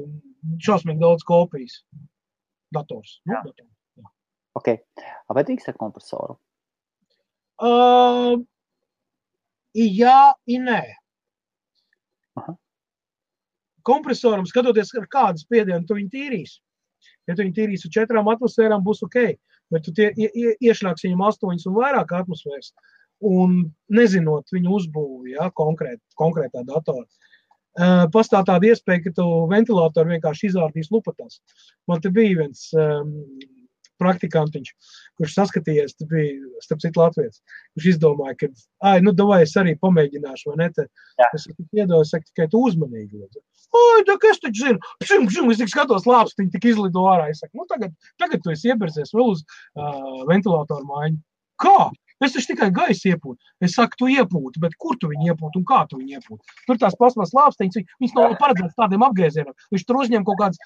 šausmīgi daudz kopijas dators. Jā. Ok. Vai drīkst ar kompresoru? Jā, nē. Kompresoram, skatoties, ar kādu spiedienu tu viņu tīrīs. Ja tu viņu tīrīs ar 4 atmosfērām, būs ok. Bet tu iešļāks viņam 8 un vairāk atmosfēras. Un nezinot viņu uzbūvi, ja, konkrētā datorā. Pastāv tāda iespēja, ka tu ventilātoru vienkārši izārdīs lupatās. Man te bija viens praktikantiņš, kurš saskatījies, te bija, starp citu latvietis, kurš izdomāja, ka, davai es arī pamēģināšu, vai ne, es iedoju, saku, tikai tu uzmanīgi. Es taču zinu, es tik skatos lāpstiņu, tik izlido ārā, es saku, tagad tu esi ieberzies vēl uz ventilātoru mājiņu. Kā? Es taču tikai gaisu iepūtu. Es saku, tu iepūti, bet kur tu viņu iepūti un kā tu viņu iepūti? Tur tās plasmas lāpstiņas, viņas nav paredzētas tādiem apgriezieniem. Viņš tur uzņem kaut kādas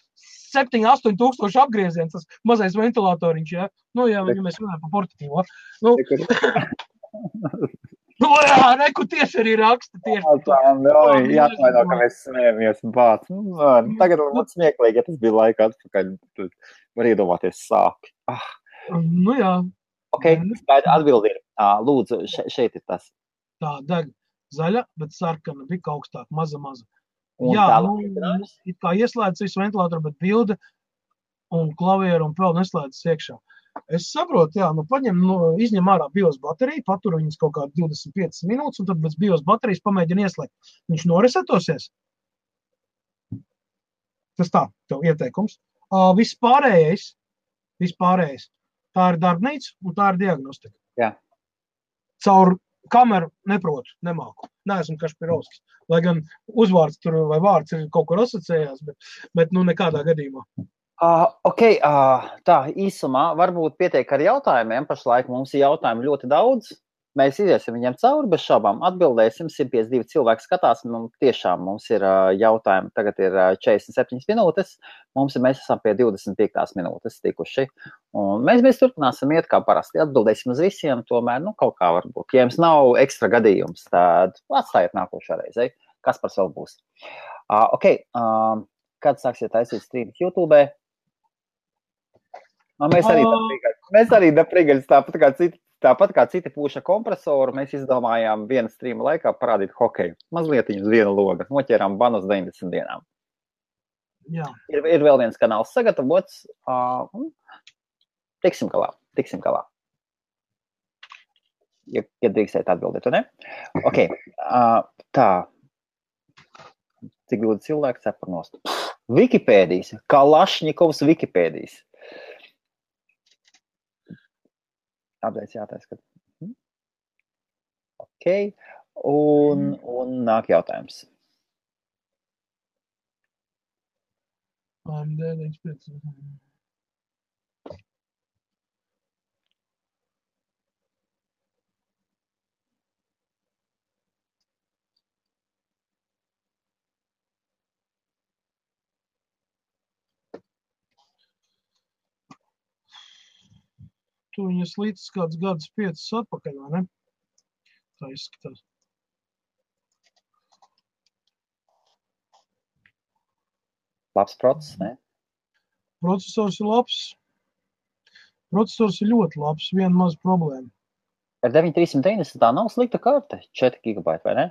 7-8 tūkstoši apgrieziens, tas mazais ventilatoriņš, ja? Nu, ja mēs runājam par portatīvo. Nu, jā, reku tieši arī raksta tieši. Jāatvaino, ka mēs smējamies un bāc. Tagad mums smieklīgi, ja tas bija laika atpakaļ, tad var iedomāties sāpi. Nu, jā. Ok, atbildi ir. Lūdzu, šeit ir tas. Tā, deg zaļa, bet sarkana, bija augstāk, maza. Un jā, it kā ieslēdz visu ventilatoru, bet bilde un klavieru un vēl neslēdz iekšā. Es saprotu, jā, izņem ārā BIOS bateriju, patur viņas kaut kādu 25 minūtes, un tad bez BIOS baterijas pamēģina ieslēgt. Viņš noresetosies? Tas tā, tev ieteikums. Vispārējais, tā ir darbnīca un tā ir diagnostika. Jā. Caur kameru neprotu, nemāku. Neesmu Kašpirovskis. Lai gan uzvārds tur vai vārds ir kaut kur asociējās, bet nekādā gadījumā. Ok, tā īsumā varbūt pietiek ar jautājumiem. Pašlaik mums ir jautājumi ļoti daudz. Mēs iziesim viņiem cauri, bez šaubām atbildēsim. 152 cilvēki skatās, tiešām mums ir jautājumi. Tagad ir 47 minūtes. Mēs esam pie 25 minūtes tikuši. Un mēs turpināsim iet kā parasti. Atbildēsim uz visiem, tomēr, kaut kā varbūt. Ja jums nav ekstra gadījums, tad atstājiet nākošā reizē. Kas par vēl būs? Ok, kad sāksiet taisīt streamus YouTube? Mēs arī daprīgaļas tāpat kā citi pūša kompresoru, mēs izdomājām viena streama laikā parādīt hokeju. Mazliet uz viena loga. Noķērām banu uz 90 dienām. Jā. Ir vēl viens kanāls sagatavots. Tiksim galā. Ja drīkstēt atbildēt, ne? Ok. Tā. Cik ļoti cilvēki cepar nost. Wikipēdijas. Kalašņikovs Wikipēdijas. Apdēļ jātais, ka... Ok. Un nāk jautājums. Tu viņas līdz kāds gadus 5 atpakaļ, vai ne? Tā izskatās. Labs process, ne? Procesors ir labs. Procesors ir ļoti labs, viena maza problēma. Ar 9390 tā nav slikta karte, 4 GB, vai ne?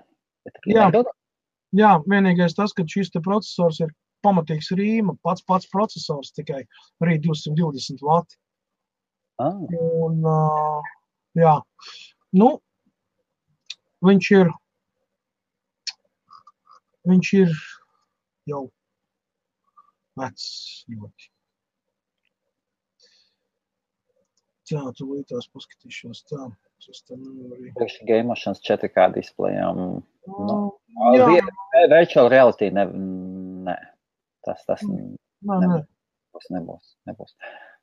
Jā, vienīgais tas, ka šis te procesors ir pamatīgs rīma, pats procesors tikai arī 220 vati. Un, jā, viņš ir jau vecs ļoti. Tā, tu līdās paskatīšos tā. Gameošanas 4K displejām. Virtual reality nē. Tas nebūs.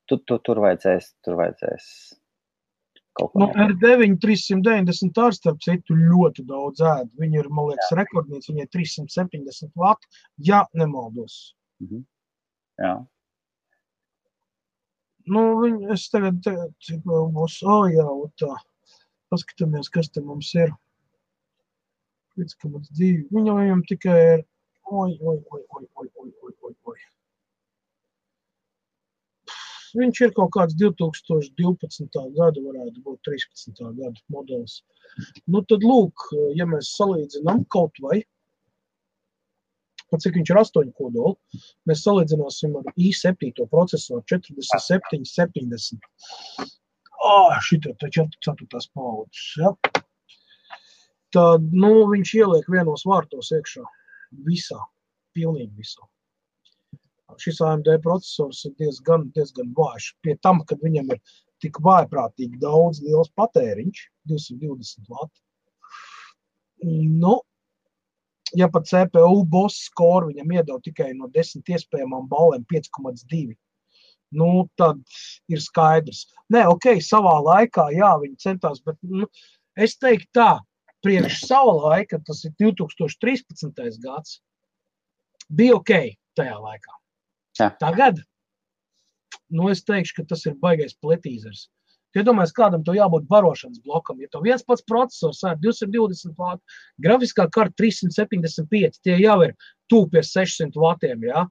Tur vajadzēs kaut ko. R9 390 ar starp citu ļoti daudz ēd. Viņi ir, man liekas, rekordnieci, viņi ir 370 vati, ja nemaldos. Jā. Es tagad, cik vēl būs, tā, paskatāmies, kas te mums ir. 5,2. Viņam tikai ir, Viņš ir kaut kāds 2012. Gada, varētu būt 13. Gada modelis. Tad lūk, ja mēs salīdzinām kaut vai, cik viņš ir 8 kodoli, mēs salīdzināsim ar i7 procesoru 4770. Šitā tā 4. paudzes, ja? Tad, viņš ieliek vienos vārtos iekšā. Visā. Pilnīgi visā. Šis AMD procesors ir diezgan vājš. Pie tam, kad viņam ir tik vājprātīgi daudz liels patēriņš, 220 vati. Ja pat CPU boss score viņam iedod tikai no 10 iespējamām balēm 5,2, tad ir skaidrs. Nē, ok, savā laikā, jā, viņi centās, bet es teiktu tā, priekš sava laika, tas ir 2013. gads, bija ok tajā laikā. Jā. Tagad, es teikšu, ka tas ir baigais pletīzers. Iedomājies, kādam to jābūt barošanas blokam. Ja to viens pats procesors ar 220 vātu, grafiskā karta 375, tie jau ir tuvu pie 600 vatiem, jā?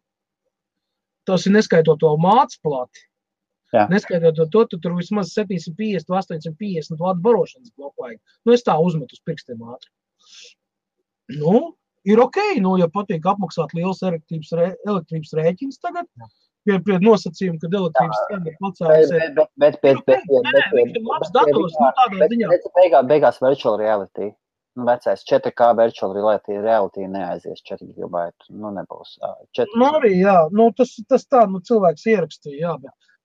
Tas ir neskaitot to mācu plati. Jā. Neskaitot to, tu tur vismaz 750, 850 vātu barošanas bloku vajag. Es tā uzmetu uz pirkstiem ātri. Ir ok, ja patīk apmaksāt liels elektrības rēķins tagad, pie nosacījuma, kad elektrības cena pacēlusies. Bet labs dators, tādā ziņā. Beigās virtual reality. Vecais 4K virtual reality neaizies 4 gigabaitu. Nebūs. Arī, jā. Tas tā, cilvēks ierakstīja, jā.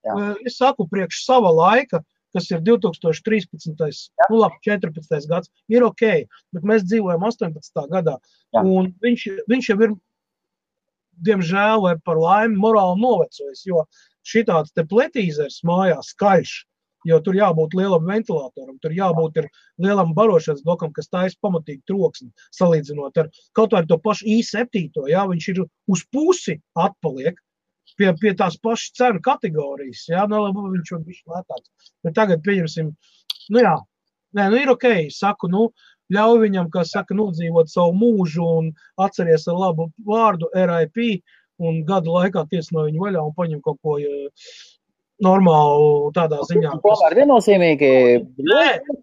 Bet es saku, priekš sava laika, kas ir 2013. 14. gads, ir ok, bet mēs dzīvojam 18. gadā. Jā. Un viņš jau ir, diemžēl, vai par laimi, morāli novecojis, jo šitāds te pletīzers mājās skaļš, jo tur jābūt lielam ventilatoram, tur jābūt ir lielam barošanas blokam, kas taisa pamatīgi troksni, salīdzinot ar kaut vai to pašu i7, jā, viņš ir uz pusi atpaliek pie tās pašas cenu kategorijas, jā, viņš var bišķi lētāks. Bet tagad pieņemsim, ir ok, saku, ļauj viņam, kā saka, nodzīvot savu mūžu un atceries ar labu vārdu RIP un gadu laikā ties no viņu vaļā un paņem kaut ko normālu tādā ziņā. Tomēr viennozīmīgi.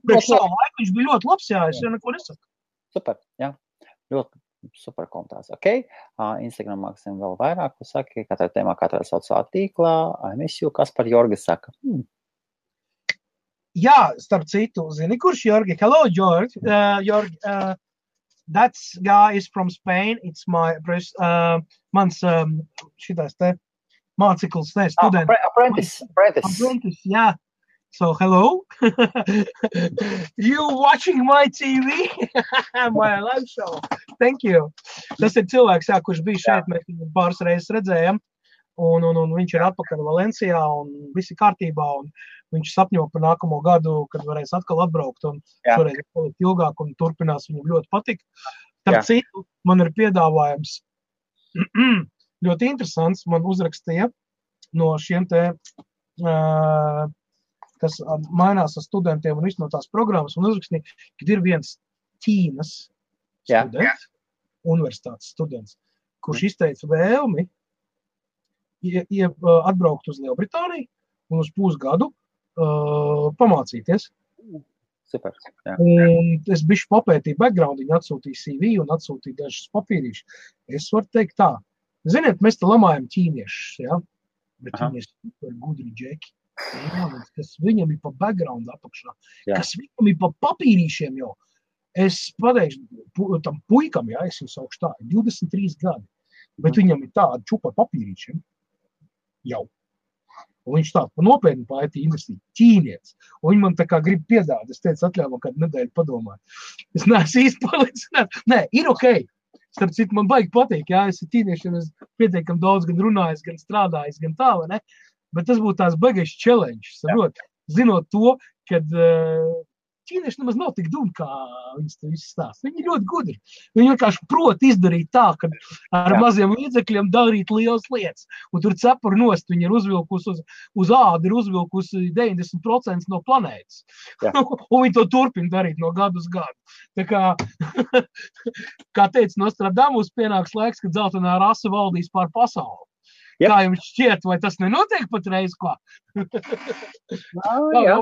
Priekš savu laiku viņš bija ļoti labs, jā, es jau neko nesaku. Super, jā, ļoti super komentārs. Ok, Instagram māksim vēl vairāk, ko saki, katrā tēmā, katrā sociālā tīklā, I miss you, kas par Jorgi saka. Jā, starp citu, zini, kurš Jorgi? Hello, Jorgi. Jorgi, that guy is from Spain. It's my mans šitais te māceklis, students. Apprentice, yeah. So, hello. You watching my TV? My live show. Thank you. Tas ir cilvēks, kurš bija šeit, mēs viņu pāris reizes redzējām. Un viņš ir atpakaļ Valencijā un viss ir kārtībā. Un viņš sapņo par nākamo gadu, kad varēs atkal atbraukt un šoreiz palikt ilgāk un turpinās, viņam ļoti patīk. Tāpēc citu man ir piedāvājums ļoti interesants. Man uzrakstīja no šiem te, kas mainās ar studentiem un visu no tās programmas, un uzrakstīja, kad ir viens Ķīnas students, universitātes students, kurš izteica vēlmi atbraukt uz Lielbritāniju un uz pusgadu pamācīties. Super. Jā. Un es bišķi papētīju background, viņi atsūtīja CV un atsūtīja dažas papīrīšas. Es varu teikt tā, ziniet, mēs te lamājam ķīniešus, ja? Bet viņi ir super gudri džeki. Jā, kas viņam ir pa background apakšā, kas viņam ir pa papīrīšiem jau. Es pateikšu tam puikam, es jau saukšu tā, 23 gadi, bet viņam ir tāda čupa papīrīšiem. Jau. Un viņš tā nopietni pa IT investīja ķīnietis. Un viņi man tā kā grib piedāvāt. Es teicu, atļauju man kādu nedēļu padomāt. Es neesmu īsti palicināt. Nē, ir ok. Starp citu, man baigi patīk. Jā, es ar ķīniešiem pietiekam daudz gan runājis, gan strādājis, gan tā, vai ne? Bet tas būtu tās baigais challenge. Zinot to, kad ķīnieši nemaz nav tik dumi, kā viņas to visu stāsta. Viņi ir ļoti gudri. Viņi vienkārši prot izdarīt tā, ka ar maziem līdzekļiem darīt lielas lietas. Un tur cepuri nost, viņi ir uzvilkusi uz ādu, ir uzvilkusi 90% no planētas. Un viņi to turpina darīt no gadu uz gadu. Tā kā teica Nostradamus, pienāks laiks, kad zeltainā rasa valdīs pār pasauli. Yep. Kā jums šķiet, vai tas nenotiek patreiz kā? Jā.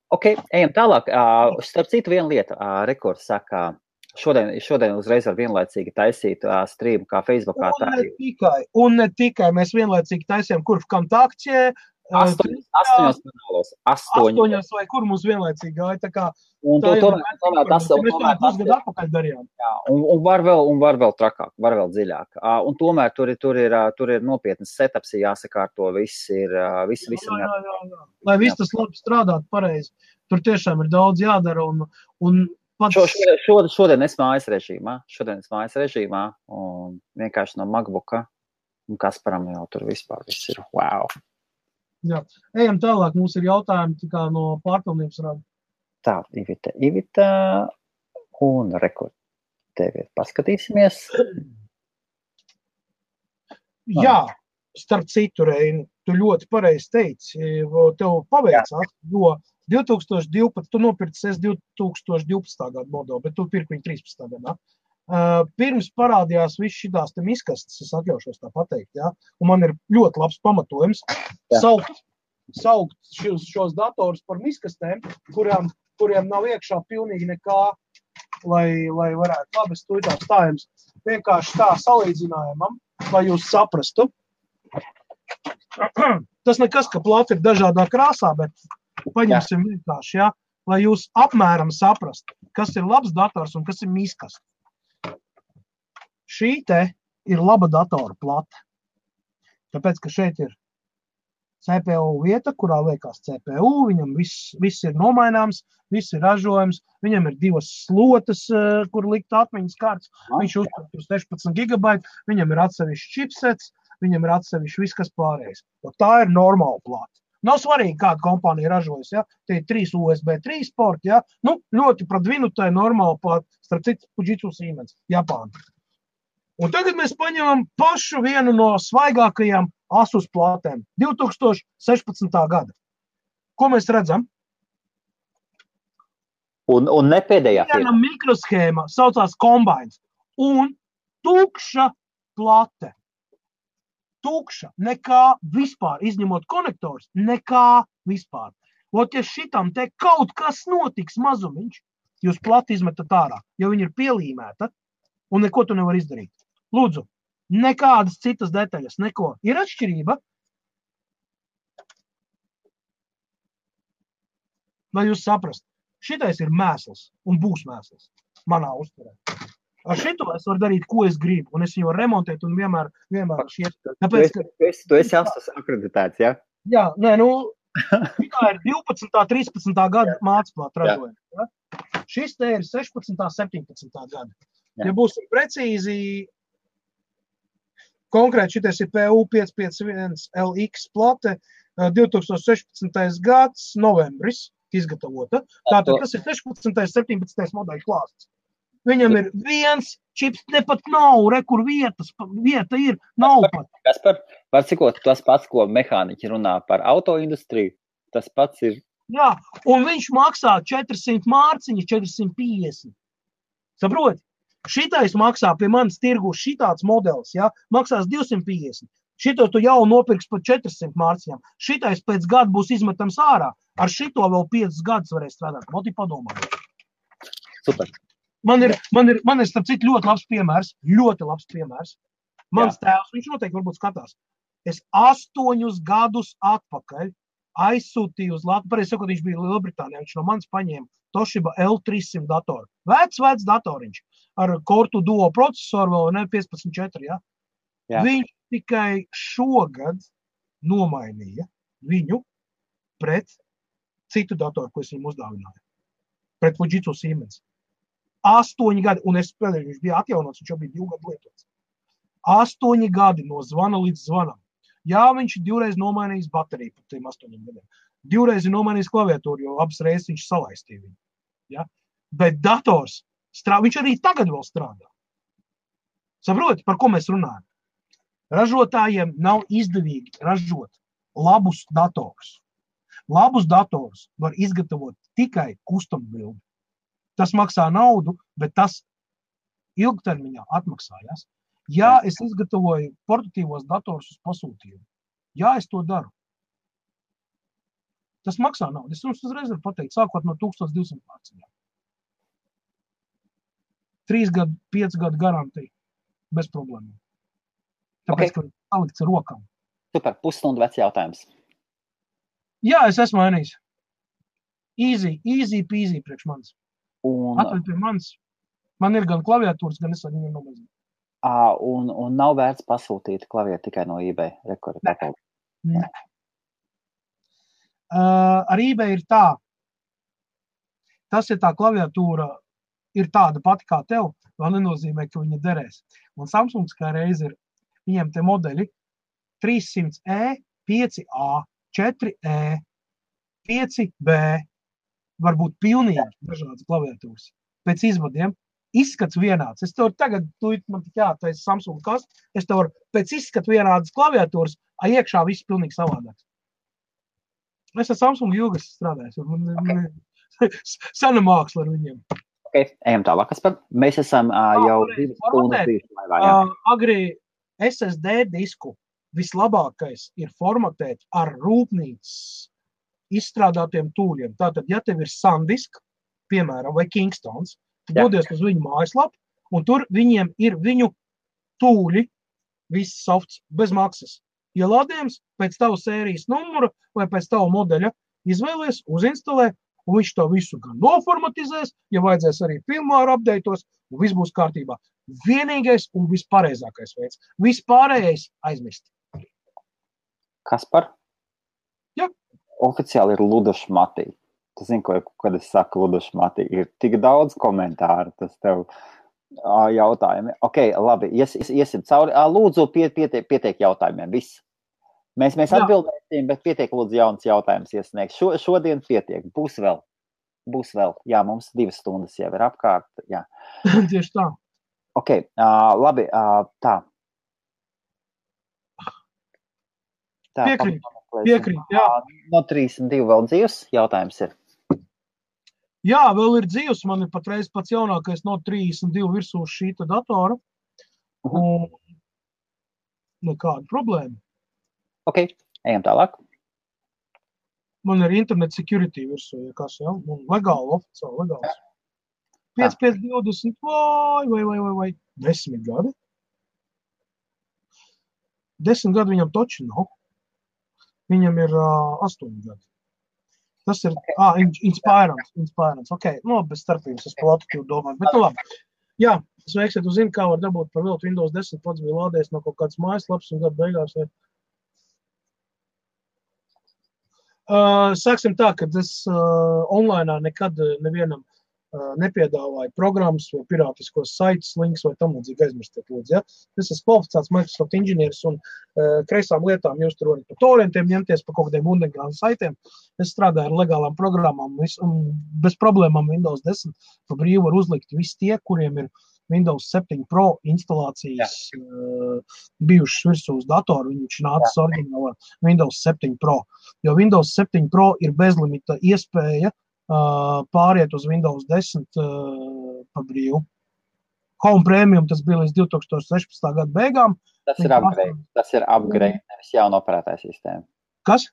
Ok, ejam tālāk. Starp citu viena lieta, Rekords saka, šodien uzreiz var vienlaicīgi taisīt streamu kā Facebookā. Un ne tikai, mēs vienlaicīgi taisījām, kur kontaktie. 8 kanālos. 8 vai kur mums vienlaicīgi gāja, tā kā. Un tomēr tas pusgadu atpakaļ darījām. Jā, un var vēl trakāk, var vēl dziļāk. Un tomēr tur ir nopietnas setups, jāsakārto, viss ir. Jā. Lai viss tas labi strādāt pareizi. Tur tiešām ir daudz jādara un Šodien es mājas režīmā, un vienkārši no MacBooka, un Kasparam jau tur vispār viss ir wow. Jā, ejam tālāk, mums ir jautājumi tikā no pārpilnības rada. Tā, Ivita un Rekord tevi paskatīsimies. Jā, starp citu, Reini, tu ļoti pareizi teici, tev paveicās, jo 2012, tu nopirci 2012. Gada modeli, bet tu pirki viņu 13. gadā. Pirms parādījās viss šitās te miskastes, es atļaušos tā pateikt, ja? Un man ir ļoti labs pamatojums saukt šos datorus par miskastēm, kuriem nav iekšā pilnīgi nekā, lai varētu labi stūtāt stājums. Vienkārši tā salīdzinājumam, lai jūs saprastu. Tas nekas, ka plata ir dažādā krāsā, bet paņemsim vienkārši, ja? Lai jūs apmēram saprastu, kas ir labs dators un kas ir miskasts. Šī te ir laba datora plata, tāpēc, ka šeit ir CPU vieta, kurā liekās CPU, viņam viss ir nomaināms, viss ir ražojums, viņam ir 2 slotas, kur likt atmiņas kārtas, viņš uztur 16 GB, viņam ir atsevišķi chipsets, viņam ir atsevišķi viss, kas pārējais. Un tā ir normāla plata. Nav svarīgi, kāda kompānija ražojas, ja? Tie ir 3 USB 3 porti, ja? Nu, ļoti pradvinu, tā ir normāla plata, starp citu Fujitsu Siemens, Japāna. Un tagad mēs paņemam pašu vienu no svaigākajām Asus platēm, 2016. gada. Ko mēs redzam? Un ne pēdējā viena mikroshēma saucās Combines un tukša plate. Tukša, nekā vispār, izņemot konektors, nekā vispār. Ot, ja šitam te kaut kas notiks mazumiņš, jūs plati izmetat ārā, jo viņa ir pielīmēta un neko tu nevar izdarīt. Lūdzu, nekādas citas detaļas, neko. Ir atšķirība? Lai jūs saprast, šitais ir mēsls un būs mēsls manā uztverē. Ar šito es varu darīt, ko es gribu, un es viņu varu remontēt un vienmēr šiet. Tāpēc, tu esi Asus akreditēts, ja? Jā, nē, šitā ir 12. 13. gada mācplāta ražojuma. Ja? Šis te ir 16. 17. gada. Ja būsim precīzi, konkrēti šitais ir PU551LX plate, 2016. gads, novembris izgatavota. Tātad, tas ir 16. 17. modeļu klāsts. Viņam ir viens čips, nepat nav, kur vieta ir, nav pat. Var cikot, tas pats, ko mehāniķi runā par autoindustriju, tas pats ir. Jā, un viņš maksā 400 mārciņas, 450. Saproti? Šitais maksā pie manis tirgu šitāds modelis, ja, maksās 250. Šito tu jau nopirks par 400 mārciņām. Šitais pēc gada būs izmetams ārā. Ar šito vēl 5 gadus varēs strādāt. Moti padomā. Super. Man ir starp citu ļoti labs piemērs. Mans tēvs, viņš noteikti varbūt skatās. Es 8 gadus atpakaļ aizsūtīju uz Latviju, pareizi sakot, viņš bija Lielbritānijā, viņš no manis paņēma Toshiba L300 datoru. Vecs datoriņš ar Core Duo procesoru vēl, ne, 15.4, ja? Jā. Viņš tikai šogad nomainīja viņu pret citu datoru, ko es viņam uzdāvināju. Pret Fujitsu Siemens. 8 gadi, un es spēlēju, viņš bija atjaunots, viņš jau bija 2 gadu lietots. 8 gadi no zvana līdz zvanam. Jā, viņš ir 2 reiz nomainījis bateriju par tiem 8 gadiem. 2 reiz ir nomainījis klaviatūru, jo abas reizes viņš salaistīja viņu. Ja? Bet dators, viņš arī tagad vēl strādā. Saproti, par ko mēs runājam? Ražotājiem nav izdevīgi ražot labus datorus. Labus datorus var izgatavot tikai custom build. Tas maksā naudu, bet tas ilgtermiņā atmaksājās. Jā, es izgatavoju portatīvos datorus uz pasūtījumu. Jā, es to daru. Tas maksā naudu. Es jums uzreiz varu pateikt, sākot no 1200 mārciņām. 3 gadu, 5 gadu garantija. Bez problēmām. Tāpēc, ka salikts ar rokām. Super, pusstundu vecs jautājums. Jā, es esmu mainījis. Easy peasy priekš manis. Atveļ pie manis. Man ir gan klaviatūras, gan es ar viņu nomazinu. Un nav vērts pasūtīt klavieru tikai no eBay. Ne. Ar eBay ir tā. Tas, ja tā klaviatūra ir tāda pati kā tev, vēl nenozīmē, ka viņa derēs. Un Samsungs kā reiz ir, viņiem te modeļi 300E, 5A, 4E, 5B, varbūt pilnīgi dažādas klaviatūras. Pēc izvadiem izskats vienāds. Es tev tagad, man tik jātais Samsung kaste, es tev varu pēc izskatu vienādas klaviatūras, iekšā viss pilnīgi savādāks. Es ar Samsung ilgas strādāju. Sana māksla ar viņiem. Ok, ejam tālāk, Kaspar. Mēs esam jau 2 stundas laivā. Agri SSD disku vislabākais ir formatēt ar rūpnīcas izstrādātiem tūļiem. Tātad, ja tev ir SanDisk, piemēram, vai Kingstons, dodies uz viņu mājaslapu, un tur viņiem ir viņu tūļi, viss softs, bez maksas. Ielādējums pēc tavu sērijas numura vai pēc tavu modeļa izvēlies, uzinstalē, un viņš to visu gan noformatizēs, ja vajadzēs arī firmware updateos, un viss būs kārtībā. Vienīgais un vispareizākais veids. Vispārējais aizmirst. Kaspar? Jā. Oficiāli ir ludašmatī. Tu zini, kad es saku ludašmatī, ir tik daudz komentāru, tas tev jautājumi. Ok, labi, iesim cauri. Lūdzu, pietiek jautājumiem, viss. Mēs atbildēsim, bet pietiek lūdzu jauns jautājums iesniegt. Šodien pietiek, būs vēl. Jā, mums 2 stundas jau ir apkārt. Jā. Tieši tā. Ok, labi, tā. Piekrīt, jā. No 32 vēl dzīvs jautājums ir. Jā, vēl ir dzīvs. Man ir patreiz pats jaunākais no 32 virsū šīta datora. Un nekāda problēma. Ok, ejam tālāk. Man ir internet security virsū, ja kas, ja? Un legāli, oficiāli legāls. 5, 20, vai 10 gadi. 10 gadi viņam toči nav. Viņam ir 8 gadi. Tas ir, Inspirants. Ok, bez starpības, es par latitude domāju. Bet nu labi. Jā, sveiks, ja tu zini, kā var dabūt par viltu Windows 10, pats bija lādējis no kaut kāds mājaslaps un gadu beigās. Sāksim tā, ka es online nekad nevienam nepiedāvāju programmas vai pirātiskos saites, links vai tam līdzīgi aizmirstiet lūdzu. Ja? Es esmu kvalificēts Microsoft inženieris un kreisām lietām jūs tur varat par torrentiem ņemties, par kaut kādiem underground saitiem. Es strādāju ar legālām programmām un bez problēmām Windows 10 pa brīvu var uzlikt visi tie, kuriem ir Windows 7 Pro instalācijas bijušas virsū uz datoru. Viņš nācis oriģinālā Windows 7 Pro. Jo Windows 7 Pro ir bezlimita iespēja pāriet uz Windows 10 pa brīvu. Home Premium tas bija līdz 2016. Gada beigām. Tas ir upgrade, nevis jauna operētāja sistēma. Kas?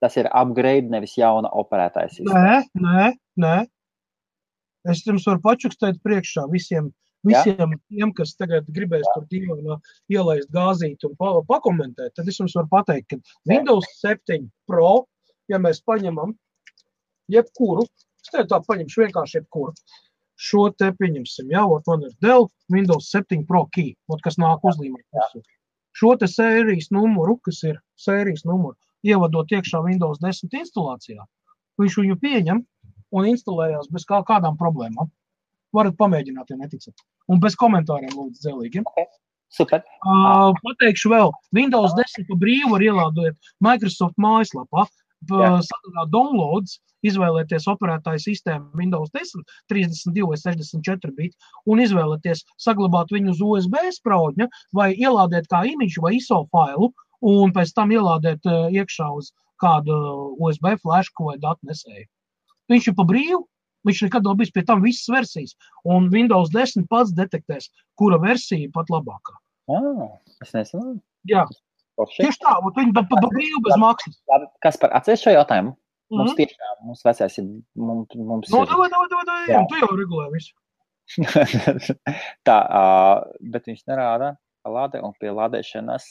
Tas ir upgrade, nevis jauna operētāja sistēma. Nē. Es jums varu pačukstēt priekšā visiem tiem, kas tagad gribēs tur dīvainā ielaist gāzīt un pakomentēt, tad es jums varu pateikt, ka Windows 7 Pro, ja mēs paņemam jebkuru, es tev tā paņemšu vienkārši jebkuru. Šo te pieņemsim, man ir Dell Windows 7 Pro Key, kas nāk uzlīmēt. Šo te sērijas numuru, kas ir sērijas numuru, ievadot iekšā Windows 10 instalācijā, viņš viņu pieņem un instalējās bez kādām problēmām. Varat pamēģināt, ja neticat. Un bez komentāriem lūdzu dzelīgi. Okay. Super. Pateikšu vēl, Windows 10 pa brīvu var ielādot Microsoft mājaslapā, sadarā downloads, izvēlēties operētāju sistēmu Windows 10, 32 vai 64 bit, un izvēlēties saglabāt viņu uz USB spraudņa, vai ielādēt kā imidžu vai ISO failu, un pēc tam ielādēt iekšā uz kādu USB flashu vai datu nesēju. Viņš ir pa brīvu, viņš nekad nav bijis pie tam visas versijas, un Windows 10 pats detektēs, kura versija pat labākā. Es nezinu. Jā. Tieši tā, un viņi pa brīvu bez maksas. Kaspar, atceries šo jautājumu? Mums tiešām, mums vecais ir, mums ir... Davai, tu jau regulē visu. Tā, bet viņš nerāda lādē un pie lādēšanas.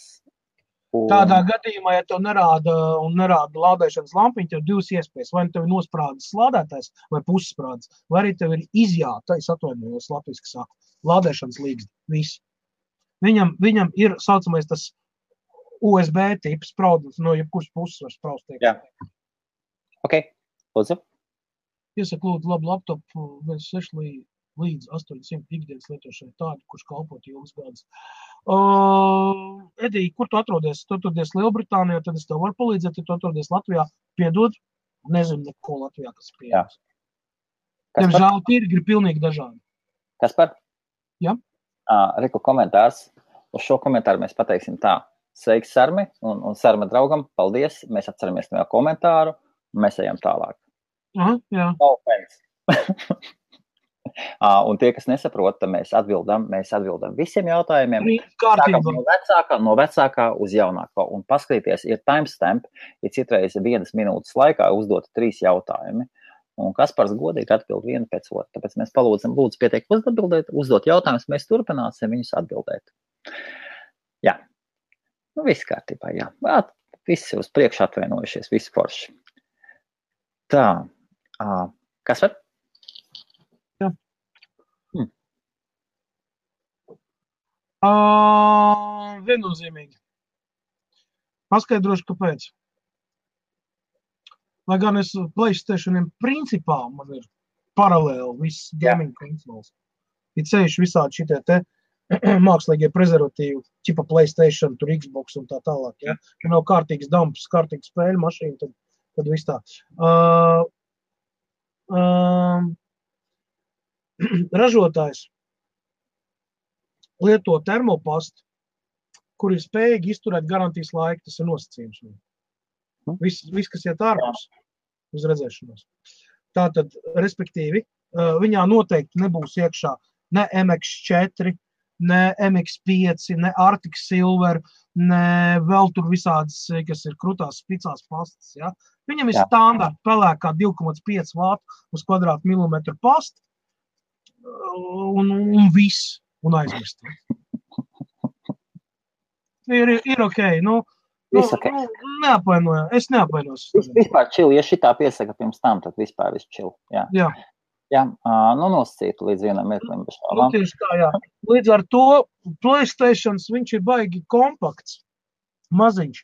Tādā gadījumā, ja tev nerāda lādēšanas lampiņa, tev divas iespējas. Vai tev ir nosprādes lādētājs vai pussprādes, vai arī tev ir izjāta, es atvainojos latviski sāku, lādēšanas līgzdi. Viss. Viņam ir saucamais tas USB tips spraudums, no jebkuras puses var spraust. Jā. Ok, lūdzu. Iesaka lūdzu labu laptopu 6 līdz 800 ikdienas lietošanai tādu, kurš kalpot ilgas gadus. Edī, kur tu atrodies? Tu atrodies Lielbritānijā, tad es tev varu palīdzēt, ja tu atrodies Latvijā, piedod, nezinu neko Latvijā, kas pieejams. Diemžēl tirgi ir pilnīgi dažādi. Kaspar, Ja. Reku komentārs. Uz šo komentāru mēs pateiksim tā. Sveiks, Sarmi, un Sarma draugam, paldies. Mēs atceramies no komentāru, un mēs ejam tālāk. Jā. Un tie, kas nesaprot, tad mēs atbildam visiem jautājumiem. Kārtībā. No vecākā uz jaunāko. Un paskatīties, ir timestamp, ir citreiz 1 minūtes laikā uzdot 3 jautājumi. Un Kaspars godīgi atbild vienu pēc otru. Tāpēc mēs lūdzu pietiek uzdot jautājumus, mēs turpināsim viņus atbildēt. Jā. Nu, viss kārtībā, jā. Visi uz priekšu atvainojušies, visi forši. Tā. Kaspar? Jā. Viennozīmīgi. Paskaidrošu, kāpēc. Lai gan es PlayStationiem principā man ir paralēli viss gaming konsoles. Ir ceļš visādi šitie te mākslīgie prezervatīvi, ķipa PlayStation, tur Xbox un tā tālāk. Ja nav kārtīgs dumps, kārtīgs spēļu mašīna, tad viss tā. Ražotājs lieto termopastu, kur ir spējīgi izturēt garantijas laiku, tas ir nosacījums. Viss, kas iet ārpus uz redzēšanos. Tātad, respektīvi, viņā noteikti nebūs iekšā ne MX4, ne MX5, ne Arctic Silver, ne vēl tur visādas, kas ir krutās spicās pastas. Ja? Viņam ir standarta pelēkā 2,5 vātu uz kvadrātmilimetru pasta un viss, un aizmirst. Ir ok, neapvainojās. Es neapvainojos. Vispār čili, ja šitā piesaka pirms tam, tad vispār viss čili. Jā. Nosacītu līdz vienam mirklim. Tieši tā, jā. Līdz ar to PlayStations, viņš ir baigi kompakts, maziņš.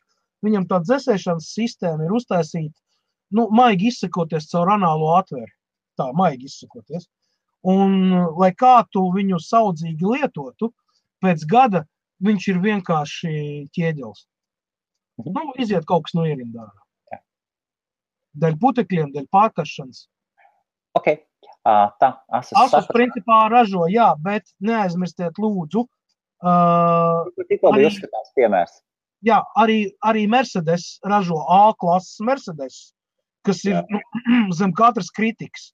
Viņam tā dzesēšanas sistēma ir uztaisīta, maigi izsakoties caur anālo atvēri. Tā, maigi izsakoties. Un, lai kā tu viņu saudzīgi lietotu, pēc gada viņš ir vienkārši ķieģels. Iziet kaut kas no ierindā. Dēļ putekļiem, dēļ pārkaršanas. Ok. Asus principā ražo, jā, bet neaizmirstiet lūdzu. Tikko bija uzskatās piemērs. Jā, arī Mercedes ražo A-klases Mercedes, kas ir zem katras kritikas.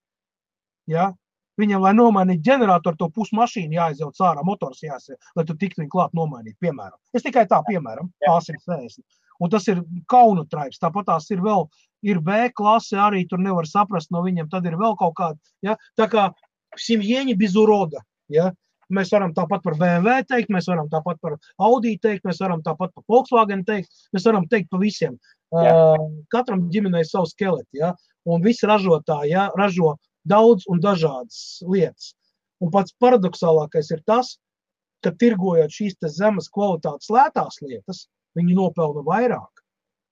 Ja? Viņam, lai nomainītu ģeneratoru, to pusmašīnu jāizjauc ārā, motors jāsaka, lai tu tiktu viņu klāt nomainīt, piemēram. Es tikai tā, piemēram, A160. Un tas ir kaunu traips. Tāpat tās ir vēl, ir B klase, arī tur nevar saprast no viņiem, tad ir vēl kaut kāda, ja? Tā kā simjieņi bez uroda, ja? Mēs varam tāpat par BMW teikt, mēs varam tāpat par Audi teikt, mēs varam tāpat par Volkswagen teikt, mēs varam teikt pa visiem. Katram ģimenei savu skeleti, ja? Un visi ražotāji, ja? Ražo daudz un dažādas lietas. Un pats paradoxālākais ir tas, ka tirgojot šīs te zemes kvalitātes lētās lietas, viņi nopelna vairāk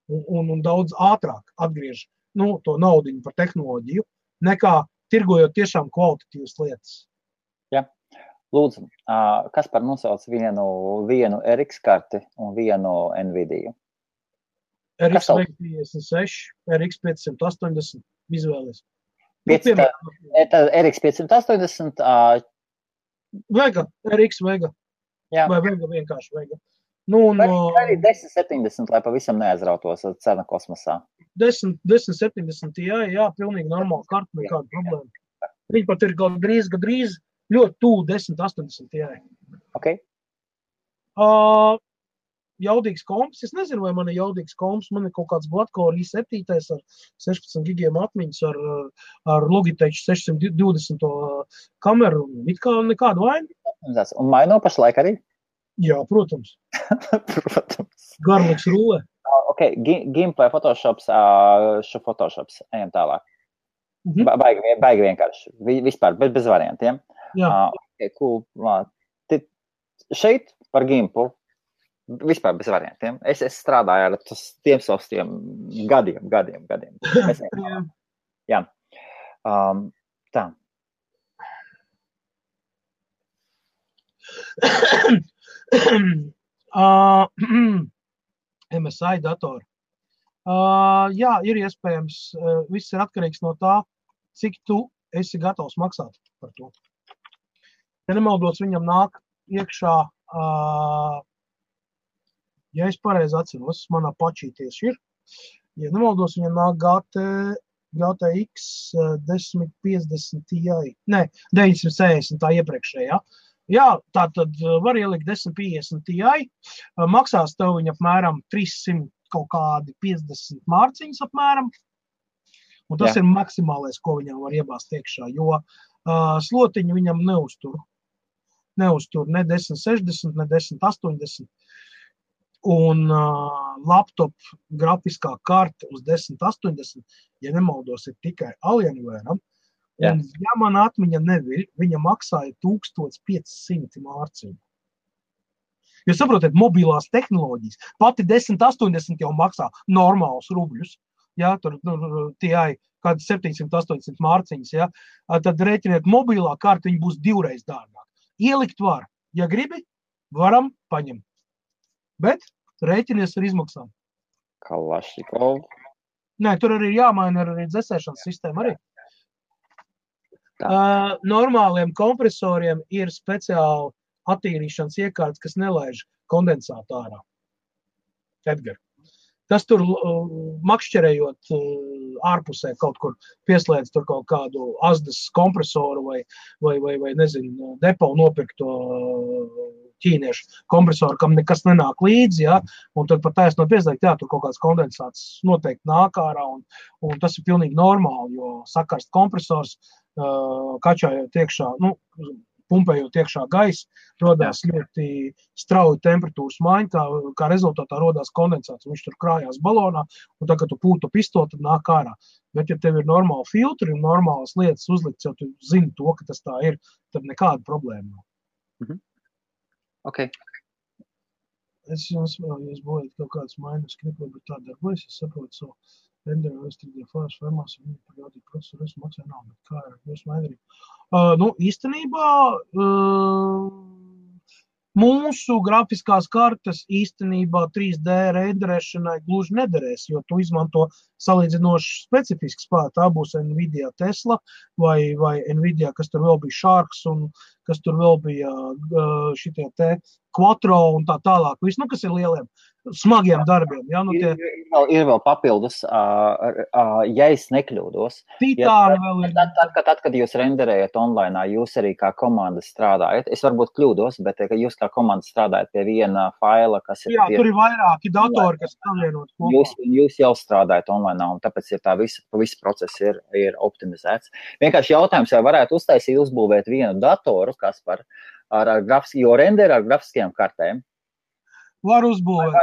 un daudz ātrāk atgriež to naudiņu par tehnoloģiju, nekā tirgojot tiešām kvalitatīvas lietas. Jā. Lūdzu, Kaspar nosauc vienu RX karti un vienu Nvidia? RX 556, RX 580, izvēlies. RX 580? Vega, RX Vega. Jā. Vai Vega vienkārši Vega. Arī 1070, lai pavisam neaizrautos cena kosmosā. 1070, jā, pilnīgi normāla karta, nekāda problēma. Viņi pat ir gandrīz ļoti tuvu 1080, jā. Ok. Jaudīgs komps, es nezinu, vai man ir jaudīgs komps, man ir kaut kāds Gladcore i7 ar 16 gigiem atmiņas, ar Logitech 620 kameru, it kā nekādu vainu. Un maino pašlaik arī? Jā, protams. Protams. Garliks rulē. Ok, Gameplay Photoshops, ejam tālāk. Baigi vienkārši, vispār, bez variantiem. Jā. Okay, cool. Šeit par Gimpu vispār bez variantiem. Es strādāju ar tiem saviem gadiem. Jā. Tā. MSI datori. Jā, ir iespējams, viss ir atkarīgs no tā, cik tu esi gatavs maksāt par to. Ja nemaldos, viņam nāk iekšā, ja es pareizi atceros, manā pačī tieši ir. Ja nemaldos, viņam nāk GTX 1050 Ti. Nē, 960 tā iepriekšējā. Jā, tā tad var ielikt 1050 Ti. Maksās tev viņa apmēram 300 kaut kādi 50 mārciņas apmēram. Un tas ir maksimālais, ko viņam var iebāzt iekšā, jo slotiņu viņam neuztur. Neuztur ne 1060, ne 1080. Un laptop grafiskā karte uz 1080, ja nemaldos, ir tikai Alienware. Un, ja man atmiņa neviļ, viņa maksāja 1500 mārciņu. Jūs saprotat, mobilās tehnoloģijas. Pati 1080 jau maksā normālus rubļus. Ja, tur tie kādi 700-800 mārciņas. Ja. Tad rēķiniet, mobilā karte viņa būs 2 reizes dārgāk. Ielikt var. Ja gribi, varam paņemt. Bet rēķinies ar izmaksām. Kalašnikov. Nē, tur arī jāmaina arī dzesēšanas sistēma arī. Normāliem kompresoriem ir speciāli attīrīšanas iekārtas, kas nelaiž kondensātu ārā. Edgar. Tas tur makšķerējot ārpusē kaut kur pieslēdz tur kaut kādu azdas kompresoru vai nezinu, depo nopirkto ķīniešu kompresoru, kam nekas nenāk līdzi, ja, un tad pat taisno pieslēgt, jā, tur kaut kāds kondensāts noteikti nāk ārā, un tas ir pilnīgi normāli, jo sakarst kompresors, kačājot iekšā, pumpējot iekšā gaisa, rodās ļoti strauji temperatūras maiņa, kā rezultātā rodās kondensāts, viņš tur krājās balonā, un tagad tu pūtu pistoli, tad nāk ārā. Bet, ja tev ir normāli filtri un normālas lietas uzlikts, jau tu zini to, ka tas tā ir, tad nekāda problēma nav. Mhm. Ok. Es jums būtu kaut kāds mainas skripli, bet tā darbojas, es saprotu savu renderu, restriktīvu fāžu formās, un viņi parādīja procesoru, es maksāju nav, bet kā ir jūs maindarību? Īstenībā mūsu grafiskās kartes īstenībā 3D renderēšanai gluži nederēs, jo tu izmanto salīdzinoši specifisku spēku. Tā būs Nvidia Tesla vai Nvidia, kas tur vēl bija Sharks un kas tur vēl bija šitie te Quattro un tā tālāk. Viss, kas ir lieliem, smagiem darbiem. Ja? Ir vēl papildus, ja es nekļūdos. Titāni vēl ir. Tad, kad jūs renderējat online, jūs arī kā komanda strādājat. Es varbūt kļūdos, bet jūs kā komanda strādājat pie viena faila, kas ir... Jā, tur ir vairāki datori, kas savienot kopā. Jūs jau strādājat online, un tāpēc ir tā visa process ir optimizēts. Vienkārši jautājums, vai varētu uzbūvēt vienu datoru, kas par jo renderi ar grafiskajām kartēm. Var uzbūvēt.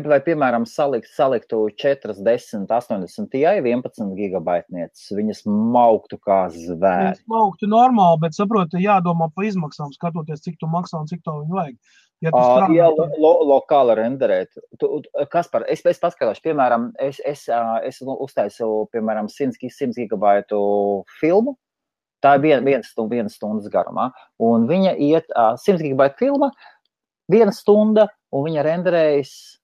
Vai piemēram, saliktu 4, 10, 80 Ti 11 gigabaitnieces, viņas mauktu kā zvēri. Viņas mauktu normāli, bet saproti, jādomā pa izmaksām, skatoties, cik tu maksā un cik to viņu vajag. Ja lokāli renderēt. Kaspar, es paskatāšu, piemēram, es uztaisu, piemēram, 100 gigabaitu filmu. Tā ir viena stundas garumā, un viņa iet 100 gigabaita filma, 1 stunda, un viņa renderējas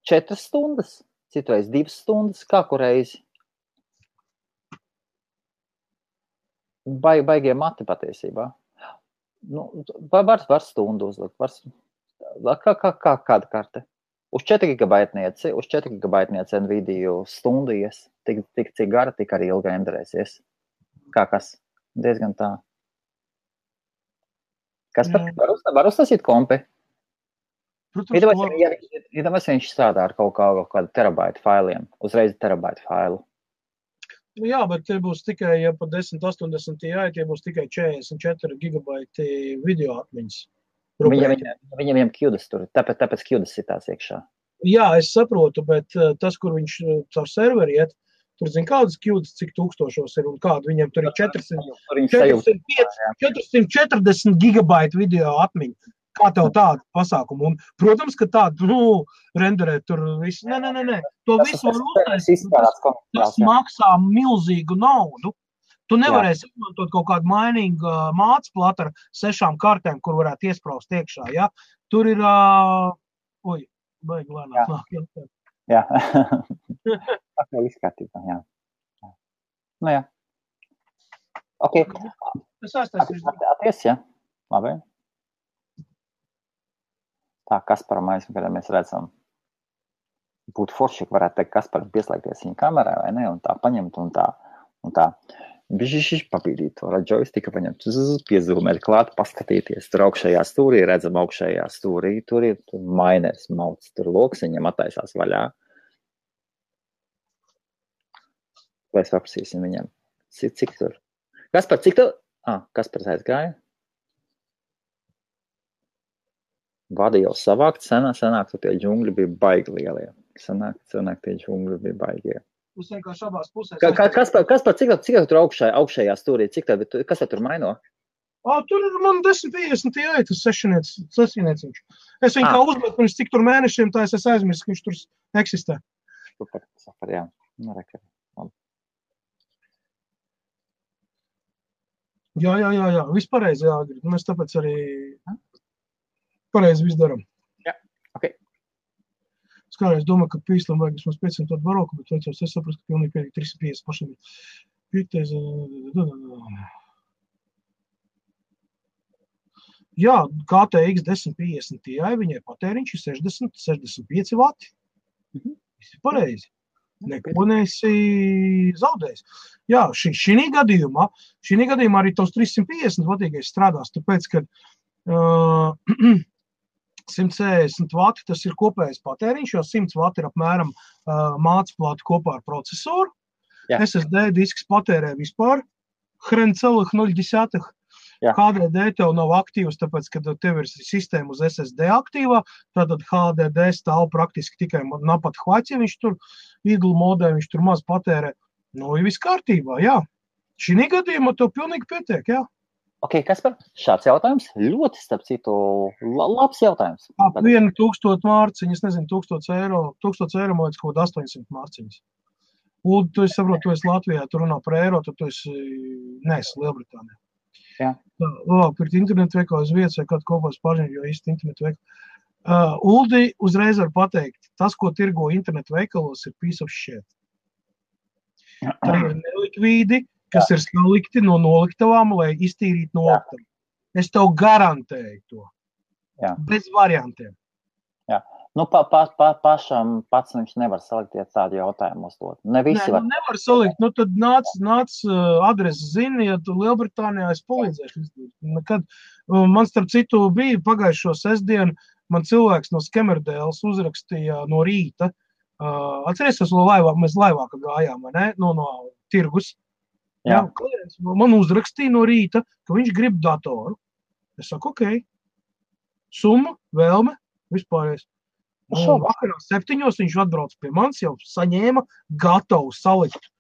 4 stundas, citreiz 2 stundas, kā kureizi. Baigie mati patiesībā. Var stundu uzlikt, kāda karte? Uz 4 gigabaitnieci Nvidia stundu ies, tik cik gara, tik arī ilgi renderēsies. Kā kas? Diezgan tā. Kas var uztasīt kompi? Iedomājies, viņš strādā ar kaut kādu terabaitu failiem, uzreiz terabaitu failu. Jā, bet tie būs tikai, ja pa 1080 Ti, tie būs tikai 44 gigabaiti video atmiņas. Viņam QDAS tur, tāpēc QDAS sitās iekšā. Jā, es saprotu, bet tas, kur viņš caur serveri iet, tur zin kādas QDAS, cik tūkstošos ir un kādu. Viņam tur ir 440 gigabaiti video atmiņa. Kā tev tādu pasākumu? Un, protams, ka tādu, renderēt tur visu. Nē. To visu var uztaisīt. Tas maksā milzīgu naudu. Tu nevarēsi izmantot kaut kādu mainīgu mācu platu ar 6 kartēm, kur varētu iespraust iekšā, ja? Tur ir, baigi lēnāk nāk. Jā. Viss kārtībā, jā. Nu jā. Ok. Es aiztaisīšu. Atties, ja? Labi. Tā, Kasparam aizmugurē mēs redzam. Būtu forši, ka varētu teikt, Kasparam pieslēgties viņa kamerā, vai ne? Un tā paņemt un tā. Bišķiši papīdīt to joystiku, paņemt, piezūmēt klāt, paskatīties. Tur augšējā stūrī, redzam augšējā stūrī, tur ir mainers mauts, tur loksiņam attaisās vaļā. Lai es paprasīsim viņam. Cik tur? Kaspar, cik tu? Kaspars aizgāja. Vadi jau savākt, senāk, tu tie džungļi bija baigi lielie. Senāk tie džungļi bija baigie. Uz vienkārši abās pusēs. Kaspar, cik tur augšējā stūrī? Kas tur maino? Tur ir man 1050 Ti, tas sešinieciņš. Es viņu kā uzmetu, pirms cik tur mēnešiem, tā es aizmirsu, ka viņš tur eksistē. Super, jā. Jā. Viss pareizi, jā. Mēs tāpēc arī pareizi viss daram. Jā, ok. Es kādreiz domāju, ka pīslam vajag vismaz 500 baroku, bet veicos, es saprastu, ka pilnīgi pēdīgi 350 pašiem. Jā, KTX 1050 Ti, viņai patēriņš ir 60-65 vati. Viss ir pareizi. Neko neesi zaudējis. Jā, šī gadījumā arī tos 350 vatīgais strādās, tāpēc, ka 140 vati tas ir kopējais patēriņš, jo 100 vati ir apmēram mācplāti kopā ar procesoru. Jā. SSD disks patērē vispār hrencelых 0,1. HDD tev nav aktīvs, tāpēc, kad tev ir sistēma uz SSD aktīvā, tātad HDD stāv praktiski tikai napat hvaķi, viņš tur idle modē, viņš tur maz patērē. Nu, ir viss kārtībā, jā. Šī gadījumā tev pilnīgi pietiek, jā. Ok, Kaspar, šāds jautājums ļoti, starp citu, labs jautājums. 1000 mārciņas, es nezinu, 1000 eiro, man liekas, kaut 800 mārciņas. Un tu esi saprot, tu esi Latvijā, tu runā par eiro, tad tu esi Lielbritānijā. Jā. Pirkt internetu veikalu uz vietas vai kādu kopās pažņu, jo īsti internetu veikalu. Uldi uzreiz var pateikt, tas, ko tirgo internetu veikalos, ir piece of shit. Tā ir nelikvīdi, kas ir salikti no noliktavām, lai iztīrītu noliktavu. Es tev garantēju to. Jā. Bez variantiem. Jā. Nu, pašam pats viņš nevar salikt, ja tādu jautājumu uzdot. Ne visi var. Nevar salikt. Nu, tad nāc adresi zini, ja tu Lielbritānijā es palīdzēšu. Kad man starp citu bija pagājušo sestdienu, man cilvēks no Skemerdēles uzrakstīja no rīta. Atceries, mēs laivā gājām, vai ne? No tirgus. Jā, man uzrakstīja no rīta, ka viņš grib datoru. Es saku, ok. Summa, vēlme, vispārējais. Vakarā 7 viņš atbrauc pie manis, jau saņēma gatavu salikt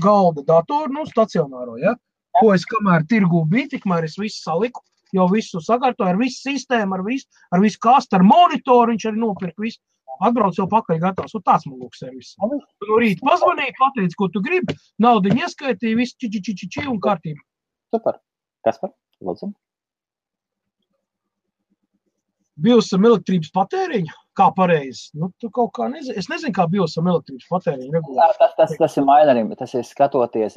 galda datoru, stacionāro, ja? Ko es kamēr tirgū biju, tikmēr es visu saliku, jau visu sakārtoju, ar visu sistēmu, ar visu kastu, ar monitoru, viņš arī nopirka visu. Atbrauc jau pakaļ gatavs, un tāds man lūk servis. Tu no rīta pazvanīji, pateici, ko tu gribi, naudiņu ieskaitīji, visu či un kārtību. Super. Kaspar, lūdzu. Biosam elektrības patēriņu? Kā pareizi? Nu, tu kaut kā nezini. Es nezinu, kā biosam elektrības patēriņu regulēt. Tas ir mainerim, tas ir skatoties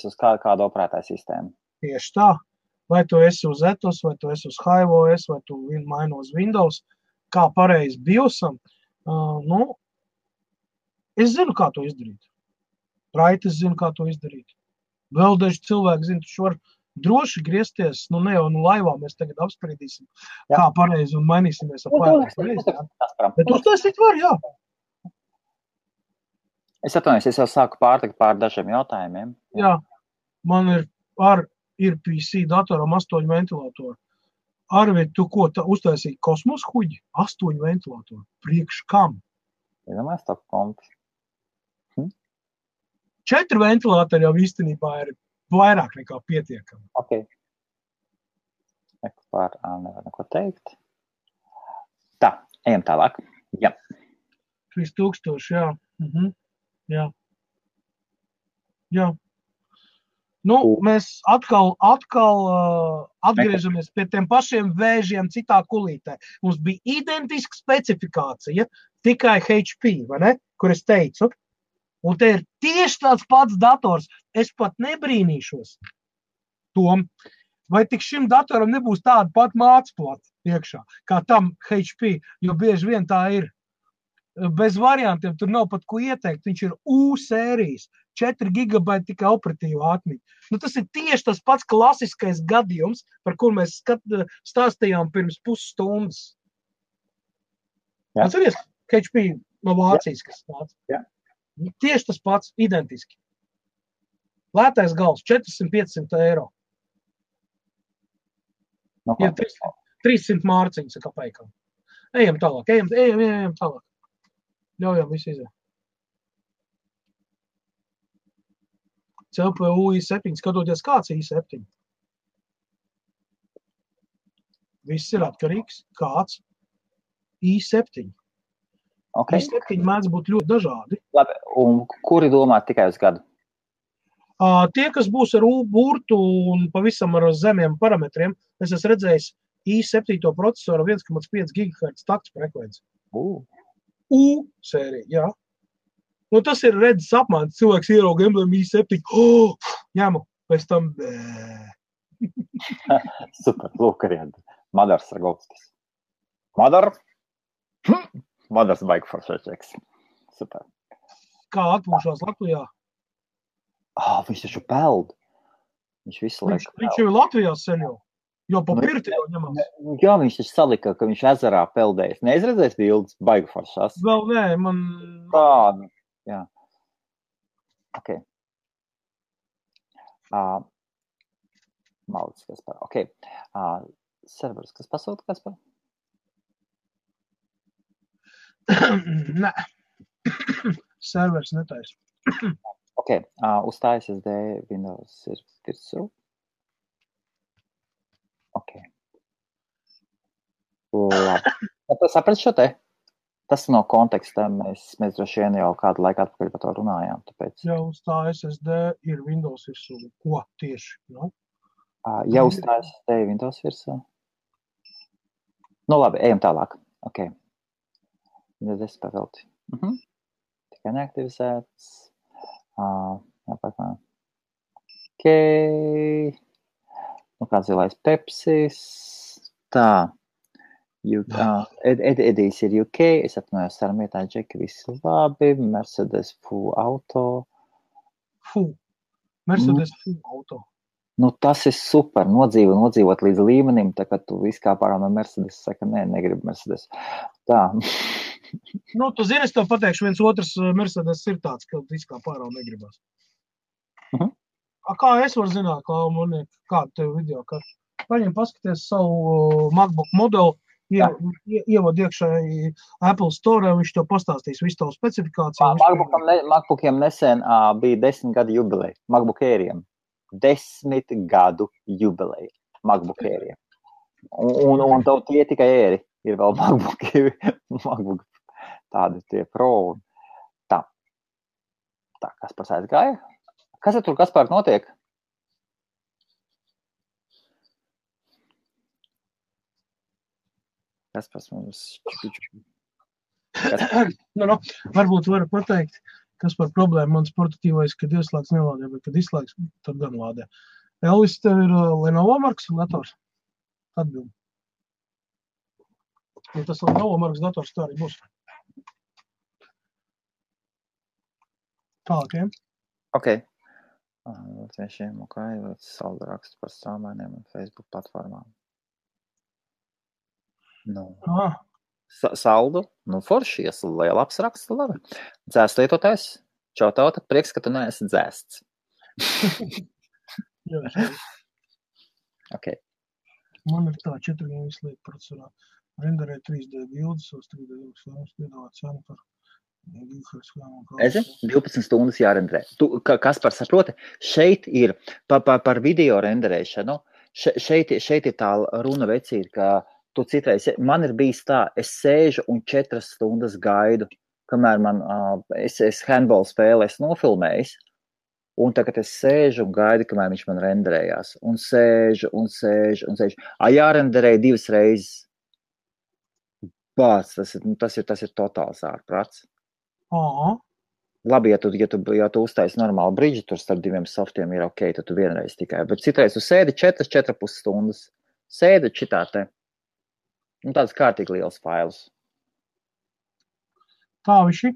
uz kādu operētāju sistēmu. Tieši tā. Vai tu esi uz Ethos, vai tu esi uz HiveOS, vai tu maini uz Windows. Kā pareizi biosam, es zinu, kā to izdarīt. Raitis zinu, kā to izdarīt. Vēl daži cilvēki zinu, tu var droši griezties, ne jau laivā mēs tagad apspriedīsim, kā pareizi un mainīsimies ar pareizi. Bet uztaisīt var, jā. Es atvainojos, es jau sāku pārtikt pār dažiem jautājumiem. Jā, man ir PC datoram 8 ventilatoru. Arvid, tu ko uztaisīji kosmos huģi? 8 ventilatoru. Priekš kam? Iedomājies to kompi. 4 ventilatori jau īstenībā ir vairāk nekā pietiekami. Ok. Nevar neko teikt. Tā, ejam tālāk. Jā. 3000, jā. Jā. Jā. Nu, mēs atkal atgriežamies pie tiem pašiem vēžiem citā kulītē. Mums bija identiska specifikācija, tikai HP, vai ne? Kur es teicu. Un te ir tieši tāds pats dators. Es pat nebrīnīšos. Tom, vai tik šim datoram nebūs tāda pat mācplata iekšā, kā tam HP, jo bieži vien tā ir. Bez variantiem, tur nav pat ko ieteikt, viņš ir U sērijas, 4 gigabaiti tikai operatīva atmiņa. Nu, tas ir tieši tas pats klasiskais gadījums, par kur mēs stāstījām pirms pusstundas. Atceries, HP no Vācijas, kas nāca? Jā. Tieši tas pats, identiski. Lētais gals, 400-500 eiro. No, ir 300 mārciņas ar kapeikām. Ejam tālāk, ejam tālāk. Ļaujam visu iziet. CPU i7, skatoties kāds i7. Viss ir atkarīgs, kāds i7. Okay. I7 mēdz būt ļoti dažādi. Labi, un kuri domā tikai uz gadu? Tie, kas būs ar burtu un pavisam ar zemiem parametriem, es esmu redzējis i7 procesoru 1,5 GHz takts frekvenci. U sērija, jā. Nu, tas ir redzes apmaiņas. Cilvēks ierauga emblēmu i7. Ņemu, pēc tam Super, lūk arī Madars Ragovskis. Madars baigi foršēčeks. Super. Kā atpūšās Latvijā? Viņš taču peld. Viņš visu laiku peld. Viņš jau ir Latvijā sen jau. Jo pa pirti jau ņemās. Jā, viņš taču salika, ka viņš ezerā peldējis. Neizredzējis bildes, baigi foršās. Vēl nē, man... Tāda, jā. Ok. Malicis, kas par. Ok. Servers, kas pasūta, kas par? Nē. Servers netais. Ok, uzstājas SD Windows ir virsū. Ok. Labi. Saprat šo te? Tas no konteksta. Mēs droši vien jau kādu laiku atpakaļ par to runājām. Tāpēc... Ja uzstājas SD ir Windows virsū. Ko tieši? No? Ja uzstājas SD ir Windows virsū. Nu labi, ejam tālāk. Ok. Windows 10 pavelti. Tikai neaktivizēts. Ok. Nu, kāds zilais Pepsis. Tā. Edijs ir UK. Es apnojos sarmietā džeki, visi labi. Mercedes full auto. Mercedes full auto. Nu, tas ir super. Nodzīvot līdz līmenim, tā kā tu viskā pārā no Mercedes saka, negribu Mercedes. Tā. Nu, tu zini, es tev pateikšu, viens otrs Mercedes ir tāds, ka viskā pārā negribas. Kā es varu zināt, kādu tev video, ka paņem paskaties savu MacBook modeli, ievod iekšā Apple Store, viņš tev pastāstīs visu tavu specifikāciju. MacBookiem nesen bija 10 gadu jubileja. MacBook Airiem. 10 gadu jubileja MacBook Airiem. Un tev tie tikai Airi. Ir vēl MacBook tādi tie Pro. Tā, Kaspars aizgāja. Kas tur, Kaspar, notiek? Kaspars mums... Varbūt varu pateikt, kas par problēmu mans portatīvais, kad ieslēgs nelādē, bet kad izslēgs, tad gan lādē. Elvis, tev ir Lenovo markas dators? Atbildi. Ja tas Lenovo markas dators, tā arī būs. Tālāk, Ok. Latviešiem, ok, saldu rakstu par strāmainiem un Facebook platformām. Nu. Saldu, forši, labs raksts, labi. Dzēst lietotājs, čau tauta, prieks, ka tu neesi dzēsts. Ok. Man ir tā 4 vislīd procesorā. Renderē 3D bildes, 3D filmas, piedāvāt cenu par Ezi, 12 stundas jārenderē. Kaspar saproti, šeit ir par video renderēšanu, šeit ir tā runa vecīt, ka tu citreiz, man ir bijis tā, es sēžu un 4 stundas gaidu, kamēr es handball spēli esmu nofilmējis, un tagad es sēžu un gaidu, kamēr viņš man renderējās, un sēžu. Jārenderē 2 reizes. Bāc, tas ir totāls ārprāts. Labi, ja tu uztaisi normālu bridži, tur starp diviem softiem ir ok, tad tu vienreiz tikai. Bet citreiz tu sēdi 4,5 stundas. Sēdi šitā te. Tāds kārtīgi liels fails. Tā viši.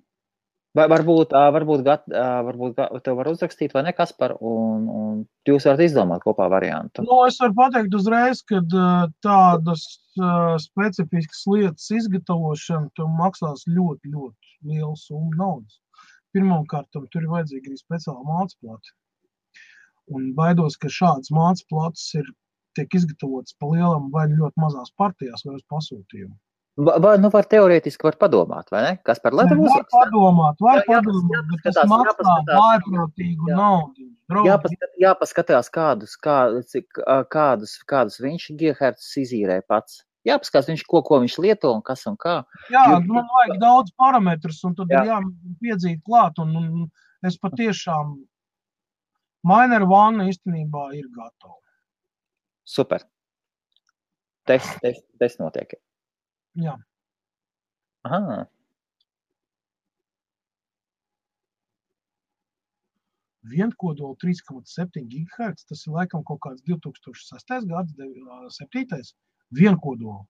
Vai varbūt tev var uzrakstīt, vai ne, Kaspar, un jūs varat izdomāt kopā variantu. Es varu pateikt uzreiz, ka tādas specifiskas lietas izgatavošana tev maksās ļoti, ļoti lielu summu naudas. Pirmkārt, tur ir vajadzīga arī speciāla mācplata. Un baidos, ka šādas mācplatas tiek izgatavotas pa lielam vai ļoti mazās partijās vai uz pasūtījumu. Var teorētiski padomāt, vai ne? Kas par Latviju uzrakstā? Var padomāt, bet tas maksā vājprātīgu naudu. Jāpaskatās, kādus viņš gigahertz izīrē pats. Jāpaskatās, ko viņš lieto un kas un kā. Jā, man vajag daudz parametrus, un tad ir jāpiedzīt klāt, un es patiešām Miner One īstenībā ir gatava. Super. Test notiek. Jā. Aha. Vienkodola 3,7 GHz, tas ir laikam kaut kāds 2006. gads, 7. Vienkodola.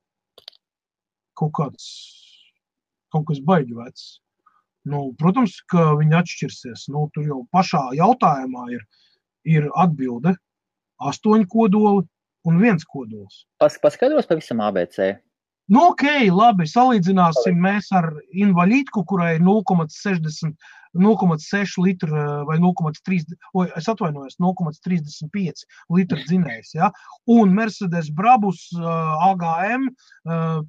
Kaut kas baigi vecs. Protams, ka viņi atšķirsies. Tur jau pašā jautājumā ir atbilde 8 kodoli un 1 kodols. Paskaidros pavisam ABC. Ok, labi, salīdzināsim mēs ar invalīdku, kurai 0,6 litru vai 0,35 litru dzinējs, ja? Un Mercedes Brabus AGM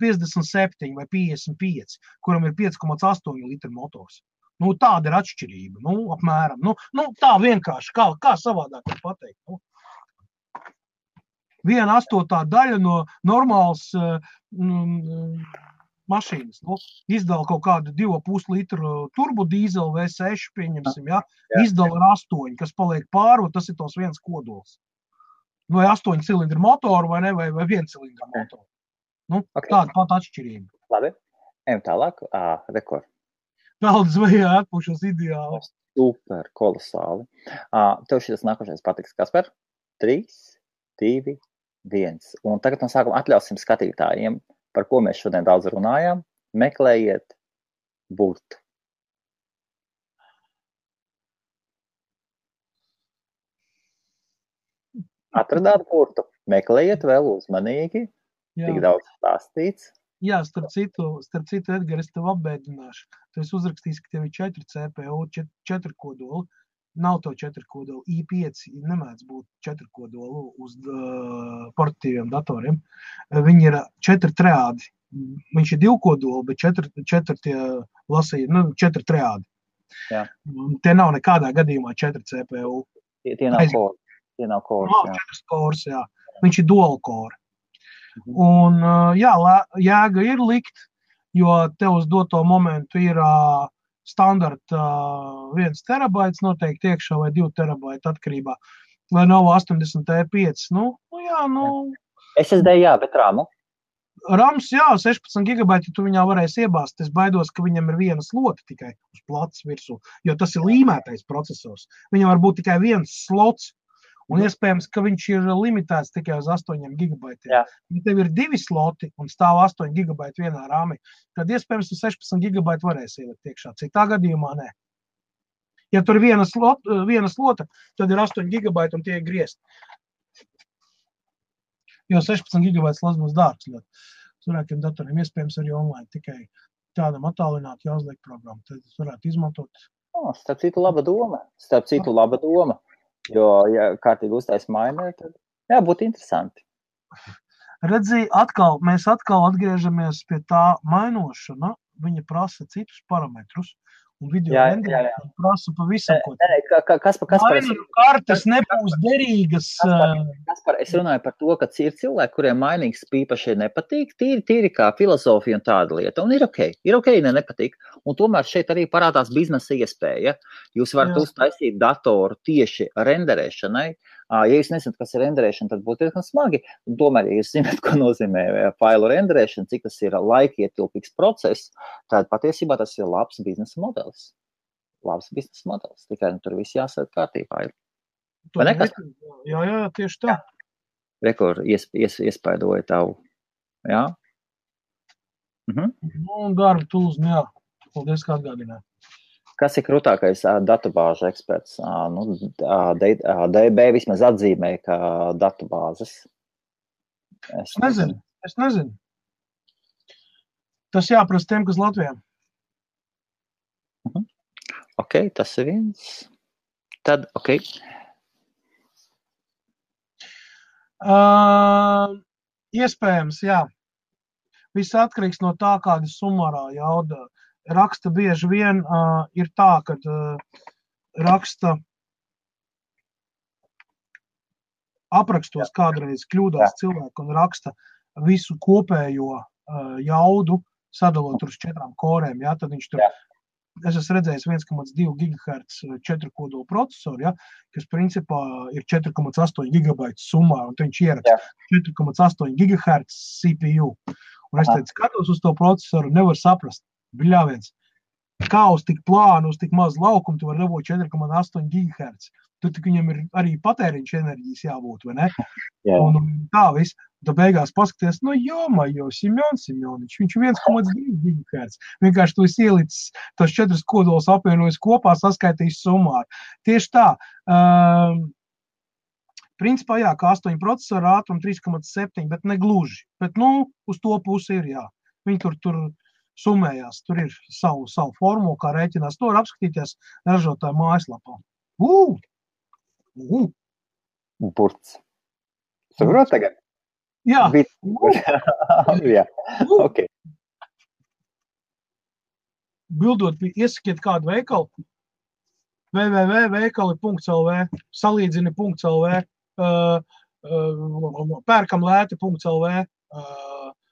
57 vai 55, kuram ir 5,8 litru motors. Tāda ir atšķirība, apmēram. Tā vienkārši, kā savādāk var pateikt. 1/8 daļa no normālas mašīnas. Izdala kaut kādu 2,5 litru turbodīzeli V6, pieņemsim, ja? Izdala ar 8, kas paliek pāri, tas ir tos 1 kodols. Vai 8 cilindru motoru, vai ne, vai 1 cilindru motoru. Tāda pat atšķirība. Labi, ejam tālāk. Rekord. Peldas vajā atpušos ideāli. Super, kolosāli. Tev šis nākošais patiks, Kasper? 3, 2, 1. Un tagad no sākuma atļausim skatītājiem, par ko mēs šodien daudz runājām. Meklējiet burtu. Atradāt burtu. Meklējiet vēl uzmanīgi. Tik daudz stāstīts. Jā, starp citu, Edgar, es tev apbēdināšu. Tu esi uzrakstījis, ka tev ir 4 CPU, 4 kodoli. Nav to 4 kodolu. i5 nemēdz būt 4 kodolu uz portatīviem datoriem. Viņi ir 4 triādi. Viņš ir 2 kodoli, bet 4 tie lasīja, 4 triādi. Jā. Tie nav nekādā gadījumā 4 CPU. Tie nav kori. Tie nav kori. Nav 4 kors, jā. Viņš ir dual core. Un, jā, jēga ir likt, jo tev uz doto momentu ir standarta 1 terabaits noteikti iekšā vai 2 terabaiti atkarībā. Vai nav 80 E5. SSD jā, bet RAMu? RAMs, jā, 16 gigabaiti tu viņā varēsi iebāzt. Es baidos, ka viņam ir viena slota tikai uz plats virsū, jo tas ir līmētais procesors. Viņam var būt tikai viens slots. Un iespējams, ka viņš ir limitēts tikai uz 8 gigabaitiem. Ja tev ir 2 sloti un stāv 8 gigabaiti vienā rāmī, tad iespējams 16 gigabaiti varēs ielikt iekšā. Citā gadījumā nē. Ja tur ir viena slota, tad ir 8 gigabaiti un tie ir griezt. Jo 16 gigabaiti slots būs dārgs. Cilvēkiem datoriem iespējams arī online tikai tādam attālināt jāuzliek programmu. Tad varētu izmantot. Starp citu laba doma. Jo, ja kārtīgi uztais mainē, tad būtu interesanti. Redzi, mēs atkal atgriežamies pie tā mainošana. Viņa prasa citus parametrus. Un video renderēšana prasa pavisam ko. Mainīju kartes nebūs derīgas. Kaspar, es runāju par to, ka ir cilvēki, kuriem mainīgs īpaši nepatīk, tīri kā filozofija un tāda lieta. Un ir ok, nepatīk. Un tomēr šeit arī parādās biznesa iespēja. Jūs varat uztaisīt datoru tieši renderēšanai. Ja jūs nezināt, kas ir renderēšana, tad būtu diezgan smagi. Un tomēr, ja jūs zināt, ko nozīmē failu renderēšana, cik tas ir laikietilpīgs process, tad patiesībā tas ir labs biznesa modelis. labs biznesa modelis. Tikai tur viss jāsēt kārtībā. Vai nekas? Jā, tieši tā. Rekur iespaidoja tavu. Jā? Un darba tools, jā. Paldies, kā atgādināja. Kas ir krūtākais datubāžu eksperts? DB vismaz atzīmē, ka datubāzes. Es nezinu. Tas jāprasa tiem, kas Latvijā. Ok, tas ir viens. Tad, ok. Iespējams, jā. Viss atkarīgs no tā, kāda sumārā jauda. Raksta bieži vien ir tā, kad raksta aprakstos kādreiz kļūdās cilvēku un raksta visu kopējo jaudu, sadalot uz 4 korēm. Ja? Tad viņš tur, es esmu redzējis 1,2 GHz 4 kodolu procesoru, ja? Kas principā ir 4,8 GB summā, un viņš ieraksta 4,8 GHz CPU. Un es teicu, skatos uz to procesoru, nevar saprast. Bļāviens, kā uz tik plānu, uz tik maz laukumu, tu var dabūt 4,8 GHz. Tur tik viņam ir arī patēriņš enerģijas jābūt, vai ne? Jā. Un tā viss. Tu beigās paskaties, Simjonič, viņš 1,2 GHz. Vienkārši tu esi ielicis tos 4 kodolus apvienojis kopā, saskaitījis summāri. Tieši tā. Principā, jā, kā 8 procesoru ātrumu 3,7, bet ne gluži. Bet, uz to pusi ir, jā. Viņi tur summējās, tur ir savu formulu, kā rēķinās. To var apskatīties ražotāju mājaslapā. Burts. Saprot tagad? Jā. Jā. Ok. Bildot, iesakiet kādu veikalu. www.veikali.lv, salīdzini.lv, pērkamlēti.lv,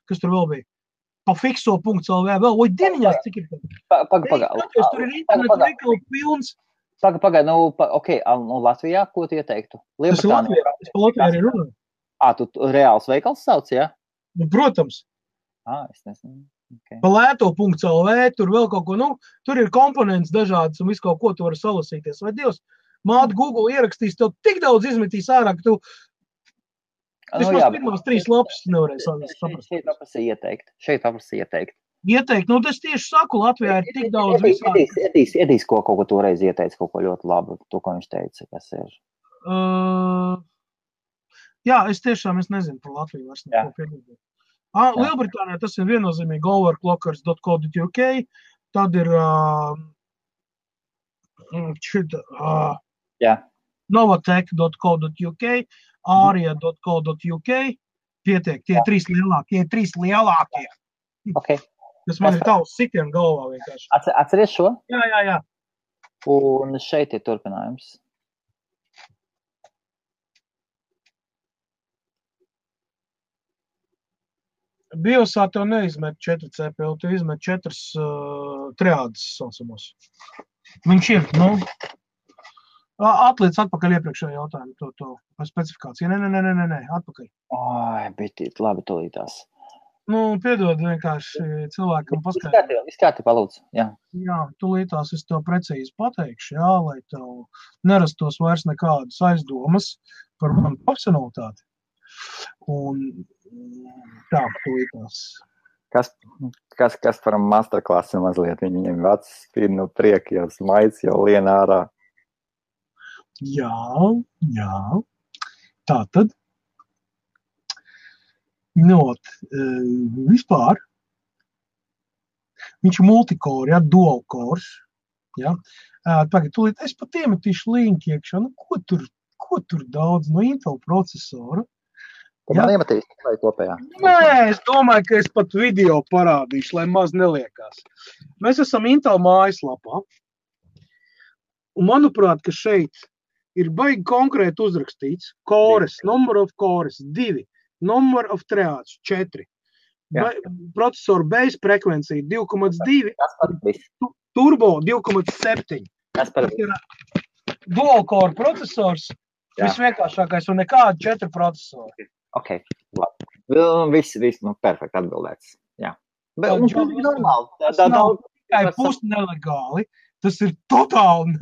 kas tur vēl bija? Pafikso.lv, vēl, dieniņās, cik ir? Tur ir internetu veikalu pilns. Pagaid, ok, Latvijā, ko tu ieteiktu? Tas ir Latvijā, es pa Latvijā arī runāju. Tu reāls veikals sauc, jā? Protams. Es nezinu. Okay. Pa lēto.lv, tur vēl kaut ko, tur ir komponents dažādas un visu kaut ko tu vari salasīties. Vai Dievs, māte Google ierakstīs, tev tik daudz izmetīs ārā, ka tu vismaz pirmās 3 lapas nevarēs saprast. Šeit paprasī ieteikt. Ieteikt, es tieši saku, Latvijā ir tik daudz visādi. Iedīs, ko kaut ko toreiz ieteica, kaut ko ļoti labu, to, ko viņš teica, kas ir. Jā, es nezinu par Latviju vairs neko piedodot. Lielbritānijā tas ir viennozīmīgi overclockers.co.uk, tad ir novatech.co.uk, aria.co.uk, pietiek, tie 3 lielākie. Okay. Tas man ir tavs sitien galvā vienkārši. Atceries šo? Jā. Un šeit ir turpinājums. Biosā tev neizmet 4 CPU, tu izmet 4 triādes saucamos. Viņš ir, atliec atpakaļ iepriekšējo jautājumu, to specifikāciju. Nē, atpakaļ. Bet labi tolītās. Piedod vienkārši cilvēkam paskaidrot. Viss kārtībā, lūdzu, jā. Jā, tolītās es tev precīzi pateikšu, jā, lai tev nerastos vairs nekādas aizdomas par manu profesionalitāti. Un tā, tolītās. Kas par masterklasu mazliet? Viņiem vecs spīd no prieka, jau smaids, jau lien ārā. Jā. Tātad. Vispār. Viņš ir multicore, ja, dual cores. Ja. Tagad, tūlīt es pat iemetīšu linku iekšā. Ko tur daudz no Intel procesoru? Man iemetīs vai kopējā? Nē, es domāju, ka es pat video parādīšu, lai maz neliekās. Mēs esam Intel mājaslapā. Un manuprāt, ka šeit ir baigi konkrēti uzrakstīts cores, number of cores 2, number of triāds 4, procesoru base frekvencija 2,2, turbo 2,7. Tas ir dual core procesors, visvienkāršākais un nekādi 4 procesori. Ok, labi. Viss, perfekti atbildēts. Jā. Bet, un tas ir normāli. Tas nav tikai pusnelegāli. Tas ir totāli.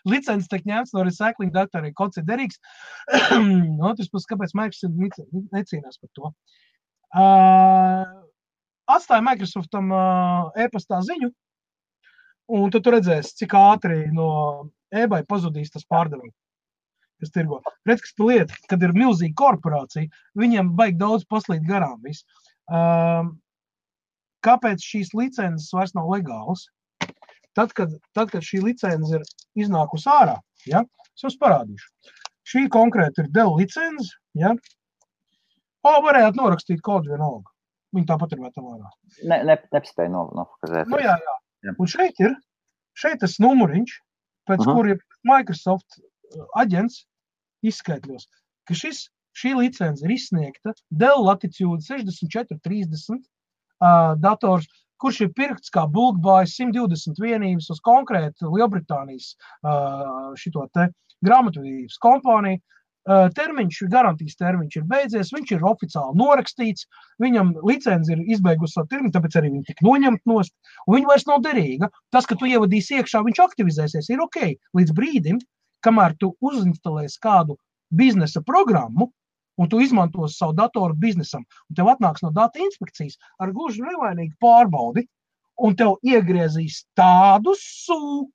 Licences tiek ņemts no recycling datoriem, kods ir derīgs. Otrs puses, kāpēc Microsoft necīnās par to. Atstāja Microsoftam e-pastā ziņu, un tad tu redzēsi, cik ātri no eBay pazudīs tas pārdevums, kas tirgo. Redz, kas pa lieta, kad ir milzīga korporācija, viņiem baigi daudz paslīd garām viss. Kāpēc šīs licences vairs nav legālas? Tad, kad šī licence ir iznākusi ārā, ja, es jums parādīšu. Šī konkrēti ir Dell licence, ja. Varējāt norakstīt kodu vienalga. Viņi tāpat ir metam ārā. Nepaspēja nofokazēt. Nu jā. Un šeit tas numuriņš, pēc kuriem Microsoft aģents izskaitļos, ka šī licence ir izsniegta Dell Latitude 6430 dators, kurš ir pirkts kā bulk buy 120 vienības uz konkrētu Lielbritānijas šito te grāmatvedības kompāniju. Garantijas termiņš ir beidzies, viņš ir oficiāli norakstīts, viņam licence ir izbeigusi savu termiņu, tāpēc arī viņi tik noņemt nost, un viņa vairs nav derīga. Tas, ka tu ievadīsi iekšā, viņš aktivizēsies, ir ok, līdz brīdim, kamēr tu uzinstalēsi kādu biznesa programmu, un tu izmantos savu datoru biznesam, un tev atnāks no data inspekcijas ar gluži nevainīgu pārbaudi, un tev iegriezīs tādu sū,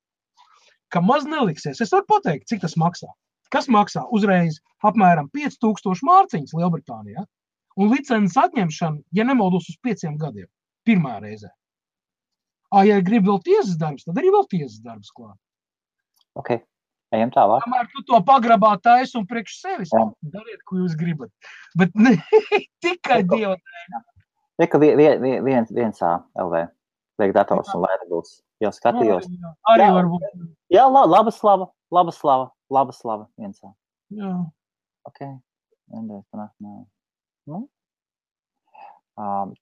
ka maz neliksies. Es varu pateikt, cik tas maksā. Kas maksā uzreiz apmēram 5000 mārciņas Lielbritānijā, un licences atņemšana, ja nemaldos, uz 5 gadiem, pirmā reizē. Ja grib vēl tiesas darbs, tad arī vēl tiesas darbs klāt. Ok, ejam tālāk. Kamēr tu to pagrabā taisi un priekš sevis, dariet, ko jūs gribat. Bet ne tikai Dieva dēļ. Tikai viens LV, liek dators un wearables. Jau skatījos. Arī varbūt. Jā, laba slava. Viensā. Jā. Ok.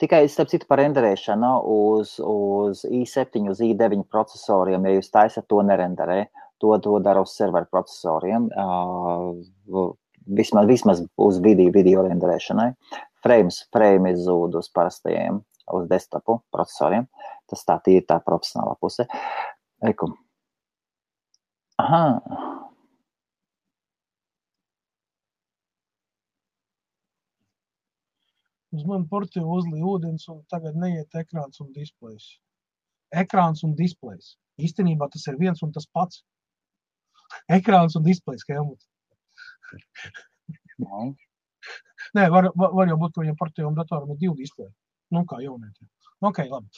Tikai, starp citu, par renderēšanu uz i7, uz i9 procesoriem, ja jūs taisat to nerenderē, to dara uz serveru procesoriem, vismaz uz video renderēšanai. Frame izzūd uz parastajiem, uz desktopu procesoriem. Tas tā ir tā profesionālā puse. Eiku. Aha. Uz mani portīvu uzlīja ūdens un tagad neiet ekrāns un displejs. Ekrāns un displejs. Īstenībā tas ir viens un tas pats. Ekrāns un displejs, Helmut. Nē, var jau būt, ka viņam portīvam datoram ir 2 displeji. Nu, kā jaunietiem. Ok, labi.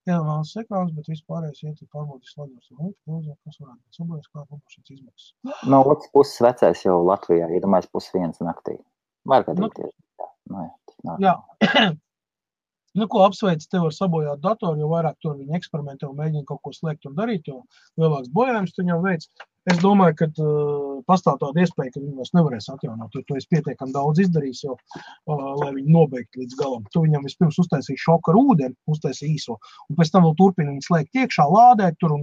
Iedomās ekrāns, bet vispārējais iet pārbaudīs slagos. Kas varētu būt sabojas, kā publišas izmaksas. No otras puses vecais jau Latvijā, iedomājas 1:30 naktī. Var gadīties. Jā. Nu, ko apsveic tev ar sabojāt datoru, jo vairāk tur viņi eksperimentē un mēģina kaut ko slēgt un darīt, jo lielāks bojājums tu viņam veic. Es domāju, ka pastāv tāda iespēja, ka viņi vairs nevarēs atjaunot, jo tu esi pietiekami daudz izdarījis, jo, lai viņi nobeigtu līdz galam. Tu viņam vispirms uztaisīji šoku ar ūdeni, uztaisīji īso, un pēc tam vēl turpini viņu slēgt iekšā, lādēt tur un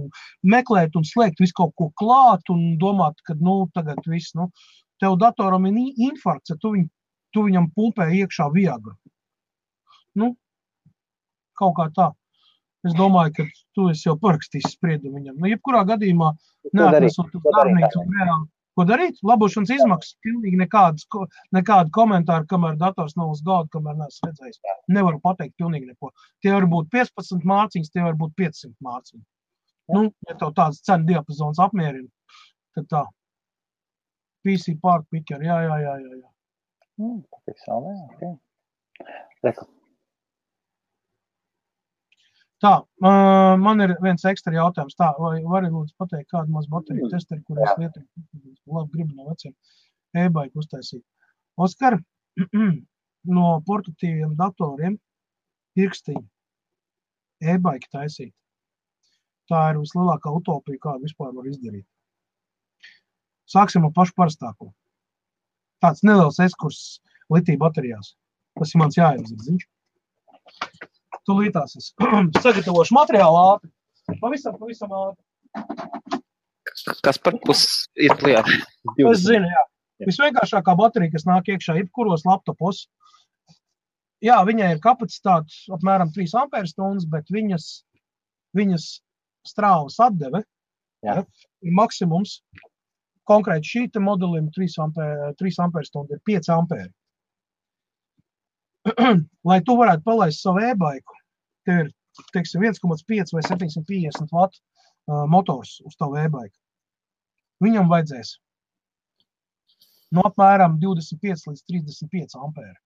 meklēt un slēgt visu kaut ko klāt un domāt, ka, tagad viss, tev datoram ir infarkts, ja tu viņam pumpē iekšā Viagra. Kaut kā tā. Es domāju, ka tu esi jau parakstījis spriedumu viņam. Jebkurā gadījumā neatnesot darbnīcu un reāli. Ko darīt? Labošanas izmaksas. Pilnīgi nekādu komentāru, kamēr dators nav uz galda, kamēr neesmu redzējis. Nevaru pateikt pilnīgi neko. Tie var būt 15 mārciņas, tie var būt 500 mārciņas. Ja tev tāds cenu diapazons apmierina, tad tā. PC part picker, jā. Reku. Tā, man ir viens ekstra jautājums. Tā, vai vari lūdzu pateikt kādu maz bateriju testeri, kur es lietoju? Labi, gribu no veciem e-bike uztaisīt. Oskar, no portatīviem datoriem pirkstiņu e-bike taisīt. Tā ir vislielākā utopija, kādu vispār var izdarīt. Sāksim ar pašu parastāko. Tāds neliels ekskurss litija baterijās. Tas ir mans jāiedzirdziņš. Tu lītās es sagatavošu materiālu ātri. Pavisam ātri. Kas par pusi ir lieta? Es zinu, jā. Visvienkāršākā baterija, kas nāk iekšā jebkuros laptopos. Jā, viņai ir kapacitāte apmēram 3 amperstundas, bet viņas strāvas atdeve, Jā. ir maksimums. Konkrēti šīta modelim 3 amperstundu ir 5 ampēri. Lai tu varētu palaist savu e-baiku, tev ir, teiksim, 1,5 vai 750 watt motors uz tavu e-baiku. Viņam vajadzēs no apmēram 25 līdz 35 ampēri.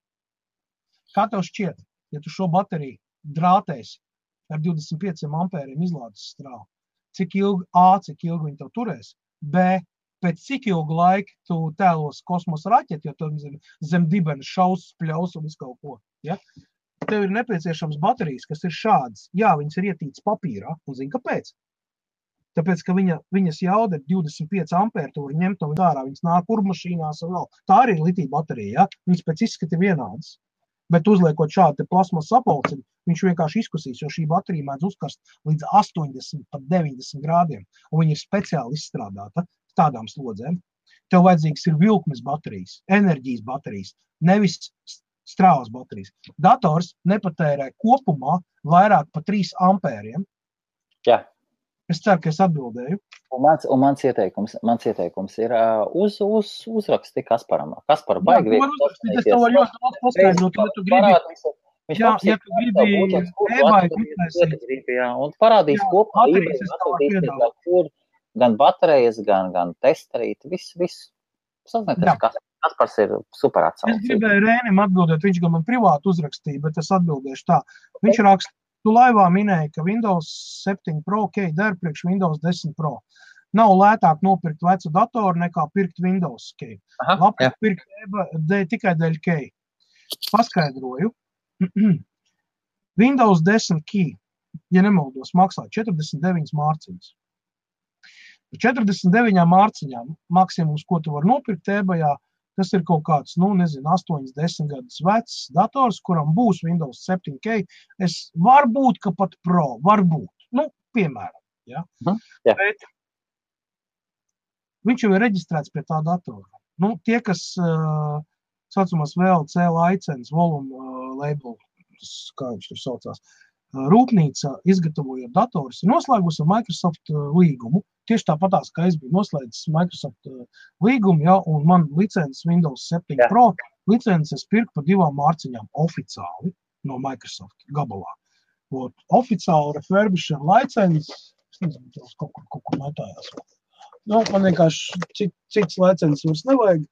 Kā tev šķiet, ja tu šo bateriju drātēsi ar 25 ampēriem izlādes strāvu, cik ilgi viņi tev turēs, B, pēc cik ilgu laiku tu tēlos kosmosa raķeti, jo tu zem dibena šaus, spļaus un visu kaut ko. Ja? Tev ir nepieciešams baterijas, kas ir šādas. Jā, viņas ir ietītas papīrā, un zini, kāpēc? Tāpēc, ka viņas jauda ir 25 ampēri, tu vari ņemt no ārā, viņas nāk urmašīnās un vēl. Tā arī ir litija baterija, ja? Viņas pēc izskata vienādas. Bet uzliekot šādu plasmas sapulci, viņš vienkārši izkusīs, jo šī baterija mēdz uzkarst līdz 80, pat 90 grādiem, un viņa ir speciāli izstrādāta tādām slodzēm. Tev vajadzīgs ir vilkmes baterijas, enerģijas baterijas, nevis strāvas baterijas. Dators nepatērē kopumā vairāk par 3 ampēriem. Jā. Es ceru, ka es atbildēju. Un mans ieteikums ir uzraksti Kasparam. Kaspara baigi es tev varu ļoti daudz paskaidrot, ja tu gribi. Ja tu gribi e-baiku uztaisīt. Un parādīs kopā, kur gan baterijas, gan testerīt, viss. Sazināties, Kaspars ir super atsaucis. Es gribēju Rēnim atbildēt, viņš gan man privāti uzrakstīja, bet es atbildēšu tā. Viņš raksta, tu laivā minēji, ka Windows 7 Pro key der priekš Windows 10 Pro. Nav lētāk nopirkt vecu datoru nekā pirkt Windows key. Labāk pirkt tikai dēļ key. Paskaidroju. Windows 10 key, ja nemaldos, maksā 49 mārciņas. 49 mārciņām maksimums, ko tu var nopirkt e-bajā, tas ir kaut kāds, 8-10 gadus vecs dators, kuram būs Windows 7K. Varbūt, ka pat Pro, varbūt. Piemēram. Ja? Bet viņš jau ir reģistrēts pie tā datora. Tie, kas saucamās VLC licences, volume label, kā viņš tur saucās, rūpnīca izgatavojot datorus, ir noslēgusi ar Microsoft līgumu. Tieši tāpatās, kā es biju noslēdzis Microsoft līgumu, ja, un man licences Windows 7 Pro licences pirku par 2 mārciņām oficiāli no Microsoft gabalā. Oficiāli refurbished licences, es nezinu, kaut kur metājās. Man vienkārši cits licences vairs nevajag,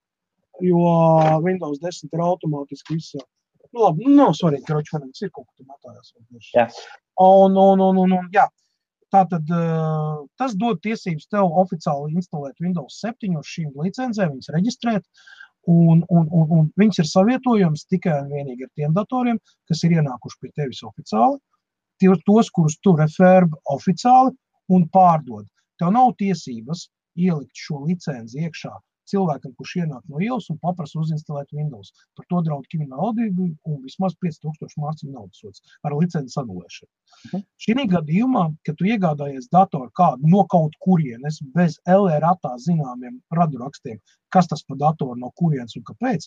jo Windows 10 ir automātiski viss. Labi, nav svarīgi, ka ročvanīgs ir kaut kur metājās. Jā. Tātad tas dod tiesības tev oficiāli instalēt Windows 7 uz šīm licencēm, viņas reģistrēt, un viņas ir savietojams tikai un vienīgi ar tiem datoriem, kas ir ienākuši pie tevis oficiāli, tos, kurus tu refurb oficiāli un pārdod. Tev nav tiesības ielikt šo licenci iekšā cilvēkam, kurš ienāk no ielas un paprasa uzinstalēt Windows. Par to draud krimināla atbildība un vismaz 5000 mārciņu naudas sods ar licences anulēšanu. Šī gadījumā, kad tu iegādājies datoru kādu no kaut kurienes bez LRAtā zināmiem radurakstiem, kas tas pa datoru no kurienes un kāpēc,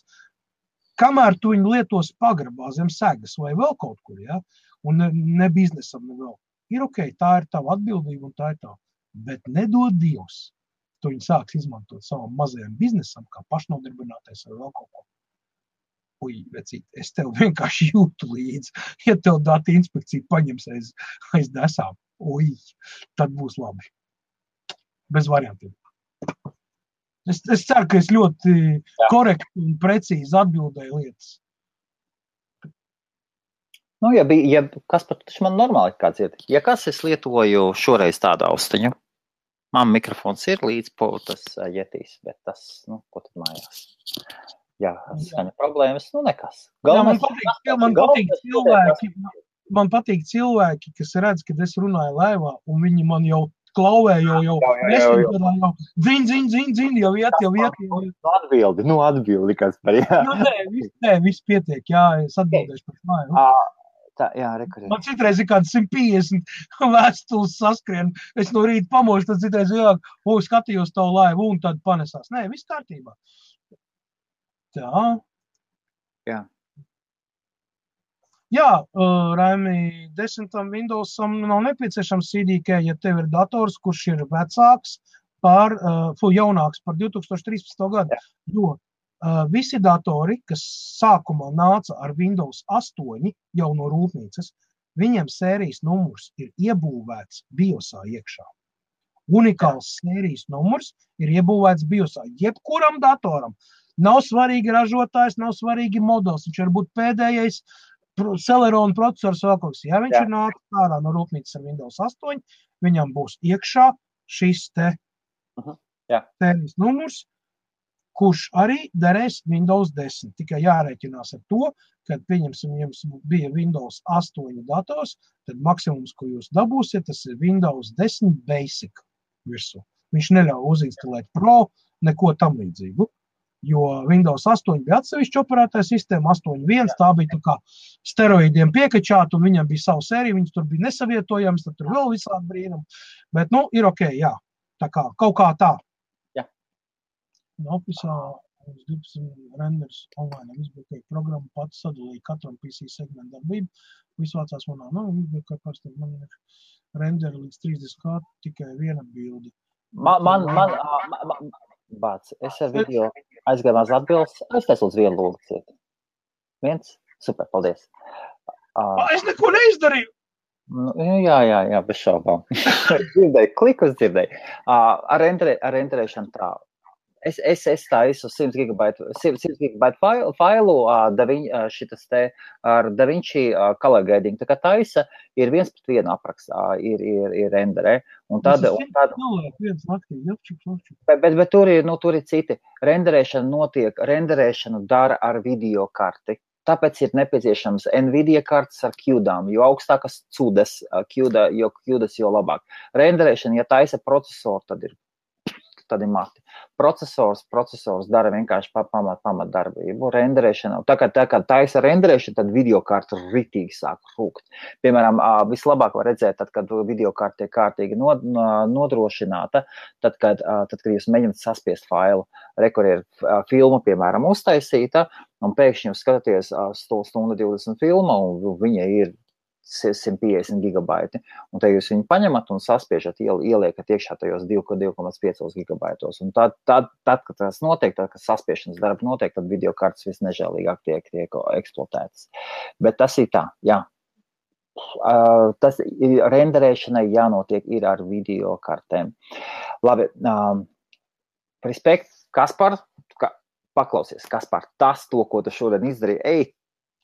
kamēr tu viņu lietos pagrabā zem segas vai vēl kaut kur, ja, un ne biznesam, ne vēl, ir ok, tā ir tava atbildība un tā ir tā. Bet nedod Dievs. Tu viņi sāks izmantot savam mazajam biznesam, kā pašnodarbinātais vai vēl kaut ko. Vecīt, es tev vienkārši jūtu līdzi. Ja tev data inspekcija paņems aiz desām, tad būs labi. Bez variantiem. Es ceru, ka es ļoti korekti un precīzi atbildēju lietas. Kas pat man normāli kāds ir? Ja kas es lietoju šoreiz tādu austiņu, man mikrofons ir līdz tas jetīs, bet tas, ko tad mājās? Jā, skaņa problēmas, nekas. Man patīk cilvēki, kas redz, kad es runāju laivā, un viņi man jau klauvē, jau dzin, jau iet. Atbildi, kas par jā. Nē, viss pietiek, jā, es atbildēšu par māju. Tā, jā, rekurēt. Man citreiz ir kāds 150 vēstules saskrien. Es no rīta pamošu, tad citreiz skatījos tavu laivu un tad panesās. Nē, viss kārtībā. Tā. Jā. Jā, Raimi, 10. Windowsam nav nepieciešams CDK, ja tev ir dators, kurš ir vecāks jaunāks par 2013. gadu. Jā. Jo visi datori, kas sākumā nāca ar Windows 8 jau no rūpnīcas, viņiem sērijas numurs ir iebūvēts BIOSā iekšā. Unikāls sērijas numurs ir iebūvēts BIOSā. Jebkuram datoram. Nav svarīgi ražotājs, nav svarīgi modelis. Viņš var būt pēdējais Celeron procesors vēl kaut kas. Ja viņš ir nācis ārā no rūpnīcas ar Windows 8, viņam būs iekšā šis te sērijas numurs, kurš arī derēs Windows 10. Tikai jārēķinās ar to, kad pieņemsim, jums bija Windows 8 dators, tad maksimums, ko jūs dabūsiet, tas ir Windows 10 Basic virsū. Viņš neļauj uzinstalēt Pro, neko tam līdzīgu. Jo Windows 8 bija atsevišķa operētāja sistēma, 8.1, tā bija tā kā steroīdiem piekačāta, un viņam bija savu sēriju, viņas tur bija nesavietojams, tad tur vēl visādi brīnumi. Bet, ir ok, jā, tā kā, kaut kā tā. Jā. Officeā uz 12 renders online, izbūkēja programmu, pats sadalīja katram PC segmentu darbību, visvācās manā, izbūkēja pārstāv, man ir renderi līdz 30 tikai viena bildi. Bāc, es ar video aizgājumās atbildes, aiztais lūdzu vienu lūdzu. Viens? Super, paldies. Es neko neizdarīju! Jā, bez šaubām. Dzirdēju, klikus dzirdēju. Ar renderēšanu tā. Es taisu 100 GB failu ar DaVinci color grading. Tā kā taisa ir 1:1 aprakstā, ir renderē. Bet tur ir citi. Renderēšanu dara ar video karti. Tāpēc ir nepieciešams Nvidia kartes ar QDām, jo augstākas CUDas, jo QDas, jo labāk. Renderēšana, ja taisa procesoru, tad ir mati. Procesors dara vienkārši pamat darbību. Renderēšana, tā kā taisa renderēšana, tad videokarta ritīgi sāk rūkt. Piemēram, vislabāk var redzēt, tad, kad videokarta tiek kārtīgi nodrošināta, tad, kad jūs mēģināt saspiest failu. Kur ir filma, piemēram, uztaisīta, un pēkšņi jūs skatāties 1:20 filma, un viņa ir 150 gigabaiti, un te jūs viņu paņemat un saspiežat, ieliekat iekšā tajos 2,5 gigabaitos. Un tad, kad tas notiek, tad, kad saspiešanas darba notiek, tad videokartes visnežēlīgāk tiek eksploatētas. Bet tas ir tā, jā. Tas renderēšanai jānotiek ir ar videokartēm. Labi, respekt, Kaspar, paklausies, Kaspar, to, ko tu šodien izdarīji,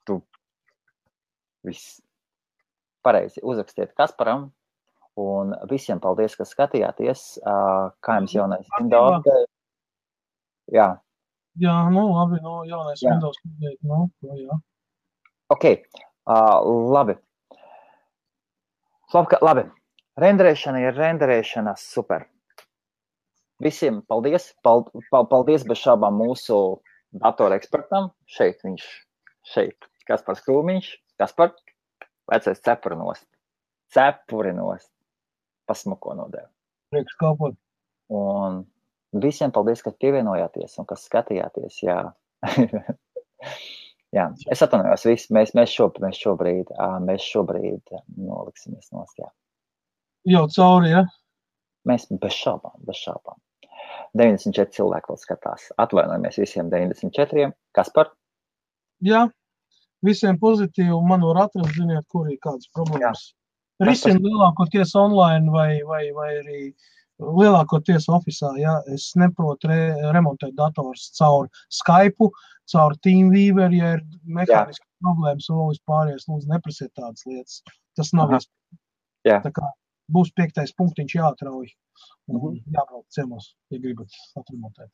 tu viss. Pareizi, uzrakstiet Kasparam, un visiem paldies, ka skatījāties, kā jums jaunais Windows. Jā. Jā, labi, jaunais Windows. Jā. Ok, labi. Labi, renderēšana ir renderēšana, super. Visiem paldies, paldies bez šābām mūsu datora ekspertam. Šeit, Kaspars Krūmiņš, Kaspar. Vecais cepurinost. Pasmuko nodēļ. Priekš kalpot. Un visiem paldies, ka pievienojāties un kas skatījāties. Jā. Jā. Es atvainojos visu. Mēs šobrīd noliksimies nost. Jā. Jau cauri, ja? Mēs bez šaubām. 94 cilvēki vēl skatās. Atvainojamies visiem 94. Kaspar? Jā. Visiem pozitīvi, man var atrast, ziniet, kur ir kādas problēmas. Risina lielākoties online vai arī lielākoties ofisā, ja es neprotu remontēt dators caur Skype, caur TeamViewer, ja ir mehāniskas problēmas un vēl vispārējais, lūdzu, neprasiet tādas lietas. Tas nav iespējams. Tā kā būs 5. punktiņš jāatrauj un jābrauc ciemos, ja gribat atremontēt.